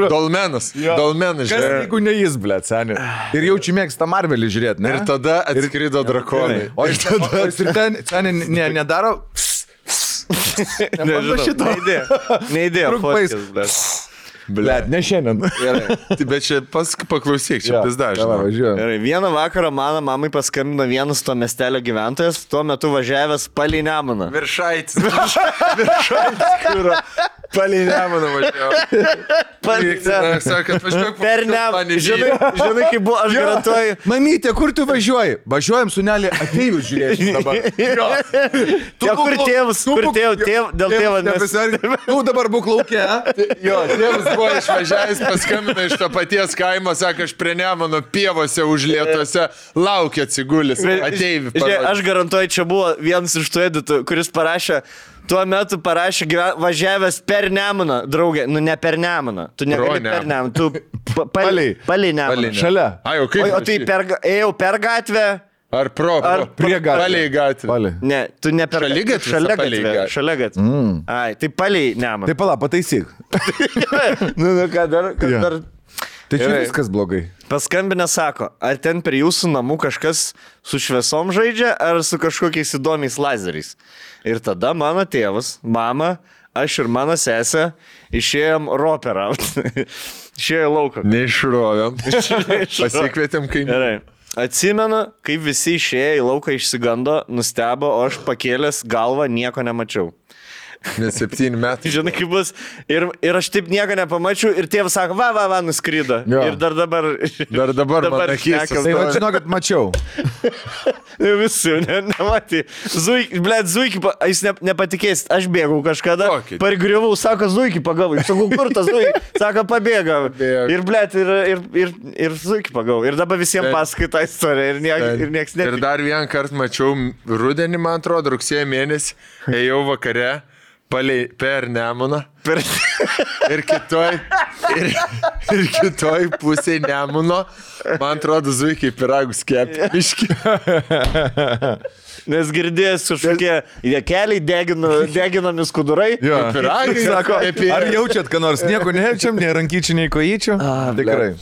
S3: Dolmenas. Dolmenas,
S2: Kas
S3: žinai.
S2: jeigu ne jis, blėt, seniai. Ir jaučiu mėgsta Marvelį žiūrėti, ne?
S3: Ir tada atskrido drakonai.
S2: O ir tada ir ten, seniai, nedaro...
S1: Neįdėjo.
S2: Blėt, ne šiandien.
S3: Bet čia paklausyk, čia vis dažnai.
S2: Važiuoju.
S1: Gerai, vieną vakarą mano mamai paskambino vienas to miestelio gyventojas, tuo metu važiavęs palei Nemuną.
S3: Viršaitis. Kur palei Nemuną važiavo. Sako, atvažiuok
S1: Per Nemuną. Žinai, kaip buvo, aš garantuoju.
S2: Mamytė, kur tu važiuoji? Važiuojam su Nelė ateivius žiūrėti dabar.
S1: Kur tėvas, dėl tėvo nes...
S2: Tu dabar būk laukia.
S3: Jo, tėvas buvo išvažiavęs, paskambino iš to paties kaimo, sako, aš prie Nemuno pievose užlietuose laukia atsigulis. Ateivi.
S1: Aš garantuoju, čia buvo vienas iš tų editų, kuris parašė, tuo metu parašė važiavęs per Nemuną, draugė, nu ne per Nemuną, tu negali per Nemuną, tu palei Nemuną.
S2: Šalia.
S3: Ai, o kaip?
S1: O tai ėjau per gatvę.
S3: Ar
S2: prie gatvės?
S3: Palei gatvę.
S1: Ne, tu ne per
S3: Šalia
S1: gatvę. Ai, tai palei Nemuną.
S2: Tai pala, pataisyk.
S1: Nu, ką dar?
S2: Tai čia viskas blogai.
S1: Paskambinę sako, ar ten prie jūsų namų kažkas su šviesom žaidžia, ar su kažkokiais įdomiais lazeriais. Ir tada mano tėvas, mama, aš ir mano sesė išėjom roperauti. Išėjo lauką.
S3: Neišrovėm. Pasikvietėm kaimynų.
S1: Gerai. Atsimenu, kaip visi išėjo į lauką išsigando, nustebo, o aš pakėlęs galvą nieko nemačiau.
S3: Net 7 metai.
S1: Žinai, kaip bus. Ir aš taip nieko nepamačiau ir tėvas sako, va, nuskrydo.
S2: Jo.
S1: Ir dar dabar
S3: man akis.
S1: šnekas.
S2: Tai va, žinokit, mačiau.
S1: Visi, nematė. Zuikį, jis nepatikėsit, aš bėgau kažkada, pargriuvau, sako, Zuikį pagavau. Sakau, kur tas Zuikį? Sako, pabėga. Ir Zuikį pagavau. Ir dabar visiems pasakai tą istoriją ir nieks netikė.
S3: Ir dar vieną kartą mačiau rudenį, man atrodo, rugsėjo mėnesį, ėjau vakare per Nemuną. Ir kitoj pusėje Nemuno, man atrodo, Zuikiai piragus kepė.
S1: Nes girdėjęs kažkokie keliai deginami skudurai.
S2: Jo.
S3: Piragai,
S2: Sako, ar jaučiat, ką nors? Nieko nejaučiam, nei rankyčių, nei kojyčių? Tikrai.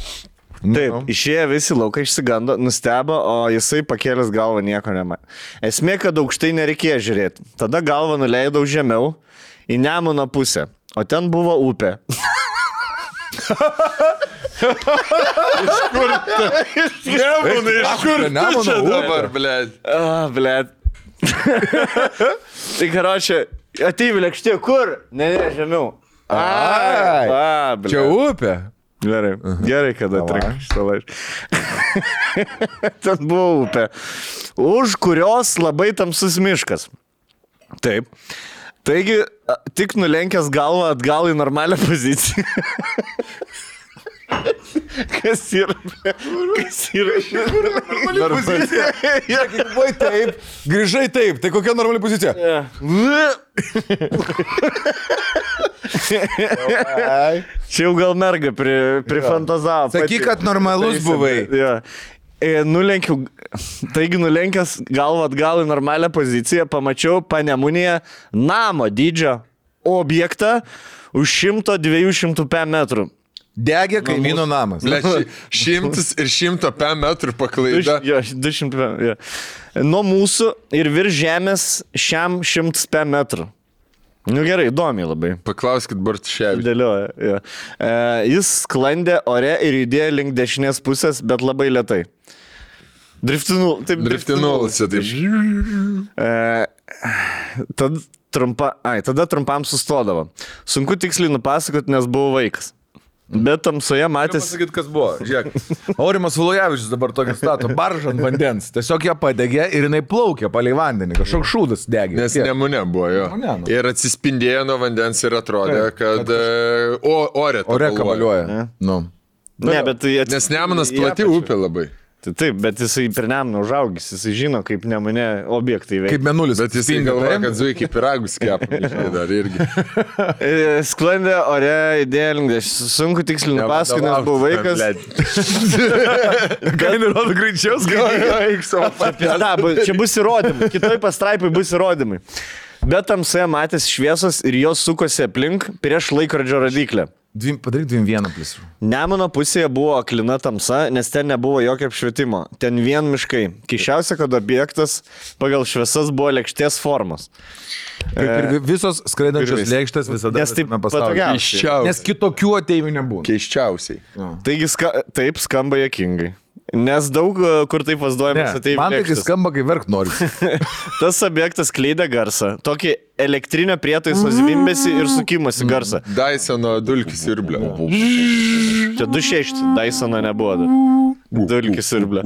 S1: Taip, išėjo visi laukai, išsigando, nustebo, o jisai pakėlęs galvą nieko nematė. Esmė, kad aukštai nereikėjo žiūrėti. Tada galvą nuleidau žemiau į Nemuno pusę, o ten buvo upė.
S3: Iš kur čia dabar, blėd?
S1: Blėd. Tai karočią, ateivių lėkštė, kur? Ne, žemiau.
S2: Čia upė.
S1: Gerai, kada atrinkai šitą laišką. Ten buvo upė, už kurios labai tamsus miškas. Taip. Taigi, tik nulenkęs galvą atgal į normalią poziciją. Kas yra?
S2: Normali pozicija. Sakai, buvai taip, grįžai taip. Tai kokia normali pozicija?
S1: Čia jau gal merga prifantazavo.
S2: Sakyk, kad normalus buvai.
S1: Taigi nulenkęs galvą atgal į normalią poziciją, pamačiau Panemunėje namo dydžio objektą už 100-200 metrų.
S2: Degė kaimyno namas.
S3: 100 ir 100 metrų paklaida.
S1: 200 nuo mūsų ir virš žemės šiam 100 metrų. Nu gerai, įdomiai labai.
S3: Paklauskit Bartuševičių.
S1: Dėlioja. Jis sklandė ore ir judėjo link dešinės pusės, bet labai lėtai.
S3: Driftinulose, taip.
S1: Tada trumpam sustodavo. Sunku tiksliai nupasakoti, nes buvau vaikas. Bet tamsoje matęs...
S2: Pasakyti, kas buvo. Žiūrėk, Aurimas Ulujavičius dabar tokia stato baržą ant vandens. Tiesiog ją padegė ir jinai plaukė palei vandenį. Kažkoks šūdas degė.
S3: Nes Nemune buvo jo. Ir atsispindėjo nuo vandens ir atrodė, kad ore
S2: kabaliuoja.
S3: Nes Nemunas plati upė labai.
S1: Taip, bet jisai per Nemuną užaugęs, jisai žino, kaip Nemune objektai veikia.
S2: Kaip Mėnulis.
S3: Bet jisai galvoja, kad Zuikiai piragus kepa, dar irgi.
S1: Sklandė ore idėja, sunku tiksliai nupasakoti, nes buvo vaikas.
S2: Ką nerodo greičiau
S1: skaitai? Čia bus įrodymai, kitoj pastraipai bus įrodymai. Bet tamsoje matęs šviesos ir jos sukosi aplink prieš laikrodžio radiklę.
S2: Padaryk 2-1 plus.
S1: Nemuno pusėje buvo aklina tamsa, nes ten nebuvo jokio apšvietimo. Ten vien miškai. Keisčiausia, kad objektas pagal šviesas buvo lėkštės formos.
S2: Kaip ir visos skraidančios lėkštės visada
S1: patogiausiai.
S2: Nes kitokių ateivių nebūna.
S3: Keisčiausiai.
S1: Taigi taip skamba juokingai. Nes daug kur taip vaizduojamas ateivių lėkštės.
S2: Man tai skamba, kai verkt nori.
S1: Tas objektas skleidė garsą. Tokį elektrinio prietaiso zvimbėsi ir sukimosi garsą.
S3: Dysono dulkių siurblio.
S1: Čia 2.6, Dysono nebuvo. Dulkių siurblio.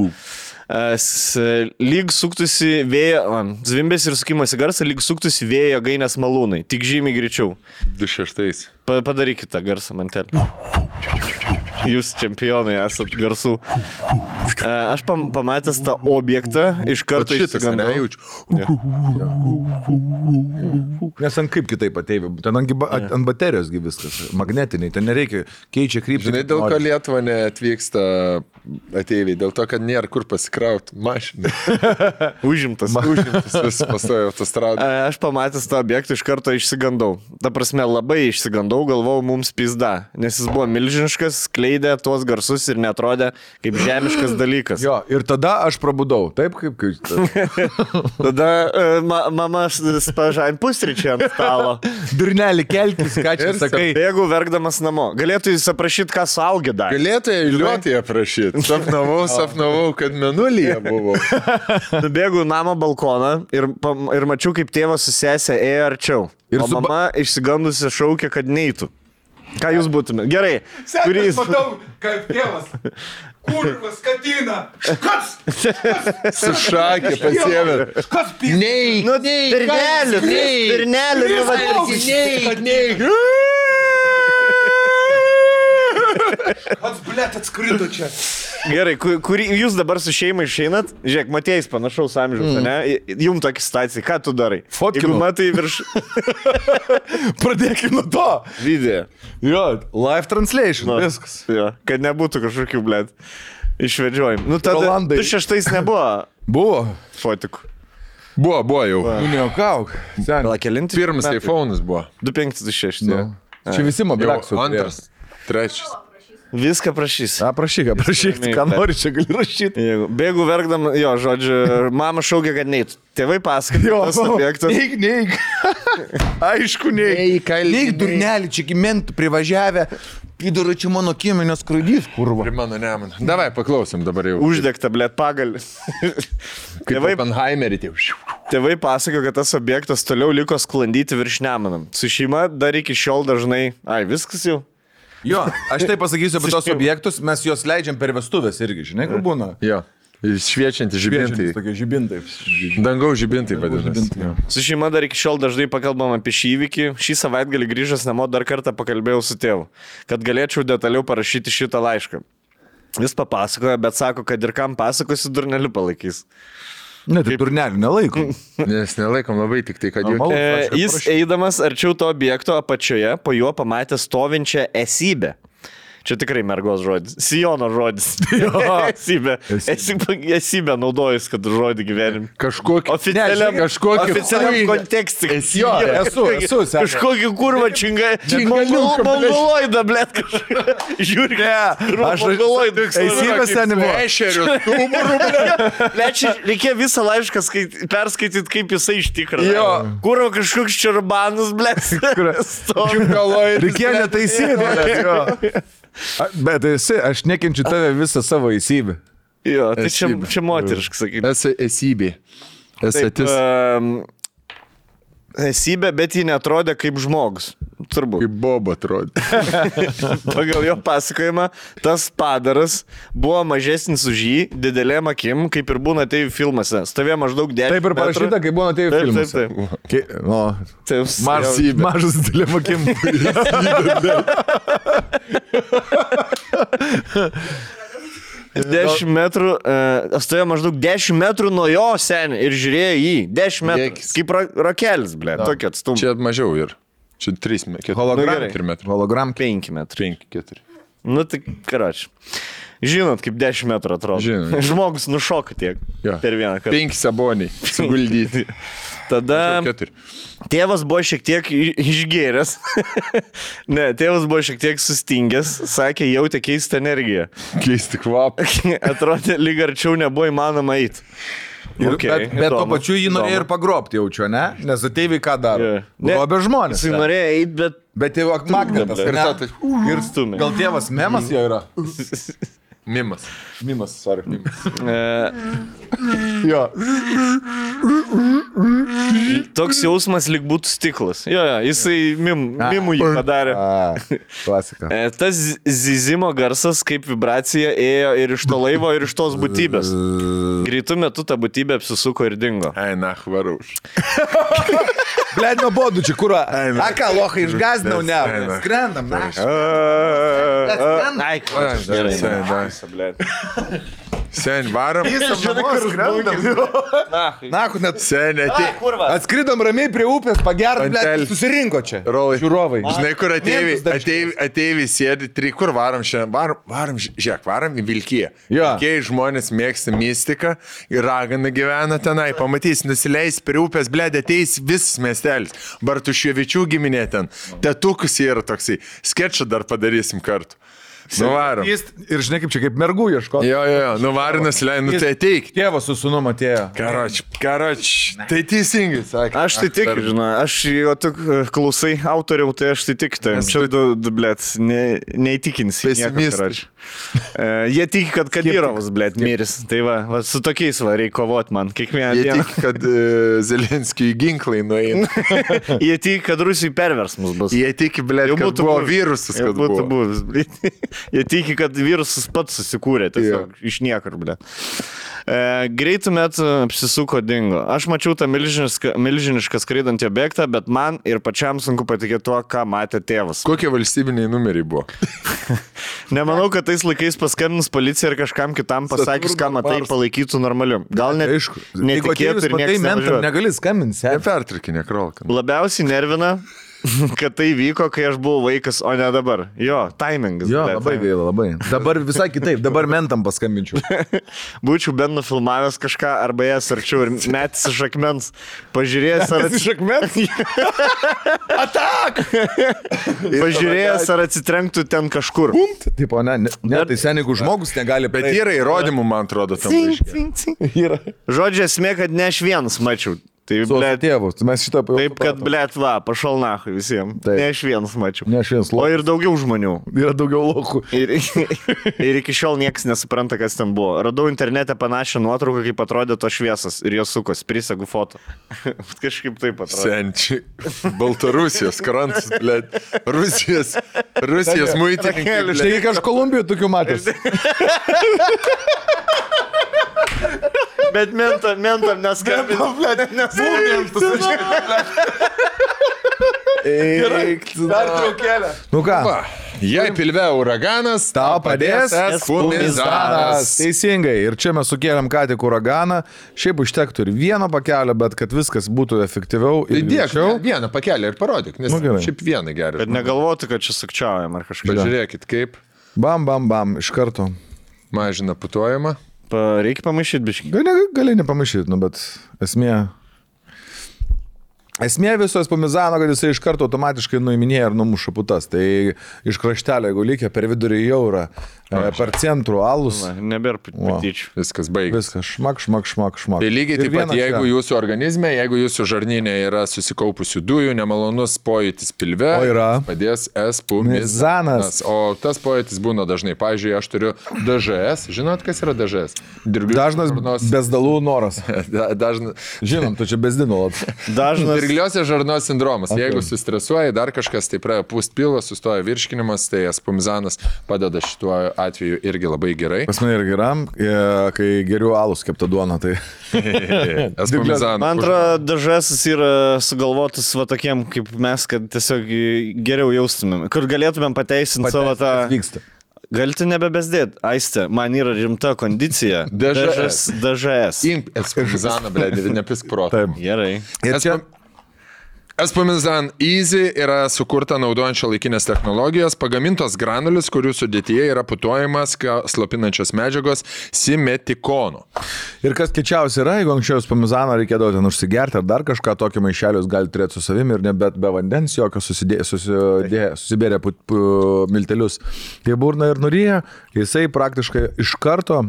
S1: Lyg suktųsi vėjo, zvimbėsi ir sukimosi garsą, lyg suktųsi vėjo gainės malūnai. Tik žymiai greičiau.
S3: 2.6.
S1: Padarykite garsą mantelį. Jūs čempionai esat garsų. Aš pamatęs tą objektą, iš karto išsigandau.
S2: Nes ant kaip kitaip ateivi, ten ant baterijosgi viskas, magnetiniai, ten nereikia, keičia kryptį.
S3: Žinai, dėl ko Lietuva neatvyksta ateiviai, dėl to, kad nėra kur pasikrauti mašiną.
S1: Užimtas.
S3: Vis pastojo autostradą.
S1: Aš pamatęs tą objektą, iš karto išsigandau. Ta prasme, labai išsigandau, galvojau, mums pizda, nes jis buvo milžiniškas, skleidė tuos garsus ir netrodė kaip žemiškas dalykas.
S2: Jo, ir tada aš prabudau, taip kaip...
S1: Tada mama spažain pusryčiai ant stalo.
S2: Durnelį kelkis, ką čia sakai.
S1: Bėgu verkdamas namo. Galėtų jis aprašyti, ką suaugė dar.
S3: Galėtų eiliuotį aprašyti. Sapnavau, kad menulyje buvo.
S1: Nubėgu namo balkoną ir mačiau, kaip tėvas su sesė ėjo arčiau. O mama išsigandusi šaukė, kad neitų. Ką jūs būtumėte? Gerai.
S2: Sekas matau, kaip tėvas. Kurvas, skatina. Škas!
S3: Su šakė pasiėmė.
S2: Škas pys.
S3: Neik,
S1: Pirnelį.
S2: Pats, blėt, atskrido čia.
S1: Gerai, jūs dabar su šeima išeinat? Žiūrėk, Matėjais panašaus amžiaus, ne? Jum tokia situacija, ką tu darai?
S2: Fotkinu.
S1: Jeigu matai virš...
S2: Pradėkime nuo to.
S1: Video.
S2: Jo, live translation, viskas.
S1: Jo, kad nebūtų kažkokių, blėt, išvedžiojimų. Nu, tada
S2: Rolandai.
S1: 2006 nebuvo
S2: Buvo.
S1: fotikų.
S3: Buvo jau.
S2: Nu, neokauk.
S1: Gal kelinti?
S3: Pirmas iPhone'as buvo.
S1: 2526.
S2: Nu. Čia visi mobiliaksų.
S3: Antras, trečias.
S1: Viską prašys.
S2: Prašyk, ką nori, čia gali rašyti.
S1: Bėgu verkdam, jo, žodžiu, mama šaukė, kad neit. Tėvai pasakojo, tas objektas.
S2: Neik. Aišku, neik. Neik, durnelį, čia gimentų privažiavę. Pidaro čia mano kiemenės skraidys, kurva.
S3: Prie mano neman. Davai, paklausim dabar jau.
S1: Uždegta, blėt, pagalį.
S3: Kaip Oppenheimerį.
S1: Tėvai pasakojo, kad tas objektas toliau liko sklandyti virš Nemuno. Su šeima dar iki šiol dažnai... Viskas jau.
S2: Jo, aš tai pasakysiu apie tos objektus, mes juos leidžiam per vestuvės irgi, žinai, kur būna.
S3: Jo, šviečianti žibintai.
S2: Tokie žibintai.
S3: Dangaus žibintai vadinasi.
S1: Su šeima dar iki šiol dažnai pakalbam apie šį įvykį. Šį savaitgalį grįžęs namo dar kartą pakalbėjau su tėvu, kad galėčiau detaliau parašyti šitą laišką. Jis papasakojo, bet sako, kad ir kam pasakosiu, durneliu palaikys.
S2: Ne, tai durneliu nelaikom.
S3: Nes nelaikom labai tik tai, kad jau...
S1: Jis eidamas arčiau to objekto apačioje, po juo pamatė stovinčią esybę. Čia tikrai mergos žodis. Sijono žodis. Esybė. Esybė naudojus, kad žodį gyvenim.
S3: Kažkokį
S1: oficialiam kontekstui.
S2: Jo, esu.
S1: Kažkokį kurvą mongoloidą, blėt, kažką. Žiūrėk.
S2: Aš mongoloidą. Esybės ten buvo.
S3: Ešerių, tumurų, blėt.
S1: Reikia visą laišką perskaityti, kaip jisai iš tikrųjų.
S3: Jo.
S1: Kurva kažkoks čerbanus, blėt.
S2: Reikėjo netaisyti. Bet esi, aš nekenčiu tave visą savo esybę.
S1: Jo, tai čia moteriškai sakyti.
S3: Esi esybė. Esatis.
S1: Esybė, bet ji netrodė kaip žmogus. Turbūt.
S3: Kaip Boba atrodė.
S1: Pagal jo pasakojimą, tas padaras buvo mažesnis už jį, didelėm akim, kaip ir būna atėjų filmuose. Stovėjo maždaug 10 metrų.
S2: Taip ir parašyta, kaip būna atėjų filmuose. Mažas didelėm akim.
S1: 10 metrų, stovėjo maždaug 10 metrų nuo jo senį ir žiūrėjo jį. 10 metrų. Kaip rakelis, blė, tokia atstumą.
S3: Čia mažiau ir. Čia 3 metrų.
S2: Hologram
S1: 5 metrų.
S3: 5-4.
S1: Nu tai, karoči. Žinot, kaip 10 metrų atrodo.
S3: Žinot.
S1: Žmogus nušoka tiek per vieną kartą.
S3: 5 saboniai suguldyti.
S1: Tada tėvas buvo šiek tiek išgėręs. Ne, tėvas buvo šiek tiek sustingęs. Sakė, jautė keistą energiją.
S3: Keisti kvapą.
S1: Atrodė, lyg arčiau nebuvo įmanoma eiti.
S2: Okay, bet tuo pačiu jį norėjo ir pagrobti, jaučiu, ne? Nes ateiviai ką daro? Grobė žmonės.
S1: Jis norėjo eiti, bet...
S2: Bet jau magnetas.
S1: Ir stumė.
S2: Gal tėvas memas jo yra?
S3: Mimas.
S2: Mimas, sorry.
S1: Jo. Toks jausmas lyg būtų stiklas. Jo, jisai mimų jį padarė.
S2: Klasika.
S1: Tas zyzimo garsas kaip vibracija ėjo ir iš to laivo, ir iš tos būtybės. Greitų metų ta būtybė apsisuko ir dingo.
S3: Eina, varauš.
S2: Blet, nuobodu čia, kur... A ką, lochai, išgazdinau, ne? Skrendam, na.
S1: Ai, gerai.
S3: Sen, varom.
S2: Nahu, net...
S3: Sen,
S2: Atskridom ramiai prie upės, pagert, blet, susirinko čia. Žiūrovai.
S3: Žinai, kur ateivi sėdi, kur varom šiandien? Varom, žiūrėk, varom į Vilkiją. Vilkiai žmonės mėgsta mistiką ir ragana gyvena tenai. Pamatys, nusileis prie upės, bled, ateis visas miestelis. Bartuševičių giminė ten. Tetukus yra toksai. Skečą dar padarysim kartu. Nuvarom.
S2: Ir žinai, kaip čia, kaip mergų ieško.
S3: Jo, nuvarom, nusileidom, tai ateik.
S2: Tėvas su sūnum atėjo.
S3: Karoč, tai teisingai, sakė.
S1: Aš tai tik, žinai, aš jo tik klausai autoriau, tai aš tai tik, tai čia blėt, neįtikinsi.
S3: Pesimistai.
S1: Jie tiki, kad Kadyrovas, blėt, miris. Tai va, su tokiais va, reikia kovoti man kiekvieną dieną.
S3: Jie tiki, kad Zelenskijui ginklai nueina.
S1: Jie tiki, kad Rusijai perversmus bus.
S3: Jie tiki, blėt, kad buvo virusas, kad
S1: būtų buvęs, blėt. Jie tiki, kad virusas pats susikūrė, tiesiog iš niekur, blėt. Greitų metų apsisuko dingo. Aš mačiau tą milžinišką skraidantį objektą, bet man ir pačiam sunku patikėti tuo, ką matė tėvas.
S3: Kokie valstybiniai numeriai buvo?
S1: Nemanau, kad tais laikais paskambinus policija ir kažkam kitam pasakius, ką matai, palaikytų normaliu. Gal net netikėtų ir niekas nevažiuotų.
S2: Negali skambinti.
S3: Nepertrikinė krolka.
S1: Labiausiai nervina, kad tai vyko, kai aš buvau vaikas, o ne dabar. Jo, timingas.
S2: Jo, labai gaila, labai. Dabar visai kitaip, dabar mentam paskambinčiau.
S1: Būčiau bent nufilmavęs kažką, arba jas arčiau ir metis iš akmens. Pažiūrėjęs, ar...
S2: Iš akmens? Atak!
S1: Pažiūrėjęs, ar atsitrenktų ten kažkur.
S2: Tipo, ne, tai sen, jeigu žmogus negali...
S3: Bet yra įrodymų, man atrodo, tam
S1: laiške. Žodžiu, esmė, kad ne aš vienas mačiau. Tai,
S2: blėt, tėvus, mes šitą...
S1: Taip, kad, blėt, va, pašal nachai visiems.
S2: Taip.
S1: Ne aš vienas mačiau.
S2: Ne aš vienas lochų.
S1: O ir daugiau žmonių.
S2: Yra daugiau lochų.
S1: Ir iki šiol niekas nesupranta, kas ten buvo. Radau internete panašią nuotrauką, kaip atrodė to šviesas. Ir jos sukos, prisegu foto. Kažkaip taip atrodė.
S3: Senčiai. Baltarusijos krantas, blėt. Rusijos muitininkai.
S2: Štai aš Kolumbijoje tokių matęs.
S1: Bet mentam neskambinam, blėt,
S2: Dar traukėlę. Nu ką?
S3: Jei pilve uraganas,
S2: Tau padės
S3: espumizanas.
S2: Teisingai. Ir čia mes sukėlėm ką tik uraganą. Šiaip užtektų ir vieno pakelio, bet kad viskas būtų efektyviau ir greičiau.
S3: Vieną pakelį ir parodyk, nes šiaip vieną gerai.
S1: Bet negalvotų, kad čia sukčiaujam ar kažką.
S3: Pažiūrėkit kaip.
S2: Bam, iš karto.
S3: Mažina putojimą.
S1: Reikia pamaišyti biškį.
S2: Gali nepamaišyti, nu, bet Esmė viso espumizano, kad jisai iš karto automatiškai nuiminėja ir numuša putas. Tai iš kraštelio, jeigu lygia per vidurį jaurą, per centrų alus.
S1: Nebėra patyčių.
S3: Viskas baigės.
S2: Viskas šmak.
S3: Tai lygiai taip pat, jeigu jūsų organizme, jeigu jūsų žarnyne yra susikaupusių dujų, nemalonus pojūtis pilve, padės espumizanas. O tas pojūtis būna dažnai. Pavyzdžiui, aš turiu DŽS. Žinot, kas yra DŽS?
S2: Dažnas bezdalų noras. Žinom, tu čia bezdinolat.
S1: Dažnas
S3: dirgliosios žarnos sindromas. Okay. Jeigu sustresuoji, dar kažkas, tai pradeda pūst pilvą, sustoja virškinimas, tai espumizanas padeda šituo atveju irgi labai gerai.
S2: Pas mane ir geram, kai geriu alus keptą duoną, tai...
S3: espumizanas.
S1: Man atrodo, DŽS yra sugalvotas va tokiem kaip mes, kad tiesiog geriau jaustumėm, kur galėtumėm pateisinti savo tą...
S2: Vyksta.
S1: Galite nebebezdėti, Aiste, man yra rimta kondicija. DŽS.
S3: Imp espumizaną, blėdį, nepisk protą.
S1: Gerai.
S3: Ir čia... Espumizan Easy yra sukurta naudojant šiuolaikinės technologijas, pagamintos granulis, kurių sudėtyje yra putojimas slopinančios medžiagos simetikono.
S2: Ir kas kečiausia yra, jeigu anksčiau espumizaną reikėdavo ten užsigerti ar dar kažką, tokį maišelius gali turėti su savimi ir nebet be vandens jokio susibėrė miltelius. Tai burna ir nuryja, jisai praktiškai iš karto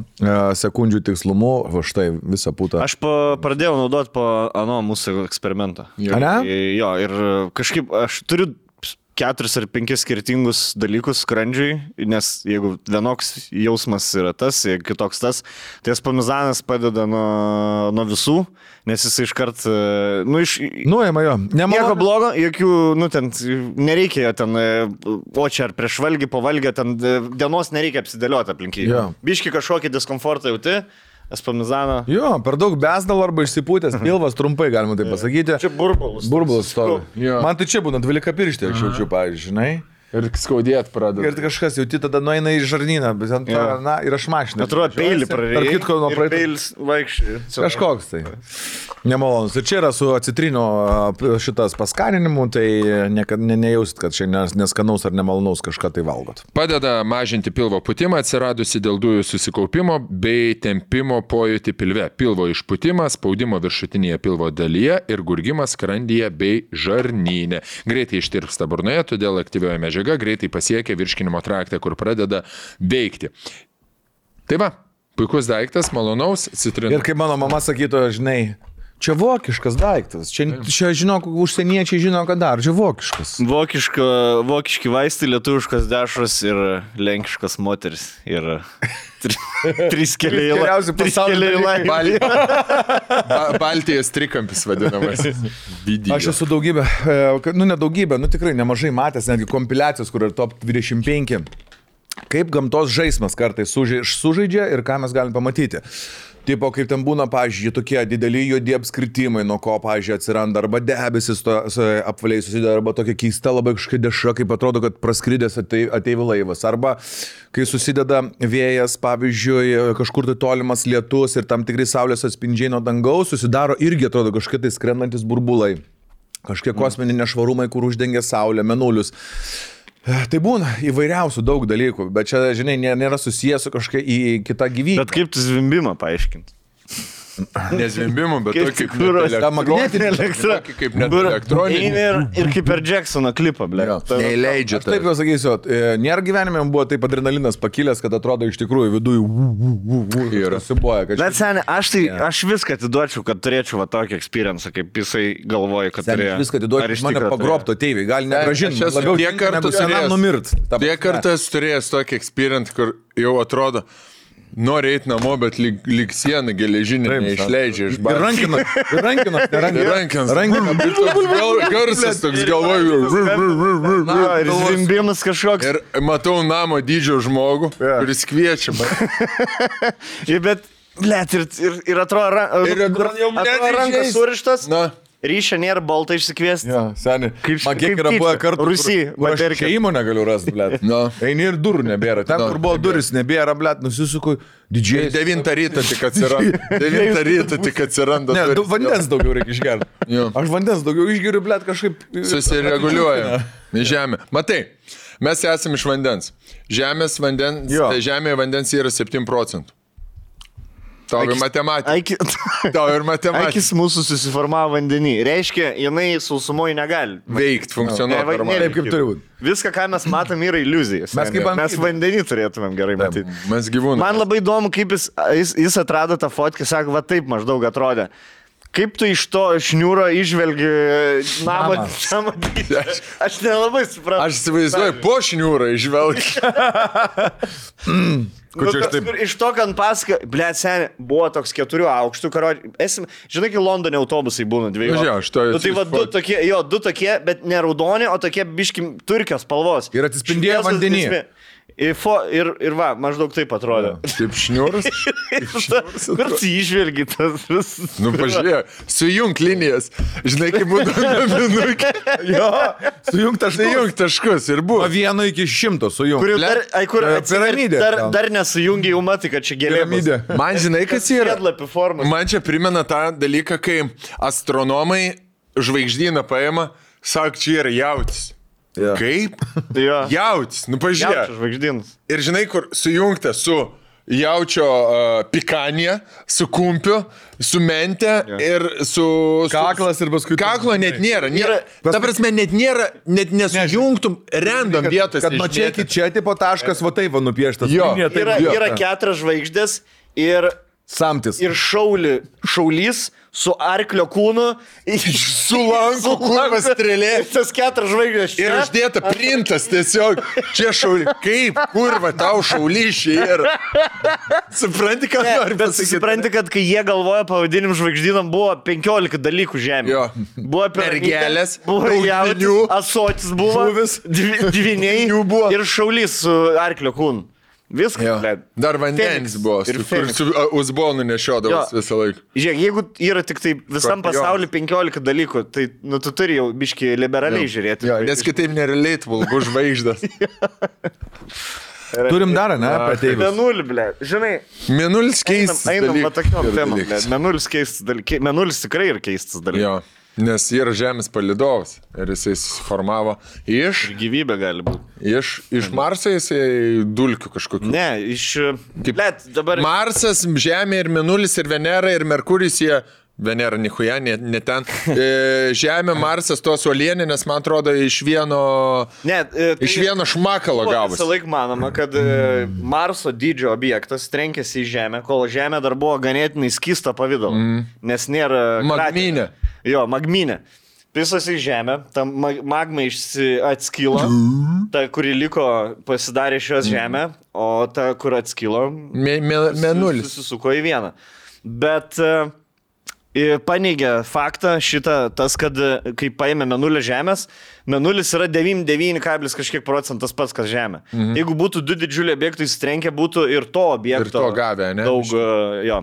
S2: sekundžių tikslumu, va štai visą putą.
S1: Aš pradėjau naudoti po mūsų eksperimento.
S2: A ne?
S1: Jo, ir kažkaip aš turiu 4 ar 5 skirtingus dalykus skrandžiui, nes jeigu vienoks jausmas yra tas, kitoks tas, tai spamizanas padeda nuo visų, nes jis iškart,
S2: Nuėma jo.
S1: Nieko blogo, jokių, ten nereikia ten, o čia ar prieš valgį, po valgį, ten dienos nereikia apsidėlioti aplinkiai.
S2: Jo.
S1: Biški kažkokį diskomfortą jauti. Spamizaną.
S2: Jo, per daug besdalo arba išsipūtęs pilvas, trumpai galima tai pasakyti.
S1: Čia burbulas.
S2: Burbulas stovi.
S3: Jo.
S2: Man tai čia būna 12 pirštė, aš jaučiu, pavyzdžiui, žinai.
S3: Ir skaudėt pradeda.
S2: Ir kažkas jauti tada nueina į žarnyną, bet ant to, ir aš mašiną.
S1: Atrodo, peilį prarėjai.
S2: Tarp kitko, nuo praeito.
S1: Peilis vaikščiai.
S2: Kažkoks tai. Nemalonus. Ir čia yra su acitrino šitas paskaninimu, tai nejausit, kad čia neskanaus ar nemalonaus kažką tai valgot.
S3: Padeda mažinti pilvo pūtimą, atsiradusi dėl dujų susikaupimo bei tempimo pojūtį pilve. Pilvo išpūtimas, spaudimo viršutinėje pilvo dalyje ir gurgimas skrandyje bei žarnyne. Greitai ištirpsta burnoje, todėl aktyvioji medžiaga greitai pasiekia virškinimo traktą, kur pradeda veikti. Tai va, puikus daiktas, malonaus, citrinos.
S2: Ir kaip mano mama sakytų, žinai, čia vokiškas daiktas, čia žinok, užsieniečiai žino, ką dar, čia vokiškas.
S1: Vokiški vaistai, lietuviškas dešros ir lenkiškas moteris. Ir 3 keliai laimė.
S3: Baltijos trikampis vadinamas.
S2: Aš esu daugybę, tikrai nemažai matęs, netgi kompiliacijos, kur yra top 25. Kaip gamtos žaismas kartais sužaidžia ir ką mes galim pamatyti. Tipo, kaip ten būna, pavyzdžiui, tokie dideli juodi apskritimai, nuo ko, pavyzdžiui, atsiranda arba debesis apvaliai susideda, arba tokia keista labai kažkokia deša, kaip atrodo, kad praskridęs ateivi laivas, arba kai susideda vėjas, pavyzdžiui, kažkur tai tolimas lietus ir tam tikrai saulės atspindžiai nuo dangaus, susidaro irgi atrodo kažkokie tai skrendantis burbulai, kažkokie kosminiai nešvarumai, kur uždengia saulę, mėnulius. Tai būna įvairiausių daug dalykų, bet čia, žinai, nėra susijęs su kažkokia į kitą gyvybę.
S1: Bet kaip tu zvimbimą paaiškinti?
S3: Nezvimbimų, bet
S1: Kaip
S3: tokį
S1: kuros,
S2: ta magnetinė
S1: elektra.
S3: kaip net elektroninį.
S1: Ir kaip per Jacksono klipą, ble.
S3: Neįleidžia
S2: Taip jau sakysiu, nėra gyvenime buvo taip adrenalinas pakilęs, kad atrodo iš tikrųjų viduje ir susiboja.
S1: Bet seniai, aš viską atiduočiau, kad turėčiau va tokį experience, kaip jisai galvoja, kad turėjo.
S2: Viską atiduočiau, mane pagrobto tėvai, gali negražinti. Labiau
S3: tiek kartų
S2: senam numirt.
S3: Tiek kartas turėjęs tokį experience, kur jau atrodo, nori eiti namo, bet lyg sieną geležinį neišleidžia iš
S2: Ir rankinas.
S3: Rankinas. Ir toks garsas, toks galvoju.
S1: Ir zvimbimas kažkoks.
S3: Ir matau namo dydžio žmogų, kuris kviečia.
S1: Bet, blėt, ir atrodo rankas surištas. Ryšio nėra, baltą išsikviesti.
S2: Jo, seniai. Man kiek yra buvę kartų, kur aš čia įmonę galiu rasti, blėt. Eini ir durų nebėra. Ten, kur buvo duris, nebėra, blėt, nusisuku didžiai.
S3: 9 ryto tik atsiranda. 9 ryto tik atsiranda.
S2: Ne, vandens daugiau reikia išgerti. Aš vandens daugiau išgeriu, blėt, kažkaip.
S3: Susireguliuoja. Žemė. Matai, mes esame iš vandens. Žemėje vandens yra 7%. Tau ir matematika.
S1: Akis mūsų susiformavo vandenį. Reiškia, jinai sausumoje negali
S3: veikti, funkcionuoti.
S2: Taip, kaip turi būti.
S1: Viską, ką mes matom, yra iliuzijas. Mes vandenį turėtumėm gerai matyti.
S3: Mes gyvūnai.
S1: Man labai įdomu, kaip jis atrado tą fotkę, sako, va taip maždaug atrodė. Kaip tu iš to šniūro išvelgi namą dydį? Aš nelabai suprantu.
S3: Aš įsivaizduoju, po šniūrą išvelgi.
S1: Iš to, kad pasaka, blėt, seniai, buvo toks 4 aukštų karodžių. Žinai, kai Londone autobusai būna 2. Tai va, 2 tokie, bet ne raudoni, o tokie biški turkios spalvos.
S2: Ir atsispindėjo vandenyje.
S1: Ir va, maždaug taip atrodė.
S3: Taip šniūras.
S1: Kur tu išvelgi tas vis?
S3: Nu, pažiūrėjau, sujung linijas. Žinai, kaip būtų naminukė.
S2: Jo, sujung
S3: taškus ir buvo.
S2: Nuo 1 iki 100 sujung.
S1: Kur
S2: piramidė.
S1: Dar nesujungi jau matai, kad čia gėlėmis.
S3: Man žinai, kas yra?
S1: Sėdlapių formas.
S3: Man čia primena tą dalyką, kai astronomai žvaigždyną paima, sako, čia yra jautis.
S2: Ja.
S3: Kaip? Jautis, nu pažiūrėk.
S1: Žvaigždynas.
S3: Ir žinai, kur sujungta su jaučio pikanija, su kumpiu, su mente ir su...
S2: Kaklas ir paskui...
S3: Kaklo net nėra. Ta prasme, net nėra, net nesujungtum random vietos.
S2: Kad nuo čia iki čia tipo taškas, va taip va nupieštas.
S1: Yra 4 žvaigždės ir
S2: Samtis.
S1: ir šaulys su arklio kūnu.
S3: Su lanku, kurva strėlė.
S1: Tas 4 žvaigždės čia.
S3: Ir uždėta printas tiesiog. Čia šaulys. Kaip, kurva, tau šaulyšiai ir... Supranti, ką nori
S1: Bet
S3: pasakyti?
S1: supranti, kad kai jie galvoja pavadinim žvaigždynam, buvo 15 dalykų žemė.
S3: Jo.
S1: Buvo
S3: Mergelės,
S1: buvo
S3: daug
S1: jautis,
S3: dvynių,
S1: asotis buvo,
S3: žuvis,
S1: dviniai
S3: dvynių buvo.
S1: ir šaulys su arklio kūnu. Viskas,
S3: Jo.
S1: ble.
S3: Dar vandenis
S1: Feniks.
S3: buvo,
S1: Ir
S3: kur
S1: Feniks.
S3: su uzbonu nešiodavas
S1: Jo.
S3: visą laiką.
S1: Žiūrėk, jeigu yra tik tai visam
S3: Skorpionas.
S1: pasauliu 15 dalykų, tai nu, tu turi jau biški liberaliai žiūrėti.
S3: Jo, nes kitaip nerelatable, bus žvaigždas.
S2: Turim dar, ne, apie ateivius.
S1: Menulį, ble. Žinai,
S3: Mėnulis keistas
S1: einam va tokiom
S3: Ir
S1: temom, ble.
S3: dalykas.
S1: Menulis keistas dalykas. Menulis tikrai yra keistas dalykas.
S3: Jo, nes yra Žemės palidovas ir jisai susiformavo iš
S1: Gyvybė gali būti.
S3: Iš Marso jisai dulkių kažkokių.
S1: Ne, ble, dabar...
S3: Marsas, Žemė ir Mėnulis ir Venera ir Merkuris jie... Venera, nichuja, ne ten. Žemė, Marsas, tos uolieninės, man atrodo, iš vieno šmakalo gavosi.
S1: Visą laiką manoma, kad Marso dydžio objektas trenkėsi į Žemę, kol Žemė dar buvo ganėtinai skysta pavidalo. Nes nėra...
S3: Magminė.
S1: Jo, magminė. Visas į Žemę, ta magma atskilo, ta, kuri liko, pasidarė šios Žemę, o ta, kur atskilo,
S3: Mėnulis.
S1: susisuko į vieną. Bet... paneigia faktą šitą, tas, kad kai paėmė Mėnulio Žemės, Mėnulis yra 99, kažkiek procentas pats, kas Žemė. Jeigu būtų 2 didžiuliai objektai įsitrenkę, būtų ir to objekto.
S3: Ir to gavę, ne?
S1: Daug, jo,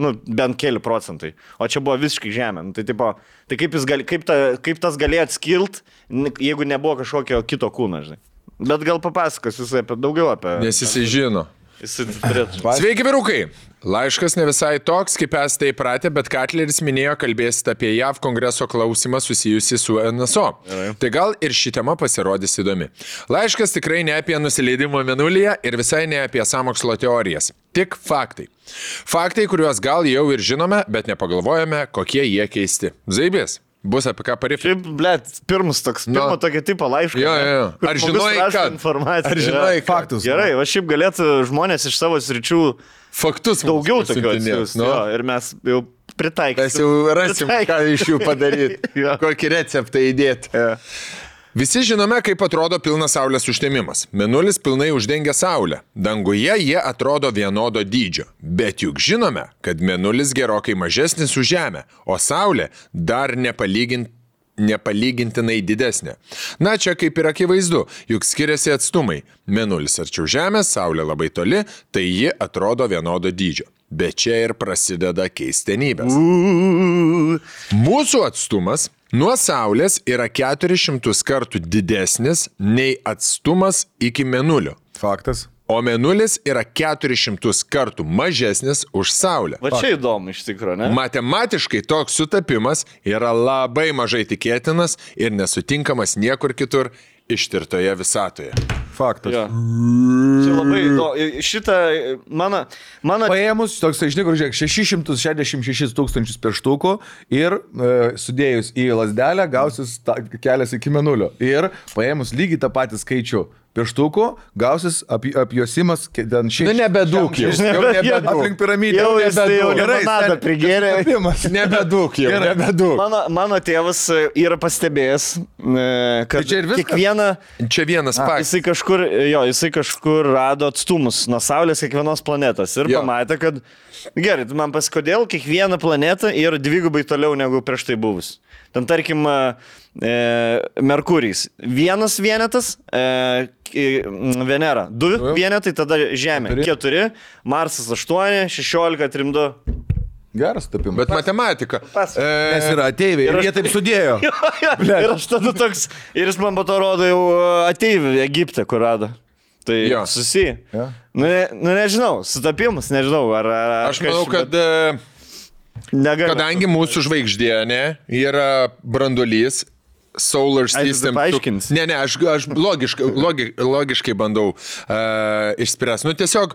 S1: nu, bent keli procentai. O čia buvo visiškai Žemė. Nu, tai kaip tas galėjo atskilt, jeigu nebuvo kažkokio kito kūno, žinai. Bet gal papasakos jisai daugiau apie...
S3: Nes jisai žino. Sveiki, vyrukai! Laiškas ne visai toks, kaip esate įpratę, bet Katleris minėjo kalbėsite apie JAV kongreso klausimą susijusi su NSO. Tai gal ir ši tema pasirodys įdomi. Laiškas tikrai ne apie nusileidimą Mėnulyje ir visai ne apie sąmokslo teorijas. Tik faktai. Faktai, kuriuos gal jau ir žinome, bet nepagalvojame, kokie jie keisti. Zaibės. Bus apie ką parifti.
S1: Šiaip, blėt, pirmo tokio tipo laišką.
S3: Jo. Ar žinojai, kad?
S1: Ar
S3: žinojai
S2: faktus?
S1: Gerai, va šiaip galėtų žmonės iš savo sričių
S3: faktus
S1: daugiau tokių atsiųsti.
S3: No?
S1: Ir mes jau pritaikysim.
S3: Mes jau rasim, ką iš jų padaryti. Kokį receptą įdėti. Visi žinome, kaip atrodo pilnas Saulės užtemimas. Mėnulis pilnai uždengia Saulę. Danguje jie atrodo vienodo dydžio. Bet juk žinome, kad Mėnulis gerokai mažesnis už Žemę, o Saulė dar nepalygintinai didesnė. Na, čia kaip ir akivaizdu, juk skiriasi atstumai. Mėnulis arčiau Žemės, Saulė labai toli, tai ji atrodo vienodo dydžio. Bet čia ir prasideda keistenybės. Mūsų atstumas nuo Saulės yra 400 kartų didesnis nei atstumas iki Mėnulio.
S2: Faktas.
S3: O Mėnulis yra 400 kartų mažesnis už Saulę.
S1: Va čia įdomu iš tikrųjų, ne?
S3: Matematiškai toks sutapimas yra labai mažai tikėtinas ir nesutinkamas niekur kitur ištirtoje visatoje.
S2: Faktas.
S1: Jo. Čia labai įdomu. Šitą mano...
S2: Paėmus, toks, iš tikrųjų, žiūrėk, 666 tūkstančius pieštukų ir sudėjus į lasdelę gausis kelias iki Mėnulio. Ir paėmus lygiai tą patį skaičių pieštukų, gausis apjosimas ten šiek tiek.
S3: Nu, nebedūk jau.
S2: Aplink piramidę.
S1: Jau limonadą prigėrė.
S3: Nebedūk jau. Nebedūk.
S1: Mano tėvas yra pastebėjęs, kad
S2: čia ir viskas?
S1: kiekvieną...
S3: Čia vienas faktas.
S1: Jisai kažkur rado atstumus nuo Saulės kiekvienos planetos ir pamatė, kad gerai, tu man pasikodėl, kiekviena planeta yra dvigubai toliau negu prieš tai buvus. Ten tarkim Merkurijs. Vienas vienetas, Venera. 2 vienetai, tada Žemė. 4, Marsas 8, 16, 3, 2.
S2: Geras tapimas.
S3: Bet matematika.
S2: Nes yra ateiviai ir jie taip sudėjo.
S1: Ir aš tada toks, ir jis man po to rodo jau ateivių Egipte, kur rado. Tai susiję. Nu, nežinau, sutapimas, nežinau.
S3: Aš manau, kad kadangi mūsų žvaigždė yra branduolys, Solar System. Ne, aš logiškai bandau išspręsti. Nu, tiesiog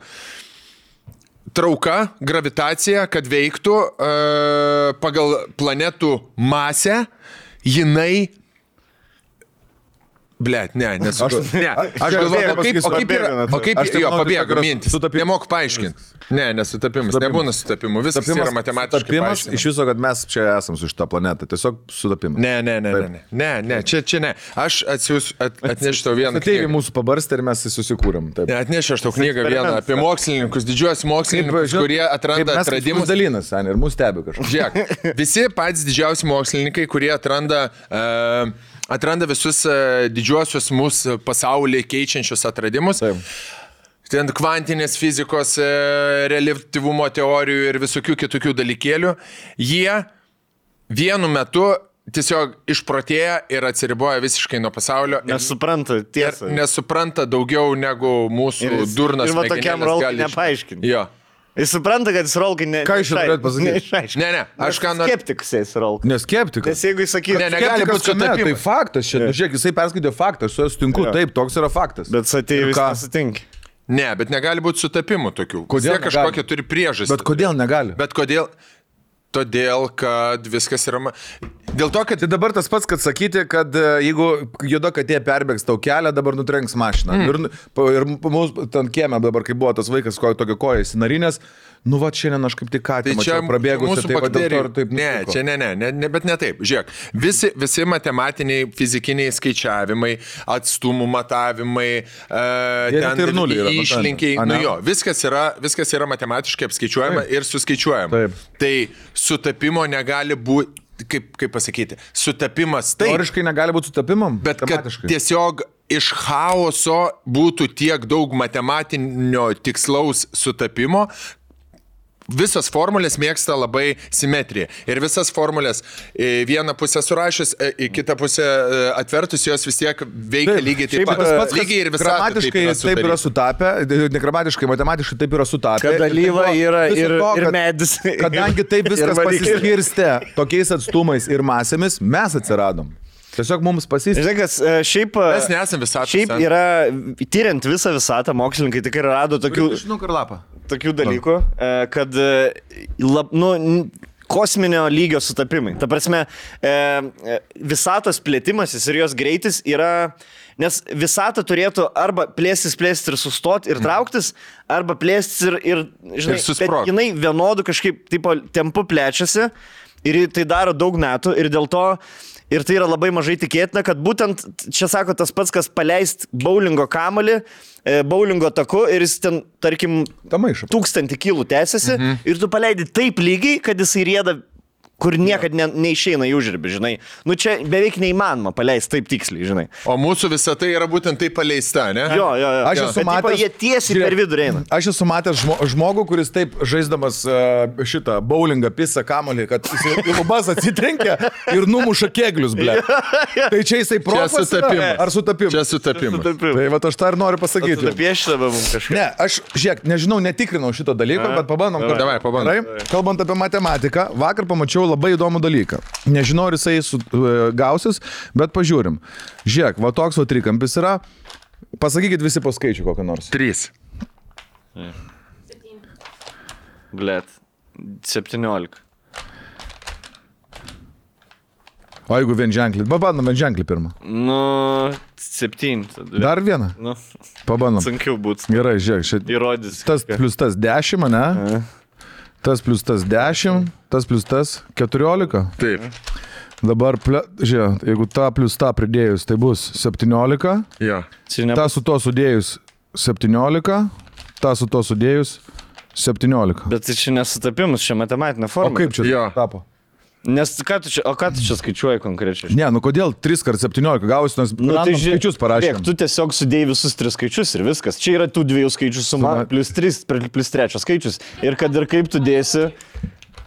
S3: trauka, gravitacija, kad veiktų pagal planetų masę, jinai Blet, ne, aš galvoju, kaip jo, pabėgo mintis. Nemok paaiškinti. Ne, nesutapimas. Nebūna sutapimų. Viskas yra matematiškai.
S2: Sutapimas iš viso, kad mes čia esam su šitą planetą. Tiesiog sutapimas.
S3: Ne, čia ne. Aš atnešiu tau vieną knygą.
S2: Tėvį mūsų pabarstė ir mes susikūrėm.
S3: Atnešiu aš tau knygą vieną apie mokslininkus, didžiuosius mokslininkus, kurie atranda atradimus.
S2: Dalinas, ir mūsų stebi kažkas.
S3: Žiūrėk, visi patys didžiausi mokslininkai, kurie atranda visus didžiuosius mūsų pasaulį keičiančius atradimus.
S2: Taip.
S3: Ten kvantinės fizikos, reliatyvumo teorijų ir visokių kitokių dalykėlių. Jie vienu metu tiesiog išprotėja ir atsiriboja visiškai nuo pasaulio.
S1: Nesupranta tiesą.
S3: Nesupranta daugiau negu mūsų durnas.
S1: Ir va tokiam rolkai nepaaiškinti.
S3: Jo.
S1: Jis supranta, kad jis rolkai
S2: Ką iš turėt pasakyti?
S3: Ne, aš ką noriu.
S1: Skeptikus jis rolkai.
S2: Neskeptikas.
S1: Nes jeigu jis sakytų,
S3: negali būti sutapimų.
S2: Tai faktas, žiūrėk, jisai perskaitė faktą, aš su juo sutinku, taip, toks yra faktas.
S1: bet ateivis nesutinka.
S3: Ne, bet negali būti sutapimų tokių.
S2: Kodėl
S3: kažkokia turi priežastį.
S2: Bet kodėl negali?
S3: Bet kodėl? Todėl, kad viskas yra... Dėl to, kad...
S2: Tai dabar tas pats, kad sakyti, kad jeigu juoda katė perbėgs tau kelią, dabar nutrenks mašiną. Ir mūsų ten kieme dabar, kai buvo tas vaikas, tokio koja įsinarinės, nu va, šiandien aš kaip tik ką tik mačiau prabėgusi, tai va dėl to ir taip nutiko.
S3: Ne, bet ne taip. Žiūrėk, visi matematiniai, fizikiniai skaičiavimai, atstumų matavimai, išlinkiai, viskas yra matematiškai apskaičiuojama ir suskaičiuojama.
S2: Taip.
S3: Tai sutapimo negali būti, kaip pasakyti, sutapimas taip.
S2: Teoriškai negali būti sutapimam?
S3: Bet kad tiesiog iš chaoso būtų tiek daug matematinio tikslaus sutapimo, visas formulės mėgsta labai simetriją. Ir visas formulės vieną pusę surašęs, į kitą pusę atvertus, jos vis tiek veikia lygiai taip pat. Lygiai ir visą.
S2: Gramatiškai taip yra sutapę, negramatiškai, matematiškai taip yra sutapę.
S1: Kad dalyva yra ir medis.
S2: Kadangi taip viskas pasiskirstė tokiais atstumais ir masėmis, mes atsiradom. Tiesiog mums pasisės.
S1: Žinai, šiaip...
S3: Mes nesam visatą.
S1: Šiaip yra, tyriant visą visatą, mokslininkai tikrai rado tokių dalykų, kad kosminio lygio sutapimai. Ta prasme, visatos plėtimasis ir jos greitis yra... Nes visata turėtų arba plėstis ir sustoti ir trauktis, arba plėstis ir žinai, bet jinai vienodų kažkaip tempu plečiasi ir tai daro daug metų ir dėl to... Ir tai yra labai mažai tikėtina, kad būtent, čia sako tas pats, kas paleist bowlingo kamuolį, bowlingo taku ir jis ten, tarkim, 1000 kilų tęsiasi ir tu paleidi taip lygiai, kad jisai rieda, kur niekad neišeina į užribį, žinai. Nu čia beveik neįmanoma paleisti taip tiksliai, žinai.
S3: O mūsų visa tai yra būtent taip paleista, ne?
S1: Jo.
S2: Aš esu matęs,
S1: jie tiesiai per vidurį eina.
S2: Aš esu matęs žmogų, kuris taip žaisdamas šitą bowlingą pisą kamuolį, kad jis į lubas atsitrenkia ir numuša keglius, ble. Tai čia jisai profas ar sutapimas?
S3: Čia sutapimas.
S2: Tai va aš tą ir noriu pasakyti.
S1: Sutapiešta be mums kažkaip.
S2: Ne, aš, žiūrėk, nežinau, netikrinau šito dalyko, bet pabandom.
S3: Davai, pabandom.
S2: Kalbant apie matematiką, vakar pamačiau labai įdomų dalyką. Nežinau, ar jisai gausis, bet pažiūrim. Žiūrėk, va toks va trikampis yra. Pasakykit visi po skaičių kokį nors.
S3: 3.
S1: Blet. 17.
S2: O jeigu vienženklį? Pabandom vienženklį pirmą.
S1: Nu, 7.
S2: Dar vieną?
S1: Nu,
S2: pabandom.
S1: sunkiau būtų.
S2: Gerai, žiūrėk.
S1: Įrodys.
S2: Tas plus tas 10, ne? Tas plus tas 10, tas plus tas 14.
S3: Taip.
S2: Dabar, žiūrėk, jeigu tą plus tą pridėjus, tai bus 17.
S3: Jo.
S2: Ta su to sudėjus 17. Ta su to sudėjus 17.
S1: Bet tai čia nesutapimus, čia matematinė forma.
S2: O kaip čia tapo?
S1: Nes ką tu čia skaičiuoji konkrečiai?
S2: Ne, nu kodėl 3 × 17 gausi, nes tai skaičius parašėm.
S1: Tu tiesiog sudėjai visus 3 skaičius ir viskas. Čia yra tų 2 skaičių suma, plus 3, plus 3 skaičius. Ir kad ir kaip tu dėsi...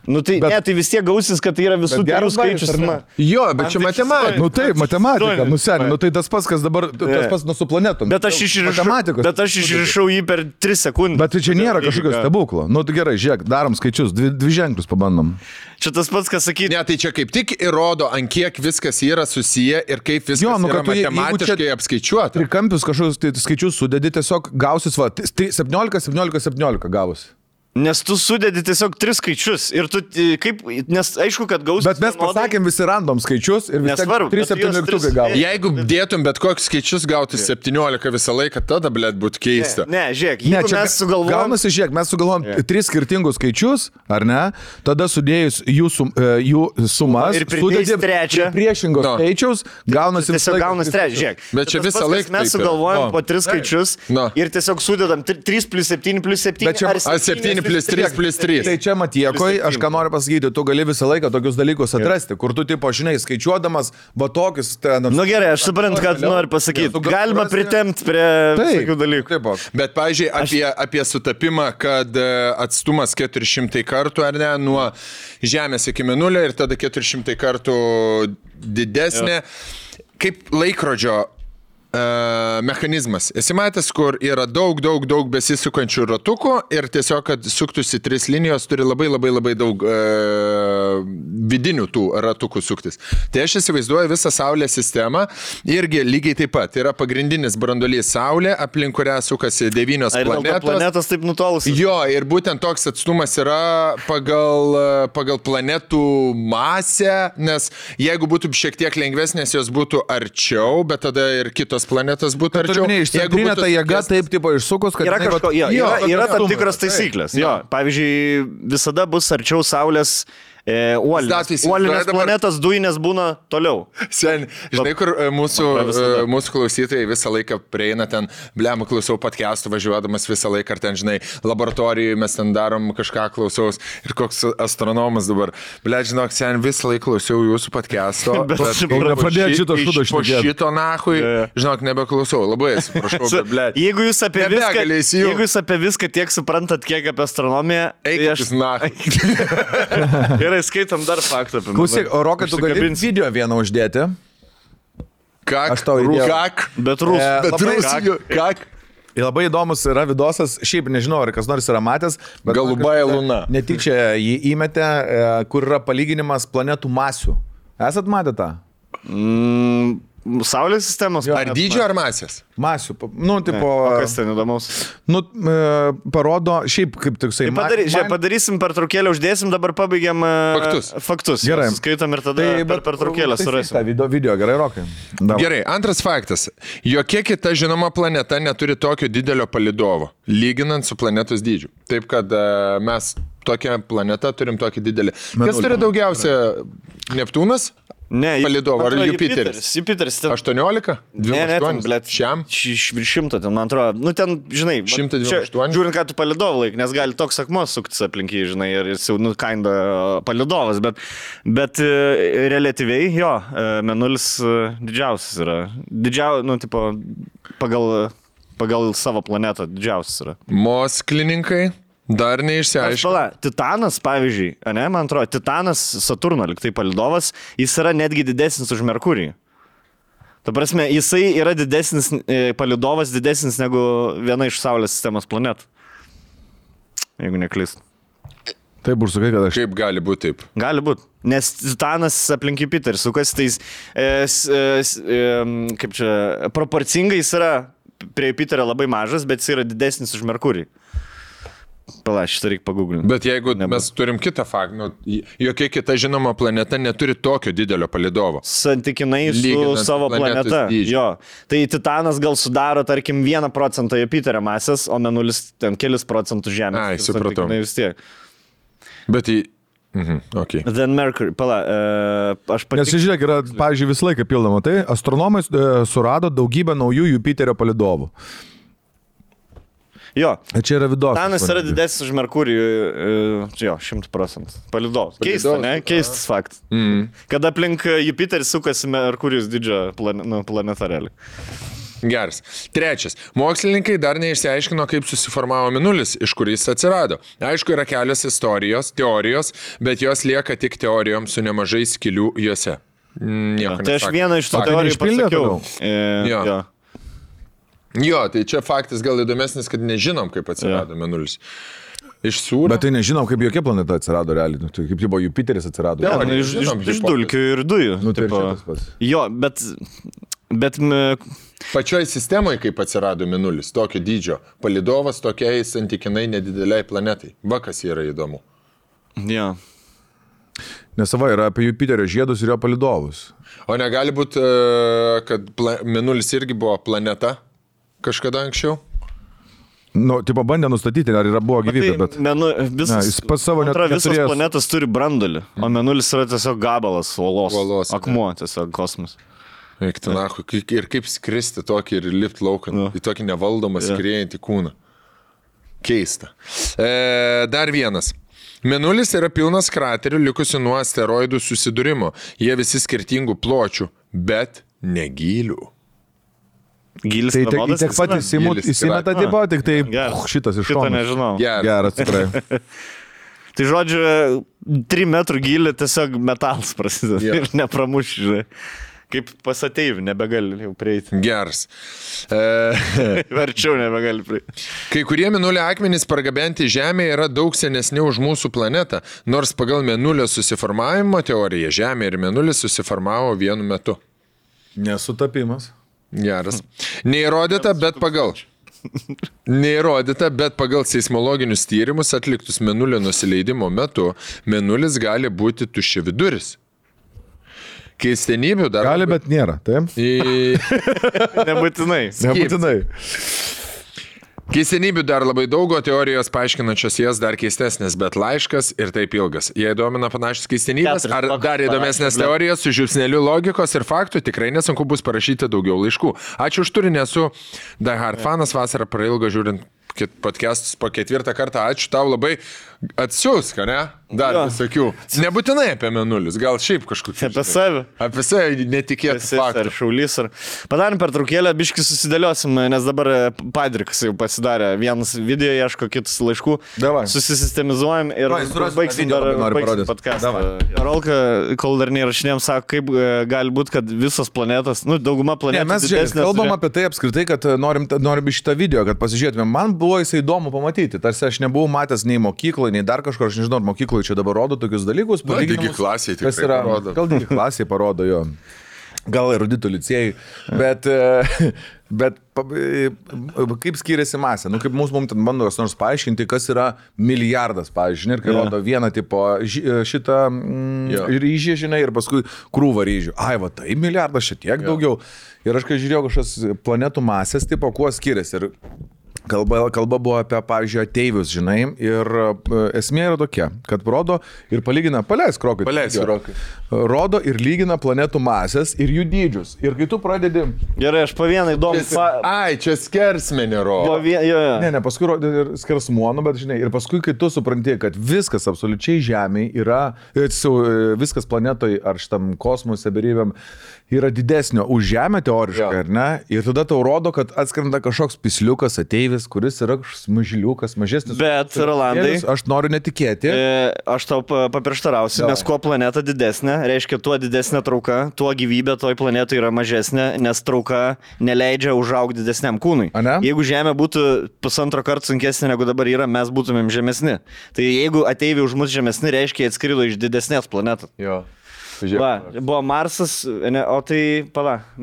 S1: Nu tai, tai vis tiek gausis, kad tai yra visų 3 skaičių suma.
S3: Jo, bet čia matematika.
S2: Nu taip, matematika, nu seniai, nu tai tas pats, kas dabar, tas pats nu su planetom.
S1: Bet aš išrišau jį per 3 sekundės.
S2: Bet tai čia nėra kažkokio stebuklo. Nu tai gerai, žiūrėk, darom skaičius, 2 ženklus pabandom.
S1: Čia tas pats, kas sakyti.
S3: Ne, tai čia kaip tik įrodo, ant kiek viskas yra susiję ir kaip viskas yra matematiškai apskaičiuota.
S2: Trikampius kažkokius skaičius sudedi, tiesiog gausis, va, 17 gavosi.
S1: Nes tu sudedi tiesiog 3 skaičius ir tu kaip, nes aišku, kad gausi.
S2: Bet mes pasakėm visi random skaičius ir visi 3-7 mygtukai gavo.
S3: Jeigu dėtum bet kokius skaičius gauti 17 visą laiką, tada, blėt, būtų keista.
S1: Ne, žiūrėk, jeigu mes sugalvojom.
S2: Gaunasi, žiūrėk, mes sugalvojom 3 skirtingus skaičius, ar ne? Tada sudėjus jų sumas
S1: ir pridėjus trečią
S2: priešingos skaičiaus, gaunasi
S1: tiesiog gaunasi trečią, žiūrėk.
S3: Bet čia visą laiką
S1: mes sugalvojom po 3 skaičius ir tiesiog sudedam 3 plus 7 plus 7 ar 7
S3: plus 3 plus 3.
S2: Tai čia Matiekoj, aš ką noriu pasakyti, tu gali visą laiką tokius dalykus atrasti, kur tu, tipo, žinai, skaičiuodamas, va tokius ten...
S1: Nu gerai, aš suprantu, ką tu nori pasakyti. Galima pritemti prie tokių dalykų.
S3: Bet, pavyzdžiui, apie sutapimą, kad atstumas 400 kartų, ar ne, nuo Žemės iki Mėnulio ir tada 400 kartų didesnė, kaip laikrodžio mechanizmas. Esi matęs, kur yra daug besisukančių ratukų ir tiesiog, kad suktųsi 3 linijos, turi labai daug vidinių tų ratukų suktis. Tai aš įsivaizduoju visą Saulės sistemą irgi lygiai taip pat. Yra pagrindinis branduolys Saulė, aplink kurią sukasi 9 planetos.
S1: Planetos taip nutolusios.
S3: Jo, ir būtent toks atstumas yra pagal planetų masę, nes jeigu būtų šiek tiek lengvesnės, jos būtų arčiau, bet tada ir kitos planetas būtų arčiau.
S2: Jeigu ta jėga taip tipo išsukus, kad...
S1: Yra tam tikros taisyklės. Jo, pavyzdžiui, visada bus arčiau Saulės uolinės planetos, dujinės būna toliau.
S3: Sen, žinai, kur mūsų klausytojai visą laiką prieina ten, blem, klausau podcastų važiuodamas visą laiką, ar ten, žinai, laboratorijoje mes ten darom kažką klausaus ir koks astronomas dabar. Blem, žinok, sen, visą laiką klausiau jūsų podcast'o, bet po šito nahui, žinok, nebeklausau. Labai atsiprašau, bet blem.
S1: Jeigu jūs apie viską tiek suprantat, kiek apie astronomiją,
S3: eikis nahai.
S1: Gerai, skaitom dar faktą apie mane.
S2: Klausyk, o Rokai, tu gali video vieną uždėti?
S3: Kak?
S1: Bet Rusų.
S3: Kak?
S2: Labai įdomus yra vidosas, šiaip nežinau, ar kas nors yra matęs, bet
S3: Galubaja Luna.
S2: Netyčia jį įmetė, kur yra palyginimas planetų masių. Esat matę tą?
S1: Saulės sistemos.
S3: Ar dydžio, ar masės?
S2: Masių. Nu, tipo...
S1: O kas ten įdomaus?
S2: Nu, parodo, šiaip kaip toksai...
S1: Padarysim pertraukėlę, uždėsim, dabar pabaigiam faktus.
S2: Gerai.
S1: Skaitom ir tada per pertraukėlę surasim.
S2: Video, gerai, Rokai.
S3: Gerai, antras faktas. Jokia kita žinoma planeta neturi tokio didelio palidovo, lyginant su planetos dydžiu. Taip, kad mes tokią planetą turim tokį didelį. Kas turi daugiausia? Neptūnas?
S1: Ne,
S3: palidovą, ar Jupiteris?
S1: Jupiteris.
S3: 18? 28?
S1: Blėt,
S3: šiam?
S1: Virš 100, ten, man atrodo. Nu, ten, žinai,
S3: 128?
S1: Žiūrint, ką tu palidovą laik, nes gali toks akmuo suktis aplinkiai, žinai, ir jis jau, nu, kinda palidovas, bet relatyviai, jo, Mėnulis didžiausias yra. Nu, tipo, pagal savo planetą didžiausias yra.
S3: Mokslininkai? Dar neišsiaiškinu.
S1: Titanas, pavyzdžiui, ne, man atrodo, Titanas Saturno, liktai palidovas, jis yra netgi didesnis už Merkurį. Ta prasme, jisai yra didesnis, palidovas didesnis negu viena iš Saulės sistemos planetų. Jeigu neklystu.
S2: Taip, užsakai, kad aš...
S3: Kaip gali būti taip?
S1: Gali būti. Nes Titanas aplink Jupiterį sukas, tais, kaip čia, proporcingai jis yra prie Jupiterio labai mažas, bet jis yra didesnis už Merkurį. Pala, šitą reikia paguglinti.
S3: Bet jeigu mes turim kitą faktą, jokia kita žinoma planeta neturi tokio didelio palidovo.
S1: Santykinai su savo planeta. Jo. Tai Titanas gal sudaro, tarkim, 1% Jupiterio masės, o Mėnulis ten kelis procentų Žemės.
S3: Ai, supratau.
S1: Vis tiek.
S3: Bet okay.
S1: Then Mercury, pala, aš
S2: Nes žiūrėk, yra, pavyzdžiui, visą laiką pildoma. Tai astronomai surado daugybę naujų Jupiterio palidovų.
S1: Jo.
S2: Čia yra vidos.
S1: Titanas yra didesnis už Merkurį, jo, 100%. Palidovas. Keistas, ne? Keistas faktas. Kada aplink Jupiterį sukasi Merkurijus didžio planeta realiai.
S3: Geras. Trečias. Mokslininkai dar neišsiaiškino, kaip susiformavo Mėnulis, iš kur jis atsirado. Aišku, yra kelios teorijos, bet jos lieka tik teorijom su nemažai skylių juose.
S1: Tai aš vieną iš tų teorijų pasakiau.
S3: Jo, tai čia faktas gal įdomesnis, kad nežinom, kaip atsirado Mėnulis. Iš sūrio.
S2: Bet tai nežinom, kaip jokia planeta atsirado realiai. Tai kaip buvo Jupiteris atsirado.
S1: Iš dulkių ir dujų.
S2: Nu, tai šitas pats.
S1: Jo, bet Bet
S3: Pačioj sistemoje, kaip atsirado Mėnulis, tokio dydžio, palidovas tokiai santykinai nedideliai planetai. Va, kas yra įdomu.
S1: jo.
S2: Nes sava yra apie Jupiterio žiedus ir jo palidovus.
S3: O negali būti, kad Mėnulis irgi buvo planeta kažkada anksčiau?
S2: Nu, tipo bandė nustatyti, ar yra buvo gyvybė, bet...
S1: Jis
S2: pats savo net
S1: visos
S2: neturėjęs.
S1: planetos turi brandulį, o Mėnulis yra tiesiog gabalas uolos. Akmuo tiesiog kosmos.
S3: Eik, tenachu, ir kaip skristi tokį ir lipti laukan, į tokį nevaldomą skriejantį kūną. Keista. Dar vienas. Mėnulis yra pilnas kraterių likusių nuo asteroidų susidūrimo. Jie visi skirtingų pločių, bet negylių.
S1: Gilis
S2: Tai
S1: vienodas
S2: tiek pat įsimeta tipo, tik tai šitas iš
S1: šito
S2: šono.
S1: nežinau.
S2: Geras, tikrai.
S1: Tai žodžiu, 3 metrų gilį tiesiog metalas prasideda ir nepramuš, žinai. Kaip pasateivi, nebegali jau prieiti.
S3: Geras.
S1: Verčiau nebegali prieiti.
S3: Kai kurie Mėnulio akmenys pargabenti Žemėje yra daug senesni už mūsų planetą, nors pagal Mėnulio susiformavimo teoriją Žemė ir Mėnulis susiformavo vienu metu.
S2: Nesutapimas.
S3: Geras. Neįrodyta, bet pagal seismologinius tyrimus atliktus Mėnulio nusileidimo metu, Mėnulis gali būti tuščiaviduris. Keistenybių dar...
S2: Gali, bet nėra, taip?
S1: Nebūtinai.
S2: Nebūtinai.
S3: Keistenybių dar labai daug, o teorijos paaiškinančios jas dar keistesnės, bet laiškas ir taip ilgas. Jei domina panašios keistenybės, ar dar įdomesnės teorijos su žiupsneliu logikos ir faktų, tikrai nesunku bus parašyti daugiau laiškų. Ačiū už turinį, esu Die Hard fanas, vasarą prailgo žiūrint podcastus po 4 kartą. Ačiū tau labai. Atsiųsk, ne? Dar visokių. Nebūtinai apie Mėnulius, gal šiaip kažkokiu.
S1: Apie save.
S3: Apie save netikėtų faktų.
S1: Ar šaulys. Padarėm pertraukėlę, biškį susidėliosim, nes dabar Padrikas jau pasidarė. Vienas video ieško, kitus laiškų.
S2: Davai.
S1: Susistemizujam ir baigsim podcastą. Rolka, kol dar neįrašinėjom, sako, kaip gali būti, kad visos planetos, dauguma planetų...
S2: Ne, mes kalbam apie tai apskritai, kad norim šitą video, kad pasižiūrėtume. Man buvo jisai įdomu pamatyti. Tarsi aš nebuvau matęs nei mokykloje, nei dar kažkur, aš nežinau, ar mokykloje čia dabar rodo tokius dalykus.
S3: Digi klasiai tikrai parodo.
S2: Gal digi klasiai parodo, jo. Gal eruditų licėjai. Bet kaip skiriasi masė? Kaip mums ten bando kas nors paaiškinti, kas yra milijardas, pavyzdžiui, ir kai rodo vieną tipo šitą ryžį, žinai, ir paskui krūvą ryžių. Ai, va, tai milijardas šitiek daugiau. Ir aš kai žiūrėjau kažkas planetų masės, tipo, kuo skiriasi. Ir kalba buvo apie, pavyzdžiui, ateivius, žinai, ir esmė yra tokia, kad rodo ir palygina, paleisk rokai. Rodo ir lygina planetų masės ir jų dydžius. Ir kai tu pradedi...
S1: Gerai, aš po vieną įdomų...
S3: Ai, čia skersmenį rodo.
S2: Ne, paskui rodo ir skersmuonu, bet, žinai, ir paskui, kai tu supranti, kad viskas absoliučiai Žemėje yra, viskas planetoje ar šitam kosmose berybėm yra didesnio už Žemę teoriškai, ar ne? Ir tada tau rodo, kad atskrenda kažkoks pisliukas ateivis, kuris yra mažiliukas, mažesnis.
S1: Bet, Rolandai,
S2: aš noriu netikėti.
S1: Aš tau paprieštarausiu, nes kuo planeta didesnė, reiškia, tuo didesnė trauka, tuo gyvybė toj planetoje yra mažesnė, nes trauka neleidžia užaugti didesniam kūnui. Jeigu Žemė būtų 1,5 karto sunkesnė negu dabar yra, mes būtumėm žemesni. Tai jeigu ateiviai už mus žemesni, reiškia, jie atskrido iš didesnės planetos.
S3: Jo.
S1: Va, buvo Marsas, o tai,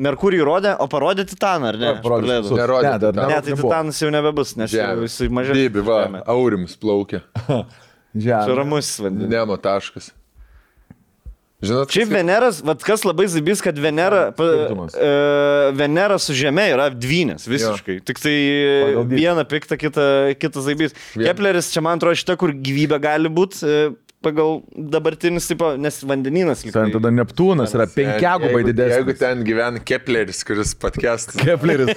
S1: Merkurijų rodė, o parodė Titaną, ar ne?
S3: Nerodė.
S1: Ne, tai Titanas jau nebebus, nes jisai mažesnis.
S3: Dėbi, va, Aurims plaukia.
S1: Čia ramus vandenis.
S3: Nemo taškas. Žinot,
S1: šiaip Veneras, kas labai zaibys, kad Venera su Žeme yra dvynės visiškai. Tik tai viena pikta, kita zaibys. Kepleris, čia man atrodo šita, kur gyvybė gali būti pagal dabartinis, tipo, nes vandenynas.
S2: Tada Neptūnas yra 5 gubai didesnis.
S3: Jeigu ten gyvena Kepleris, kuris podcastas.
S2: Kepleris.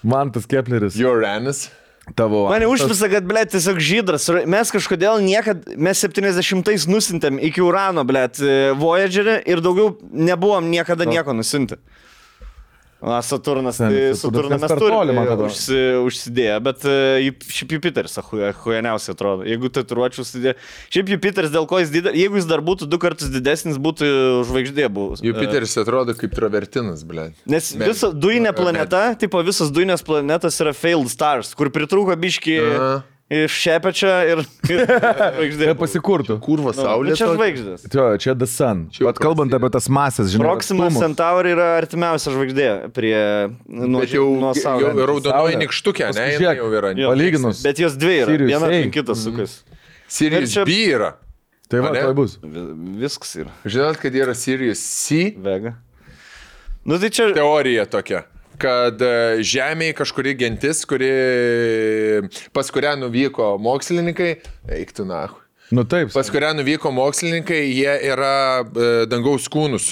S2: Man tas Kepleris.
S3: Uranus.
S1: Mane užpisa, kad, blėt, tiesiog žydras. Mes kažkodėl mes 70-ais nusintėm iki Urano, blėt, Voyagerį ir daugiau nebuvom niekada nieko nusinti. Saturnas, tai Saturną mes turime užsidėję, bet šiaip Jupiteris huijaniausiai atrodo. Jeigu tatuiruočių užsidėję. Šiaip Jupiteris, dėl ko jis didelis, jeigu jis dar būtų 2 kartus didesnis, būtų žvaigždė buvus.
S3: Jupiteris atrodo kaip travertinas, blė.
S1: Nes visa dujinė planeta, tipo visos dujinės planetos yra failed stars, kur pritrūko biški iš šepečio ir žvaigždė.
S2: Pasikurtų.
S3: Kurva saulė.
S1: Čia žvaigždės.
S2: Čia The Sun. Vat kalbant apie tas masės, žinai.
S1: Proxima Centauri yra artimiausia žvaigždė prie nuo Saulės.
S3: Jau raudonoji nikštukė, ne? Jinai jau yra.
S2: Palyginus.
S1: Bet jos dvi yra.
S2: Sirius
S1: Viena
S2: A.
S1: aplink kitą sukas.
S3: Sirius
S1: Ir čia-
S3: B yra.
S2: Tai va,
S3: Ane?
S2: tai bus.
S1: Viskas yra.
S3: Žinot, kad yra Sirius C?
S1: Vega. Nu tai čia...
S3: Teorija tokia, kad Žemėje kažkuri gentis, pas kurią nuvyko mokslininkai, eiktų nahu.
S2: Nu taip.
S3: Pas kurią nuvyko mokslininkai, jie yra dangaus kūnus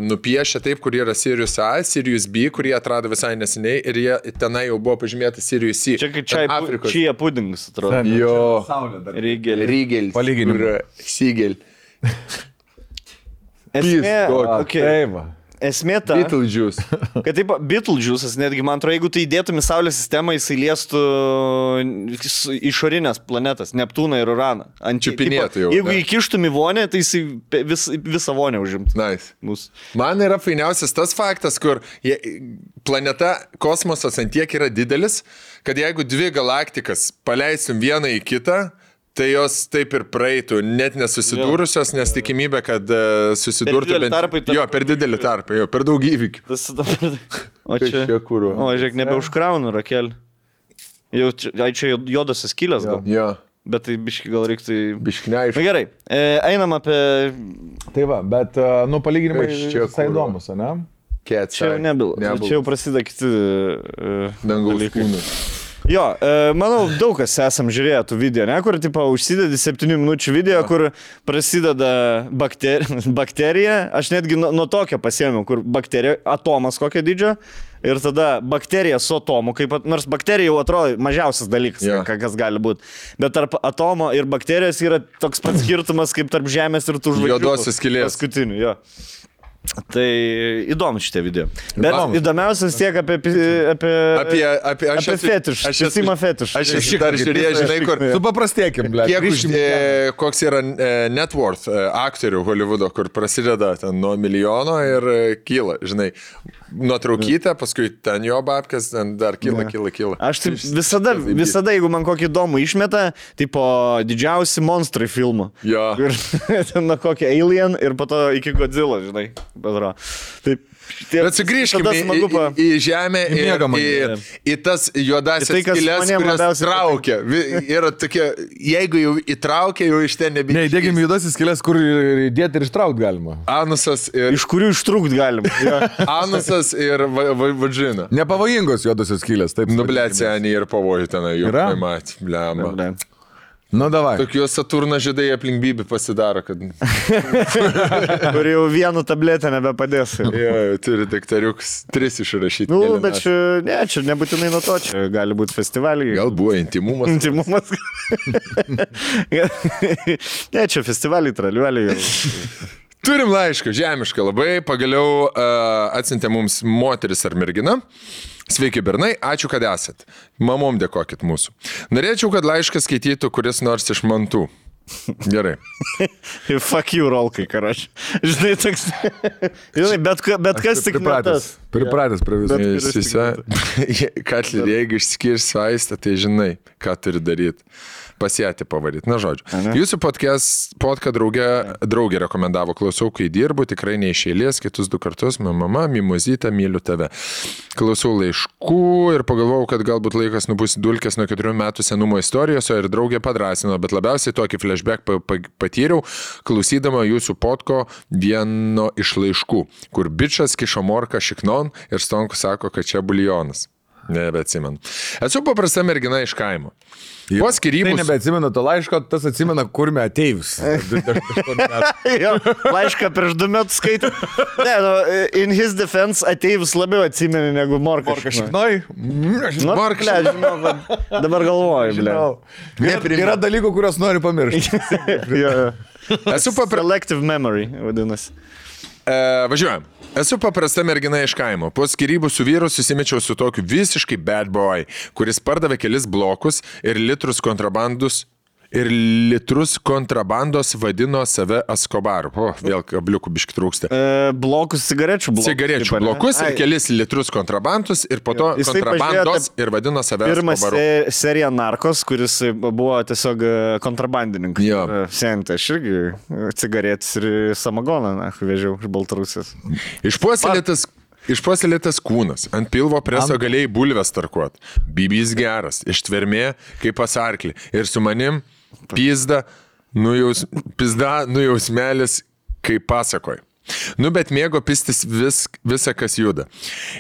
S3: nupiešę taip, kur yra Sirius A, Sirius B, kurie atrado visai neseniai ir jie tenai jau buvo pažymėta Sirius C.
S1: Čia kaip čia pudingas, atrodo.
S3: Jo.
S1: Rygelį.
S3: Rygelis.
S2: Palyginimui.
S3: Sigel.
S1: Esmė, okay.
S2: Taip.
S1: Esmė ta,
S3: Beetlejuice.
S1: kad taip, Beetlejuice'as netgi, man atrodo, jeigu tai įdėtum į Saulės sistemą, jisai liestų išorinės planetas, Neptūną ir Uraną.
S3: Čiupinėtų jau,
S1: Jeigu
S3: ne?
S1: įkištum į vonę, tai jisai visą vonę užimtų.
S3: Nice.
S1: Mūsų.
S3: Man yra fainiausias tas faktas, kur planeta, kosmosas antiek yra didelis, kad jeigu dvi galaktikas paleistum vieną į kitą, tai jos taip ir praeitų, net nesusidūrusios, nes tikimybė, kad susidurtų
S1: didelį tarpą,
S3: Jo, per didelį tarpą, jo, per daug įvykių.
S1: O čia,
S3: kuro.
S1: o žiūrėk, nebeužkraunu rakelį. Jau čia juodosios skylės gal.
S3: Jo,
S1: Bet tai biški gal reiktų...
S3: biškneiš.
S1: Na gerai, einam apie...
S2: Tai va, bet, nu, palyginimai
S3: Kas čia
S2: visai
S3: kur?
S2: įdomus, ne?
S1: Čia jau nebyla. Čia jau prasideda kiti...
S3: dangaus
S1: dalykai.
S3: kūnus.
S1: Jo, manau, daug kas esam žiūrėję tų video, ne, kur, tipo, užsidedi 7 minučių video, kur prasideda bakterija, aš netgi nuo tokio pasiėmiau, kur bakterija, atomas kokio dydžio, ir tada bakterija su atomu, nors bakterija jau atrodo mažiausias dalykas, kas gali būti, bet tarp atomo ir bakterijos yra toks pats skirtumas, kaip tarp Žemės ir tų žvaigždžių.
S3: Juodosios skylės.
S1: Paskutinių, jo. Tai įdomu šitie video. Bet įdomiausias tiek apie fetiš. Aš esu fetiš.
S3: Aš esu dar žiūrėjęs, žinai, kur...
S2: Supaprastėkim, ble.
S3: Koks yra net worth aktorių Hollywoodo, kur prasideda ten nuo milijono ir kyla, žinai, nuotraukytę, paskui ten jo babkas, ten dar kyla.
S1: Aš taip visada, jeigu man kokį įdomų išmeta, tipo didžiausi monstrai filmų.
S3: Jo.
S1: Ten nuo kokį Alien ir po to iki Godzilla, žinai. Taip.
S3: Bet sugrįžkime į žemę į tas juodasias skylės, kurias traukia. Yra tokie, jeigu jau įtraukia, jau iš ten nebėga.
S2: Ne, įdėkime juodasis skylės, kur įdėti ir ištraukti galima.
S3: Anusas ir...
S1: Iš kurių ištrūkti galima.
S3: Anusas ir vagina.
S2: Nepavojingos juodosios skylės, taip.
S3: Nublėcianį ir pavojų tenai.
S2: Yra?
S3: Blemba.
S2: Nu, davai.
S3: Tokios Saturno žydai aplink Bibį pasidaro, kad...
S1: Kur jau vienu tabletę nebepadės.
S3: Jo, turi daktariuks 3 išrašyti.
S1: Nu, bet čia nebūtinai nuo to, čia gali būti festivaliai.
S3: Gal buvo intimumas.
S1: Intimumas. Ne, čia festivaliai, traliuoliai.
S3: Turim laišką, žemišką labai, pagaliau atsiuntė mums moteris ar mergina. Sveiki, bernai, ačiū, kad esat. Mamom dėkokit mūsų. Norėčiau, kad laišką skaitytų kuris nors iš mantų. Gerai.
S1: Fuck you, rolkai, karač. Žinai, toks... Žinai, bet kas tik metas.
S2: Pripratęs prie viso.
S3: Katler, jeigu išskirsi vaistą, tai žinai, ką turi daryti. Pasėti pavaryti. Na, žodžiu. Jūsų podką draugė rekomendavo, klausau, kai dirbu, tikrai neišėlės, kitus 2 kartus, mama, mimozytė, myliu tave. Klausau laiškų ir pagalvojau, kad galbūt laikas nubus dulkės nuo 4 metų senumo istorijos, ir draugė padrasino, bet labiausiai tokį flashback patyriau, klausydama jūsų podko vieno iš laiškų, kur bičas kišo morką šiknon ir Stonkus sako, kad čia buljonas. Nebeatsimenu. Esu paprasta mergina iš kaimo. Po skyrybų...
S2: Tai nebeatsimenu to laiško, tas atsimena, kur me ateivis.
S1: Laišką prieš 2 metus skaitė. Ne, in his defense ateivis labiau atsimeni negu morka.
S2: Morka šiknoj?
S1: Morka, žinau, dabar galvoju, ble.
S2: Yra dalykų, kuriuos noriu pamiršti.
S3: Esu
S1: Selective memory, vadinasi.
S3: Važiuojam. Esu paprasta mergina iš kaimo. Po skyrybų su vyru susimečiau su tokiu visiškai bad boy, kuris pardavė kelis blokus ir litrus kontrabandus ir litrus kontrabandos vadino save Escobaru. O, vėl kabliukų biški trūksta.
S1: Blokus cigarečių blokus.
S3: Cigarečių blokus ir kelis litrus kontrabandus ir po to
S1: Jisai
S3: kontrabandos ir vadino save
S1: Pirmas
S3: Escobaru.
S1: serija Narkos, kuris buvo tiesiog kontrabandininkas.
S3: Jo.
S1: Senti, aš irgi cigaretės ir samagoną vežiau iš Baltarusijos.
S3: Išpuoselėtas kūnas, ant pilvo preso galėjai bulves tarkuot. Bibys geras, ištvermė kaip pas arklį. Ir su manim pizda nujausmelis kaip pasakoj. Nu, bet mėgo pistis visą, kas juda.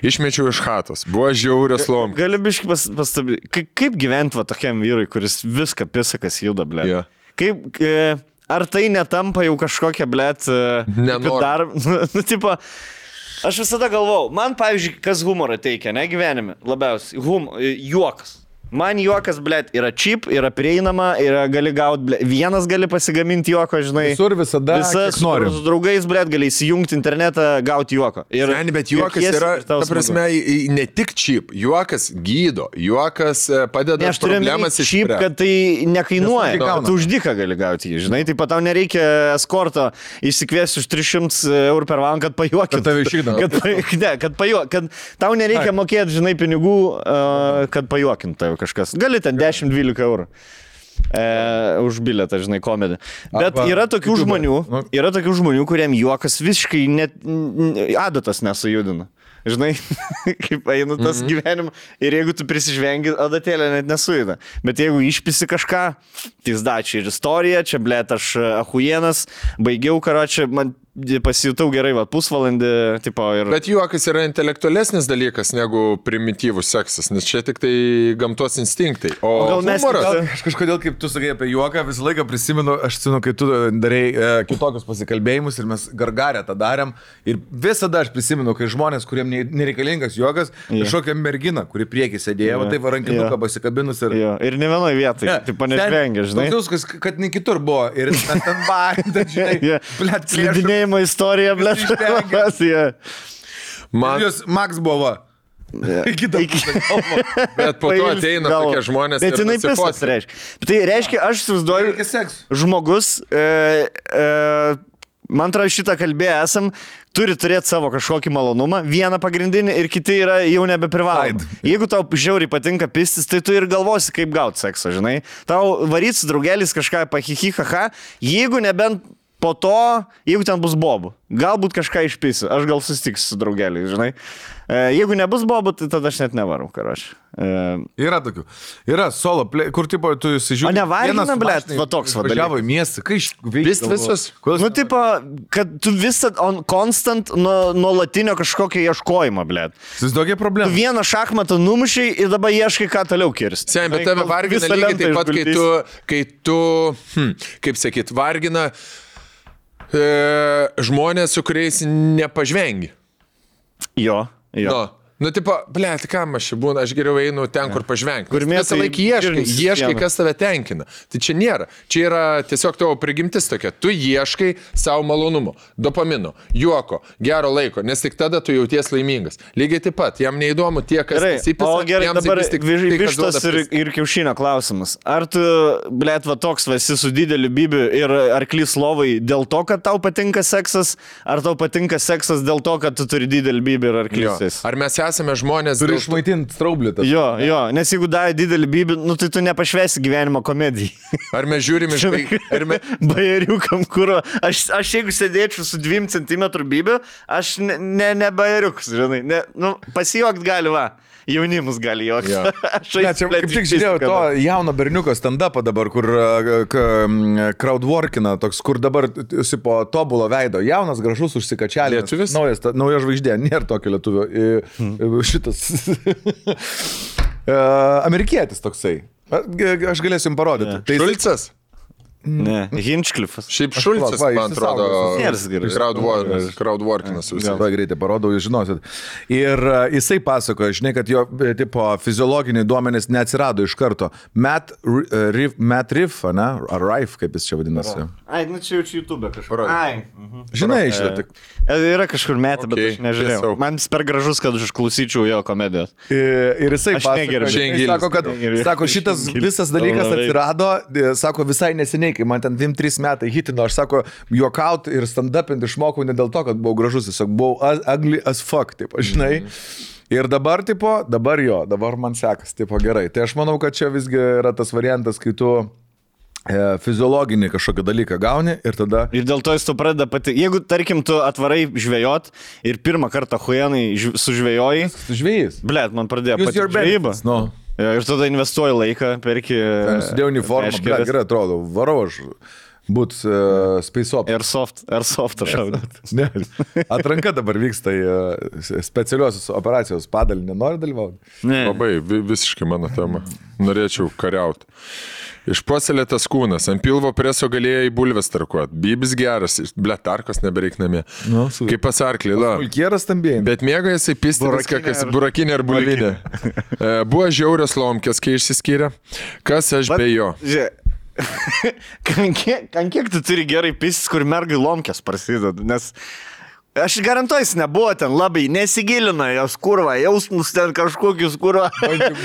S3: Išmečiau iš chatos, buvo žiaurios lom.
S1: Gali biškai pastabyti, kaip gyventi va tokiam vyrui, kuris viską pisa, kas juda, blė.
S3: Jo.
S1: Kaip, ar tai netampa jau kažkokia, blė,
S3: Nenoriu.
S1: Tipo, aš visada galvau, man, pavyzdžiui, kas humorą teikia, ne gyvenime, labiausiai, juokas. Man juokas, blėt, yra cheap, yra prieinama, gali gauti, blėt, vienas gali pasigaminti juoko, žinai.
S2: Visur visada, kiek nori.
S1: Su draugais, blėt, gali įsijungti internetą, gauti juoko.
S3: Seni, bet juokas yra, ta prasme, ne tik cheap, juokas gydo, juokas padeda problemas
S1: išspręsti. Cheap, kad tai nekainuoja, kad tu už dyką gali gauti jį, žinai, taip pat tau nereikia eskorto išsikviesti už 300 eurų per valandą, kad pajuokintų.
S2: Kad tave išvykdavo.
S1: Kad tau nereikia mokėti, žinai, pinigų, kad pajuokintų kažkas. Gali ten 10-12 eurų už bilietą, žinai, komedį. Bet yra tokių žmonių, kuriem juokas visiškai net adatas nesujudina. Žinai, kaip eina tas gyvenimas. Ir jeigu tu prisižvengi, adatėlė net nesujuda. Bet jeigu išpisi kažką, tai zdačiai ir istorija, čia, blėt, aš ahujienas, baigiau, karočią, man pasijutau gerai, va, pusvalandį, tipo, ir...
S3: Bet juokas yra intelektualesnis dalykas negu primityvus seksas, nes čia tik tai gamtos instinktai. O
S1: gal mes...
S2: Aš kažkodėl, kaip tu sakai apie juoką, visą laiką prisimenu, aš senu, kai tu darai kitokius pasikalbėjimus ir mes gargarę tą darėm. Ir visada aš prisimenu, kai žmonės, kuriem nereikalingas juokas, kažkokia mergina, kuri priekį sėdėjo, tai varankinuką pasikabinus ir...
S1: Ir ne vienoje vietoje, taip panešvengia, žinai.
S2: Tokius, kad ne kitur buvo. Ir ten varė, žinai, blėt,
S1: slidinėjimo istorija, blėt.
S2: Jūs Max buvo.
S3: Bet po to ateina tokie žmonės.
S1: Bet jinai pisas reiškia. Tai reiškia, aš įsivaizduoju, žmogus, man atrodo, šitą kalbėję esam, turi turėti savo kažkokį malonumą, vieną pagrindinį ir kiti yra jau nebeprivalomi. Jeigu tau žiauriai patinka pistis, tai tu ir galvosi, kaip gauti seksą, žinai. Tau varyt su draugelis kažką pahihihaha, jeigu nebent po to, jeigu ten bus bobų, galbūt kažką išpisiu, aš gal susitiksiu su draugeliais, žinai. Jeigu nebus bobų, tai tada aš net nevarau, karoči.
S2: Yra tokių. Yra solo, kur tipo tu įsižiūrė.
S1: O nevargina, blėt, va toks va dalykas.
S2: Važiavo į miestą, kai
S3: Pist visus.
S1: Nu, tipo, kad tu visą constant nuolatinio kažkokio ieškojimo, blėt.
S2: Tokia problema.
S1: Tu vieną šachmatą numušiai ir dabar ieškai, ką toliau kirsti.
S3: Sen, bet tave vargina lygiai taip pat, kai tu, kaip sakyt, vargina žmonės, su kuriais nepažvengi.
S1: Jo.
S3: Nu, tipo, blėt, kam aš čia būna, aš geriau einu ten, kur pažvengti.
S1: Kur
S3: visą laiką ieškai, kas tave tenkina. Tai čia nėra. Čia yra tiesiog tavo prigimtis tokia. Tu ieškai savo malonumo, dopamino, juoko, gero laiko, nes tik tada tu jauties laimingas. Lygiai taip pat, jam neįdomu tie, kas įsipisa.
S1: O gerai, dabar vištos ir kiaušinio klausimas. Ar tu, blėt, va toks esi su dideliu bibiu ir arklys lovai dėl to, kad tau patinka seksas, ar tau patinka seksas dėl to, kad tu turi didelį bibį ir arklys?
S3: Ar mes esame žmonės...
S2: Turi išmaitinti straublį.
S1: Jo, nes jeigu davai didelį bibį, nu tai tu nepašvesi gyvenimo komedijai.
S3: Ar mes žiūrime
S1: bajeriukam, kur... Aš jeigu sėdėčiau su 2 cm bibiu, aš ne bajeriukas, žinai. Pasijuokt gali, va. Jaunimus gali juokti.
S2: Kaip tik žiūrėjau to jauno berniuko stand-upą dabar, kur crowdworkina, toks, kur dabar po tobulo veido. Jaunas, gražus, užsikačialė. Nauja žvaigždė, nėra tokio lietuvio. Šitas. Amerikietis toksai. Aš galėsiu jums parodyti.
S3: Šulcas?
S1: Ne, Hinchcliffas.
S3: Šiaip Šulcas,
S2: va,
S3: man atrodo,
S2: išsisaugos.
S3: crowdworkinas.
S2: Labai greitai parodau, jūs žinosit. Ir jisai pasakoja, žinai, kad jo tipo, fiziologiniai duomenys neatsirado iš karto. Matt Riff, ne? Ar Rife, kaip jis čia vadinasi.
S1: Ai, nu čia jau čia YouTube kažkur. Ai.
S2: Žinai, šitą.
S1: Yra kažkur metė, bet aš nežiūrėjau.
S3: tiesiog.
S1: Man jis per gražus, kad aš išklausyčiau jo komedijos.
S2: Ir jisai
S1: Aš
S2: pasakoja,
S1: negerbiu.
S2: jisai sako, kad sako, šitas visas dalykas atsirado, sako, visai neseniai, kai man ten 2-3 metai hitino, aš sako, juokaut ir stand-upint išmokau ne dėl to, kad buvau gražus, tiesiog buvau ugly as fuck, taip, žinai. Ir dabar, tipo, dabar man sekas, tipo, gerai. Tai aš manau, kad čia visgi yra tas variantas, kai tu fiziologinį kažkokį dalyką gauni ir tada...
S1: Ir dėl to jis tu pradeda pati. Jeigu, tarkim, tu atvarai žvejot ir pirmą kartą huijanai sužvejoji,
S2: Žvėjys.
S1: blėt, man pradėjo
S2: Use
S1: pati
S2: your
S1: žvejyba.
S2: benefits, no.
S1: Ir tada investuoji laiką, perki...
S2: Sudėjau uniformą,
S1: meškeres.
S2: gerai atrodo, varau aš būt space op.
S1: Airsoft aš šaudat.
S2: Ne, atranka dabar vyksta į specialiosios operacijos padalinį, nori dalyvauti?
S1: Ne.
S3: Labai visiškai mano tema. Norėčiau kariauti. Išpuoselėtas kūnas, ant pilvo preso galėjo į bulves tarkuot. Bybis geras, tarkos nebereik namie.
S2: Nu, super.
S3: Kaip pasarklį, la.
S2: Mulkieras stambėjai.
S3: Bet mėgo jisai pisti viską, kas burakinė ar bulvinė. Buvo žiaurios lomkės, kai išsiskyrė. Kas aš be jo?
S1: Ant kiek tu turi gerai pistis, kur mergai lomkės prasideda, nes aš garantuoju, jis nebuvo ten labai, nesigilina jos kurva, jausmus ten kažkokius kurva.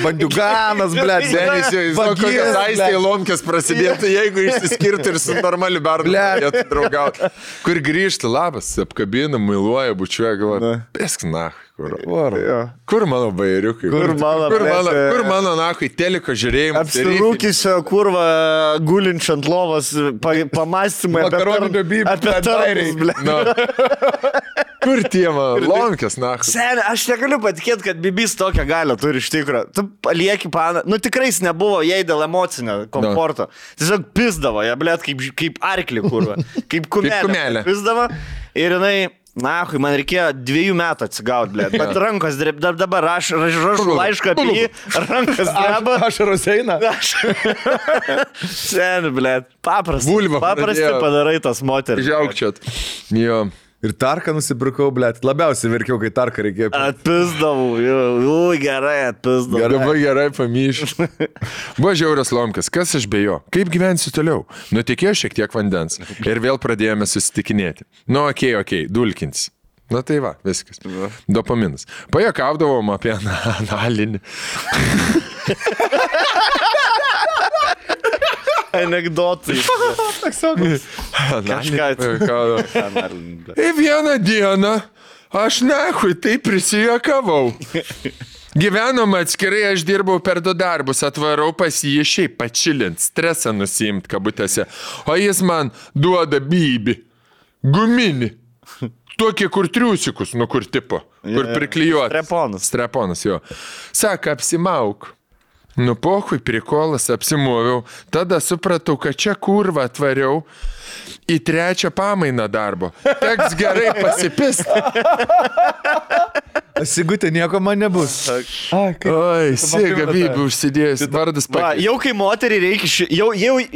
S2: Bandiuganas, blėt,
S3: Senis jau, jis kokias aistėje lomkės prasidėtų, jeigu išsiskirtų ir su normaliu bernu galėtų draugauti. Kur grįžti, labas, apkabina, mailuoja, bučiuoja, galvoja, pesk nach. Kur mano bairiukai? Kur mano nahui teliko žiūrėjimas?
S1: Apsirūkisio kurva gulinčio ant lovos pamastymai apie tarnus, blėt.
S3: Kur tie mano lomkės, nach?
S1: Seniai, aš negaliu patikėti, kad Bibis tokią galią turi iš tikrųjų. Tu palieki paną. Nu tikrai jis nebuvo jai dėl emocinio komforto. Tiesiog pisdavo, ją blėt, kaip arklį kurva. Kaip kumelė. Pisdavo ir jinai... Na, man reikėjo 2 metų atsigauti, blėt. Bet rankos dabar rašau laišką apie jį, rankas dreba.
S2: Ašaros eina.
S1: Seniai, blėt. Paprastai
S3: pradėjo.
S1: Padarai tas moteris.
S3: Žiaukčiat. Jo.
S2: Ir tarką nusipirkau, blėt. Labiausiai verkiau, kai tarką reikėjo.
S1: Atpizdavau, gerai atpizdavau.
S3: Labai gerai pamyšiu. Buvo žiaurios lomkės, kas aš be jo? Kaip gyvensiu toliau? Nutekėjo šiek tiek vandens. Ir vėl pradėjome susitikinėti. Nu, okei, dulkins. Na tai va, viskas. Dopaminas. Pajuokaudavom apie analinį.
S1: Anekdotai.
S3: Ir vieną dieną aš nahui taip prisijuokavau. Gyvenom atskirai, aš dirbau per 2 darbus, atvarau pas jį šiaip pačilint, stresą nusiimt kabutėse, o jis man duoda bybį, guminį, tokį kur triusikus, nu kur tipo, kur priklijuotas. Streponas, jo. Saka, apsimauk. Nu, pohui, prikolas, apsimoviau. Tada supratau, kad čia kurva atvariau į 3 pamainą darbo. Teks gerai pasipist.
S2: Sigutė, nieko man nebus.
S3: Oi, Siga Bybį užsidėjus, vardas pakeisti.
S1: Jau kai moteriai reikia, jau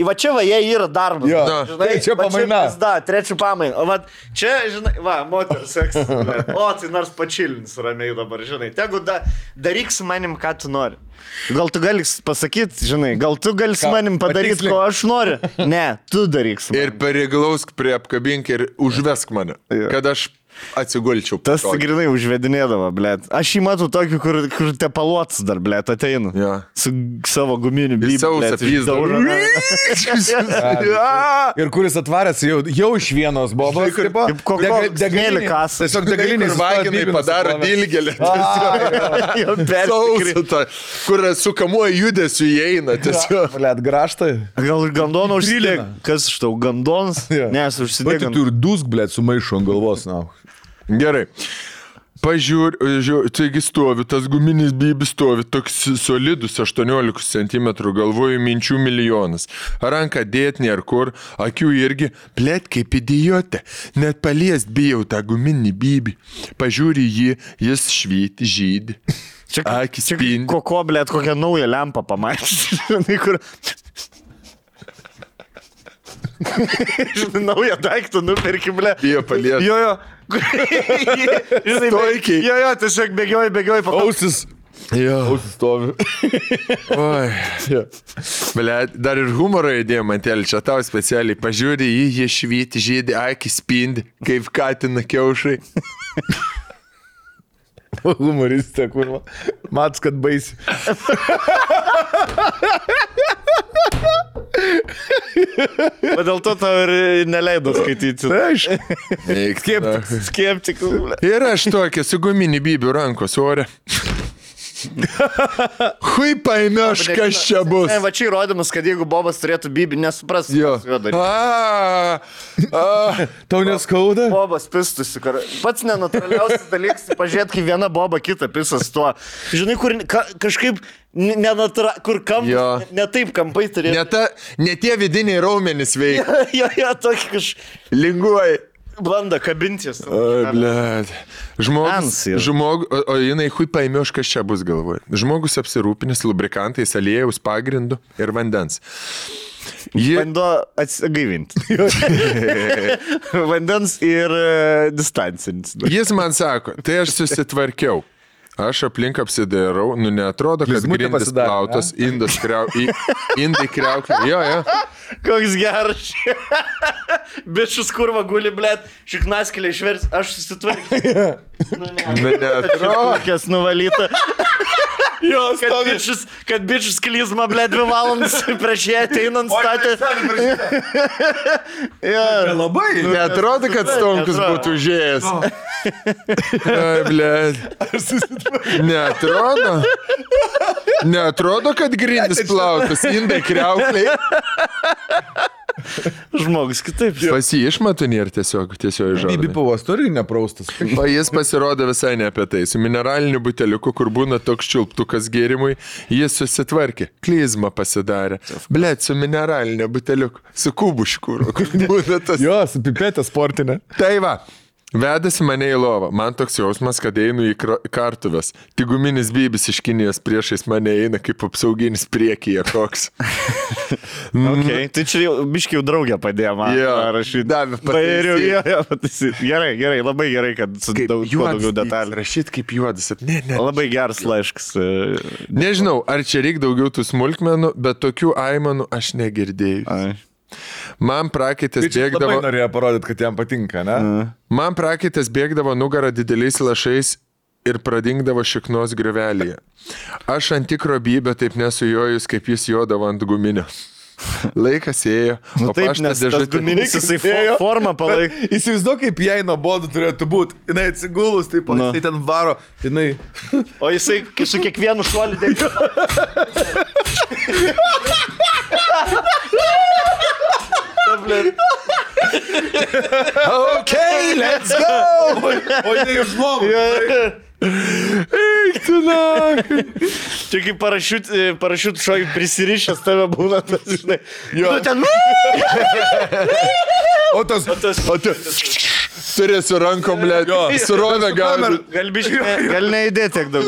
S1: va čia va, jie yra darbas.
S2: Jo,
S1: žinai,
S2: čia pamaina.
S1: Da, 3 pamaina. O va, čia, žinai, va, moteris seksas. O, tai nors pačilins ramiai dabar, žinai. Tegu daryk su manim, ką tu nori. Gal tu gali pasakyti, žinai, gal tu gali su manim padaryti, ko aš noriu. Ne, tu daryk su manim.
S3: Ir pareiglausk prie apkabink ir užvesk mane, kad aš atsigulčiau.
S1: Tas grinai užvedinėdavo, blėt. Aš jį matau tokį, kur tepaluotas dar, blėt, ateinu.
S3: Ja.
S1: Su savo guminiu bybį.
S3: Sausą pizdą.
S2: Ir kuris atvaręs jau iš vienos bobos.
S1: Kaip degalėlį kasą.
S2: Tiesiog degalinį
S3: Vaginai padaro dilgelį. Sausą, kur sukamuoja judesiu įeina.
S2: Blėt, graštai.
S1: Gal gandoną užsidėk? Kas iš tau, gandonas? Ne, aš užsidėk.
S2: Tu ir dusk, blėt, sumaišo ant galvos, na.
S3: Gerai. Pažiūrėjau, taigi stovi, tas guminis bybis stovi, toks solidus 18 cm, galvoju minčių milijonas. Ranką dėt nėr kur, akių irgi, blėt kaip idiotė, net paliest bijau tą guminį bybį. Pažiūri jį, jis švyti, žydi. Akis spindi.
S1: Koko, blėt, kokią naują lempą pamatyti. Žinai, naują daiktą nuperki, ble.
S3: Bijo palies.
S1: Jo. Žinai,
S3: Stoikiai.
S1: Jo, tiesiog bėgioji.
S2: Ausis.
S3: Jo.
S2: Ausis stovi.
S3: Oi. Ble, dar ir humoro įdėjom, Mantėlį, čia tau specialiai. Pažiūrė į jį švyti, žydį, akis spindi, kaip katina kiaušai.
S2: Humoristė, kurva. Mats, kad baisi.
S1: O dėl to tau ir neleido skaityti.
S2: Aišku.
S1: Skeptikų, ble.
S3: Ir aš tokia su guminį bybių rankos ore. Hui paėmėš, kas čia bus.
S1: Ne, va čia įrodymas, kad jeigu Bobas turėtų bybį, nesupras.
S3: Jo.
S2: Tau neskauda?
S1: Bobas pistusi. Pats nenaturaliausias dalykas, pažiūrėt, kai viena boba kita pisas tuo. Žinai, kur kažkaip kur kampai, ne taip kampai turėtų.
S3: Ne tie vidiniai raumenys veikia.
S1: Jo, tokį
S3: Linguoji.
S1: Banda kabintis.
S3: Oi, blėt. O jinai hui paėmėš, kas čia bus galvoje. Žmogus apsirūpinęs lubrikantais, aliejaus pagrindu ir vandens.
S1: Bando atsigaivinti. Vandens ir distancinis.
S3: Jis man sako, tai aš susitvarkiau. Aš aplink apsidairau, neatrodo, kad grindis plautas, indai kriauklė. Jo.
S1: Koks geras. Bičius kurva guli, blėt, šiknaskėlė išvers, aš susitvarkiau.
S3: Neatrodo.
S1: Kokias nuvalyta. Kad bičius klizma, blėt, 2 valandas prieš ją ateinant statė.
S2: Labai.
S3: Neatrodo, kad Stonkus būtų užėjęs. Ai, blėt. Neatrodo, kad grindis plautas, indai kriaukliai.
S1: Žmogus kitaip.
S3: Pas jį išmatų nėra tiesiog žodžiai.
S2: Bibi pavos turi nepraustas.
S3: O jis pasirodo visai ne apie tai. Su mineraliniu buteliuku, kur būna toks čiulptukas gėrimui, jis susitvarkė. Klizmą pasidarė. Blet, su mineraliniu buteliuku. Su kubuškūru.
S2: Jo, su pipetė sportinė.
S3: Tai va. Vedasi mane į lovą. Man toks jausmas, kad einu į kartuves. Tik guminis bybis iš Kinijos priešais mane eina kaip apsauginis priekyje koks.
S1: Okay. Tai čia biškiai draugė padėjo man rašyti.
S3: Davė pataisyti.
S1: Gerai, labai gerai, kad su daugiau detalių.
S3: Rašyti kaip juodas. Ne.
S1: Labai geras laiškas.
S3: Nežinau, ar čia reikia daugiau tų smulkmenų, bet tokių aimanų aš negirdėjau. Man prakaitas bėgdavo...
S2: Labai norėjo parodyti, kad jam patinka, ne?
S3: Man prakaitas bėgdavo nugarą dideliais lašais ir pradingdavo šiknos griuvelėje. Aš ant tikro bybio taip nesujojus, kaip jis jodavo ant guminio. Laikas ėjo, o
S1: taip, nes tas guminis jisai formą palaikė.
S2: Įsivaizduok, kaip jai nuobodu turėtų būti. Jinai atsigulus, taip, jisai ten varo, jinai...
S1: O jisai su kiekvienu šuoliu dėkė.
S3: Okay, let's go!
S2: O jinai iš žmogų.
S3: Eik tu nakai.
S1: Čia kaip parašiut šokai prisirišęs tave būna, tas, žinai. Jo. Ten...
S2: O tas...
S3: Turi su rankom, blėt. Surovę gali.
S1: Gal neįdėti tiek daug.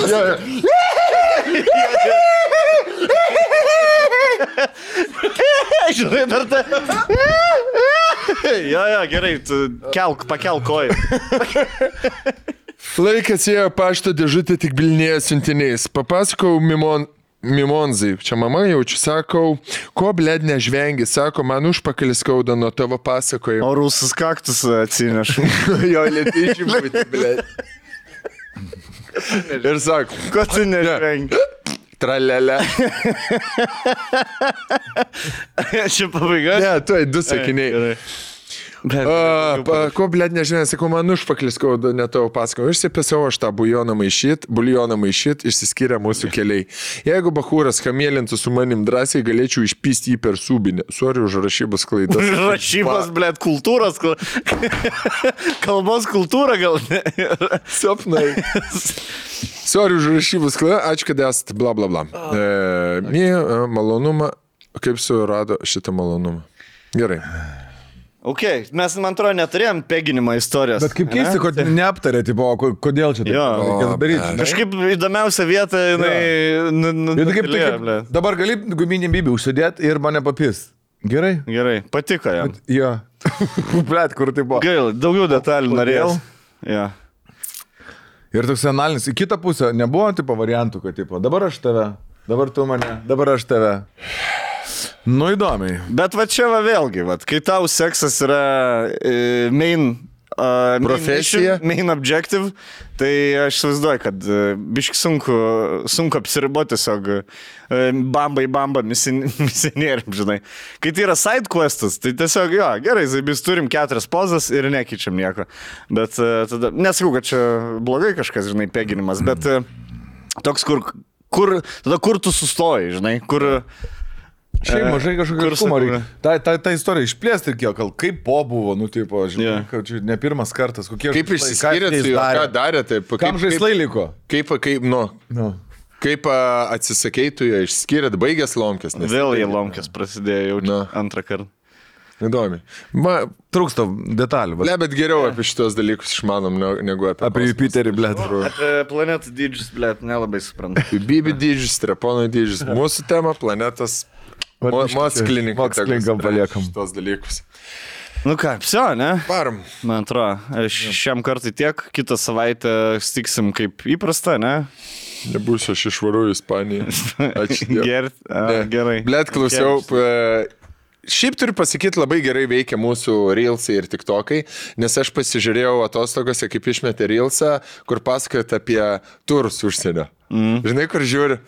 S1: Žinai, dar ta... Jo, gerai, pakelk koją.
S3: Laikas ėjo pašto dėžutė tik bilinėje siuntiniais. Papasakau Mimonzai, čia mama jaučiu, sakau, ko blėd nežvengi, sako, man užpakalis skauda nuo tavo pasakojimo.
S1: O rusas kaktus atsinešu.
S3: Jo, lietyčiai būti, blėd. Ir sako,
S1: ko tu nežvengi?
S3: Tralelė.
S1: Čia pabaiga?
S3: Ne, tuoj 2 sakiniai. Ko, blėd, nežinai, sakau, man užpaklis skauda, ne tavo pasakojau. Išsipėsiau aš tą buljoną maišyt, išsiskiria mūsų keliai. Jeigu bachūras kamėlintų su manim drąsiai, galėčiau išpysti jį per subinę. Sorry už rašybos klaidas.
S1: Rašybos, blėd, kultūros, kalbos kultūra gal ne.
S3: Sapnai. Sorry už rašybos klaidą, ačiū, kad esate, bla bla bla. Malonumą, kaip surado šitą malonumą. Gerai.
S1: Ok, mes, man atrodo, neturėjom peginimo istorijos.
S2: Bet kaip keisti, kad neaptarė, tipo, kodėl čia taip reikėtų daryti.
S1: Kažkaip įdomiausia vieta, jinai...
S2: Dabar gali guminį bybį užsidėti ir mane papis. Gerai.
S1: Gerai, patiko jam.
S2: Jo. Blet, kur tai buvo.
S1: Gaila, daugiau detalių norėjau. Ja.
S2: Ir toks analinis, į kitą pusę nebuvo tipo variantų, kad tipo, dabar aš tave, dabar tu mane, dabar aš tave. Nu įdomiai.
S1: Bet va čia va vėlgi, va, kai tau seksas yra main
S3: Profesija.
S1: main objective, tai aš įsivaizduoju, kad biški sunku apsiriboti tiesiog bamba misionieriam, žinai. Kai tai yra side questas, tai tiesiog, jo, gerai, zaibis turim 4 pozas ir nekeičiam nieko. Bet tada, nesakau, kad čia blogai kažkas, žinai, peginimas, bet toks, kur tu sustoji, žinai, kur...
S2: Šiaip mažai kažkokio aiškumo reikia. Ta istorija išplėsti ir kiek, kaip po buvo, nu, tipo, žinai, kad čia ne pirmas kartas, kokie
S3: Kaip išsiskyrėt su juo, ką darė, taip.
S2: Kam žaislai liko?
S3: Kaip atsisakei tu jo, išskyrėt, baigęs lomkės.
S1: Vėl jie lomkės prasidėjo jau antrą kartą.
S3: Įdomi.
S2: Trūksta detalių.
S3: Bet geriau apie šitos dalykus išmanom negu
S2: Apie Jupiterį, blet.
S1: Apie planetų dydžius, blet, nelabai suprantu.
S3: Bibi dydžius, Strepono dydžius. Mūsų tema planetas.
S2: Mokslininkam paliekam
S3: šitos dalykus.
S1: Nu ką, psio, ne?
S3: Varom.
S1: Man atrodo, šiam kartui tiek, kitą savaitę stiksim kaip įprasta, ne?
S3: Nebūsiu, aš išvaru į Ispaniją. Ačiū Dievui.
S1: Gerai.
S3: Blet, klausiau. Šiaip turiu pasakyti, labai gerai veikia mūsų Reelsai ir TikTokai, nes aš pasižiūrėjau atostogose, kaip išmetė Reelsą, kur pasakojat apie turus užsienio. Žinai, kur žiūri?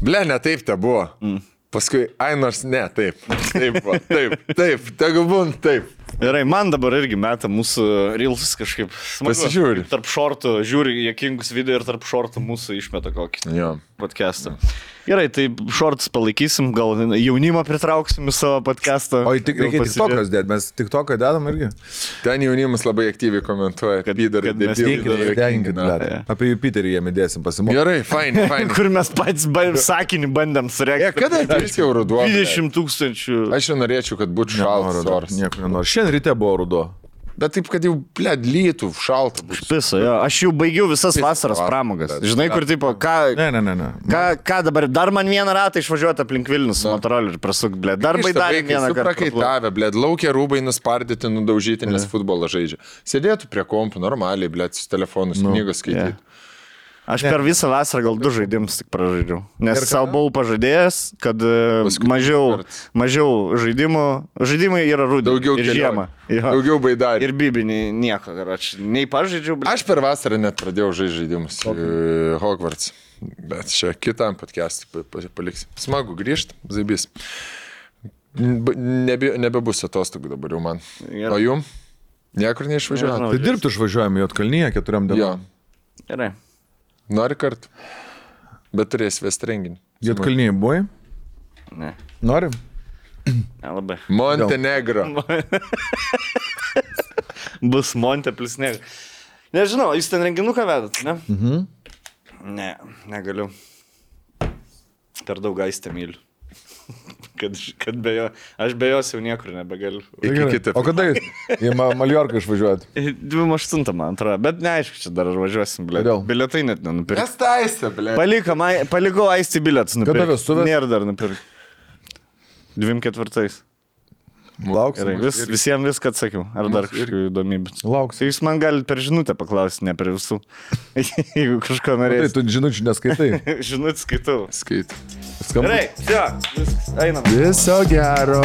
S3: Ble, ne taip te buvo. Paskui, nors ne, taip, tegu būn, taip.
S1: Gerai, man dabar irgi meta mūsų Reelsus kažkaip.
S3: Pasižiūri.
S1: Tarp šortų, žiūri jokingus video ir tarp šortų mūsų išmeta kokį podcastą. Gerai, tai šortus palaikysim, gal jaunimą pritrauksim į savo podcastą.
S2: O tik reikia TikTokas dėti, mes TikToką dedam irgi.
S3: Ten jaunimas labai aktyviai komentuoja, kad
S2: apie Jupiterį jiem įdėsim pasimokyti.
S3: Gerai, fine.
S1: Kur mes patys sakinį bandėm sureikti.
S3: Kada ateis jau ruduo?
S1: 20 000.
S3: Aš jau norėčiau, kad būtų šaltas oras.
S2: Nieko nenoriu. Šiandien ryte buvo ruduo.
S3: Bet taip, kad jau, lytų, šalta.
S1: Piso, jo. Aš jau baigiau visas vasaros pramogas. Žinai, kur tipo,
S2: Ne.
S1: Ką dabar, dar man vieną ratą išvažiuoti aplink Vilnius su motoroliu ir prasuk, blė. Dar baidavė vieną kartą.
S3: Prakaitavę, blė, laukia rūbai nuspardyti, nudaužyti, nes futbolą žaidžia. Sėdėtų prie kompų normaliai, blė, su telefonus, knygos skaityti.
S1: Aš per visą vasarą gal 2 žaidimus tik pražaidžiau. Nes savo buvau pažadėjęs, kad mažiau žaidimų. Žaidimai yra rudenį.
S3: Daugiau
S1: ir žiemą.
S3: Daugiau baidarį.
S1: Ir bibinį nieko. Nei pažaidžiau.
S3: Aš per vasarą net pradėjau žaisti žaidimus. Hogwarts. Bet čia kitam podcast'ui paliksim. Smagu grįžti, zaibys. Nebebus atostogų dabar jau man. O jum? Niekur neišvažiuojam.
S2: Tai dirbti išvažiuojam į Juodkalniją 4 dienom.
S1: Gerai.
S3: Nori kartu? Bet turės vesti renginį.
S2: Juodkalniai buvai?
S1: Ne.
S2: Nori?
S1: Nelabai.
S3: Montenegro.
S1: Bus Monte plus Negro. Nežinau, jūs ten renginuką vedat, ne? Ne, negaliu. Per daug Aistę myliu. Kad be jo, aš be jos jau niekur nebegaliu.
S2: O kada jūs į Maljorką išvažiuojat?
S1: 28, man atrodo, bet neaišku, čia dar važiuosim, blė. Bilietai net nenupirkti.
S3: Nes taisė, blė.
S1: Palikau Aistį bilietus nupirkti.
S2: Kada vestuvės?
S1: Nėra dar nupirkti. 24.
S2: Lauksim.
S1: Visiems viską atsakiau. Ar dar kažkokių įdomybių?
S2: Lauksim.
S1: Tai jūs man galite per žinutę paklausyti, ne per visų. Jeigu kažko norėsite.
S2: Tai tu žinučių neskaitai.
S1: Žinutę skaitau.
S3: Skait.
S1: Gerai, viskas, einam.
S3: Viso gero.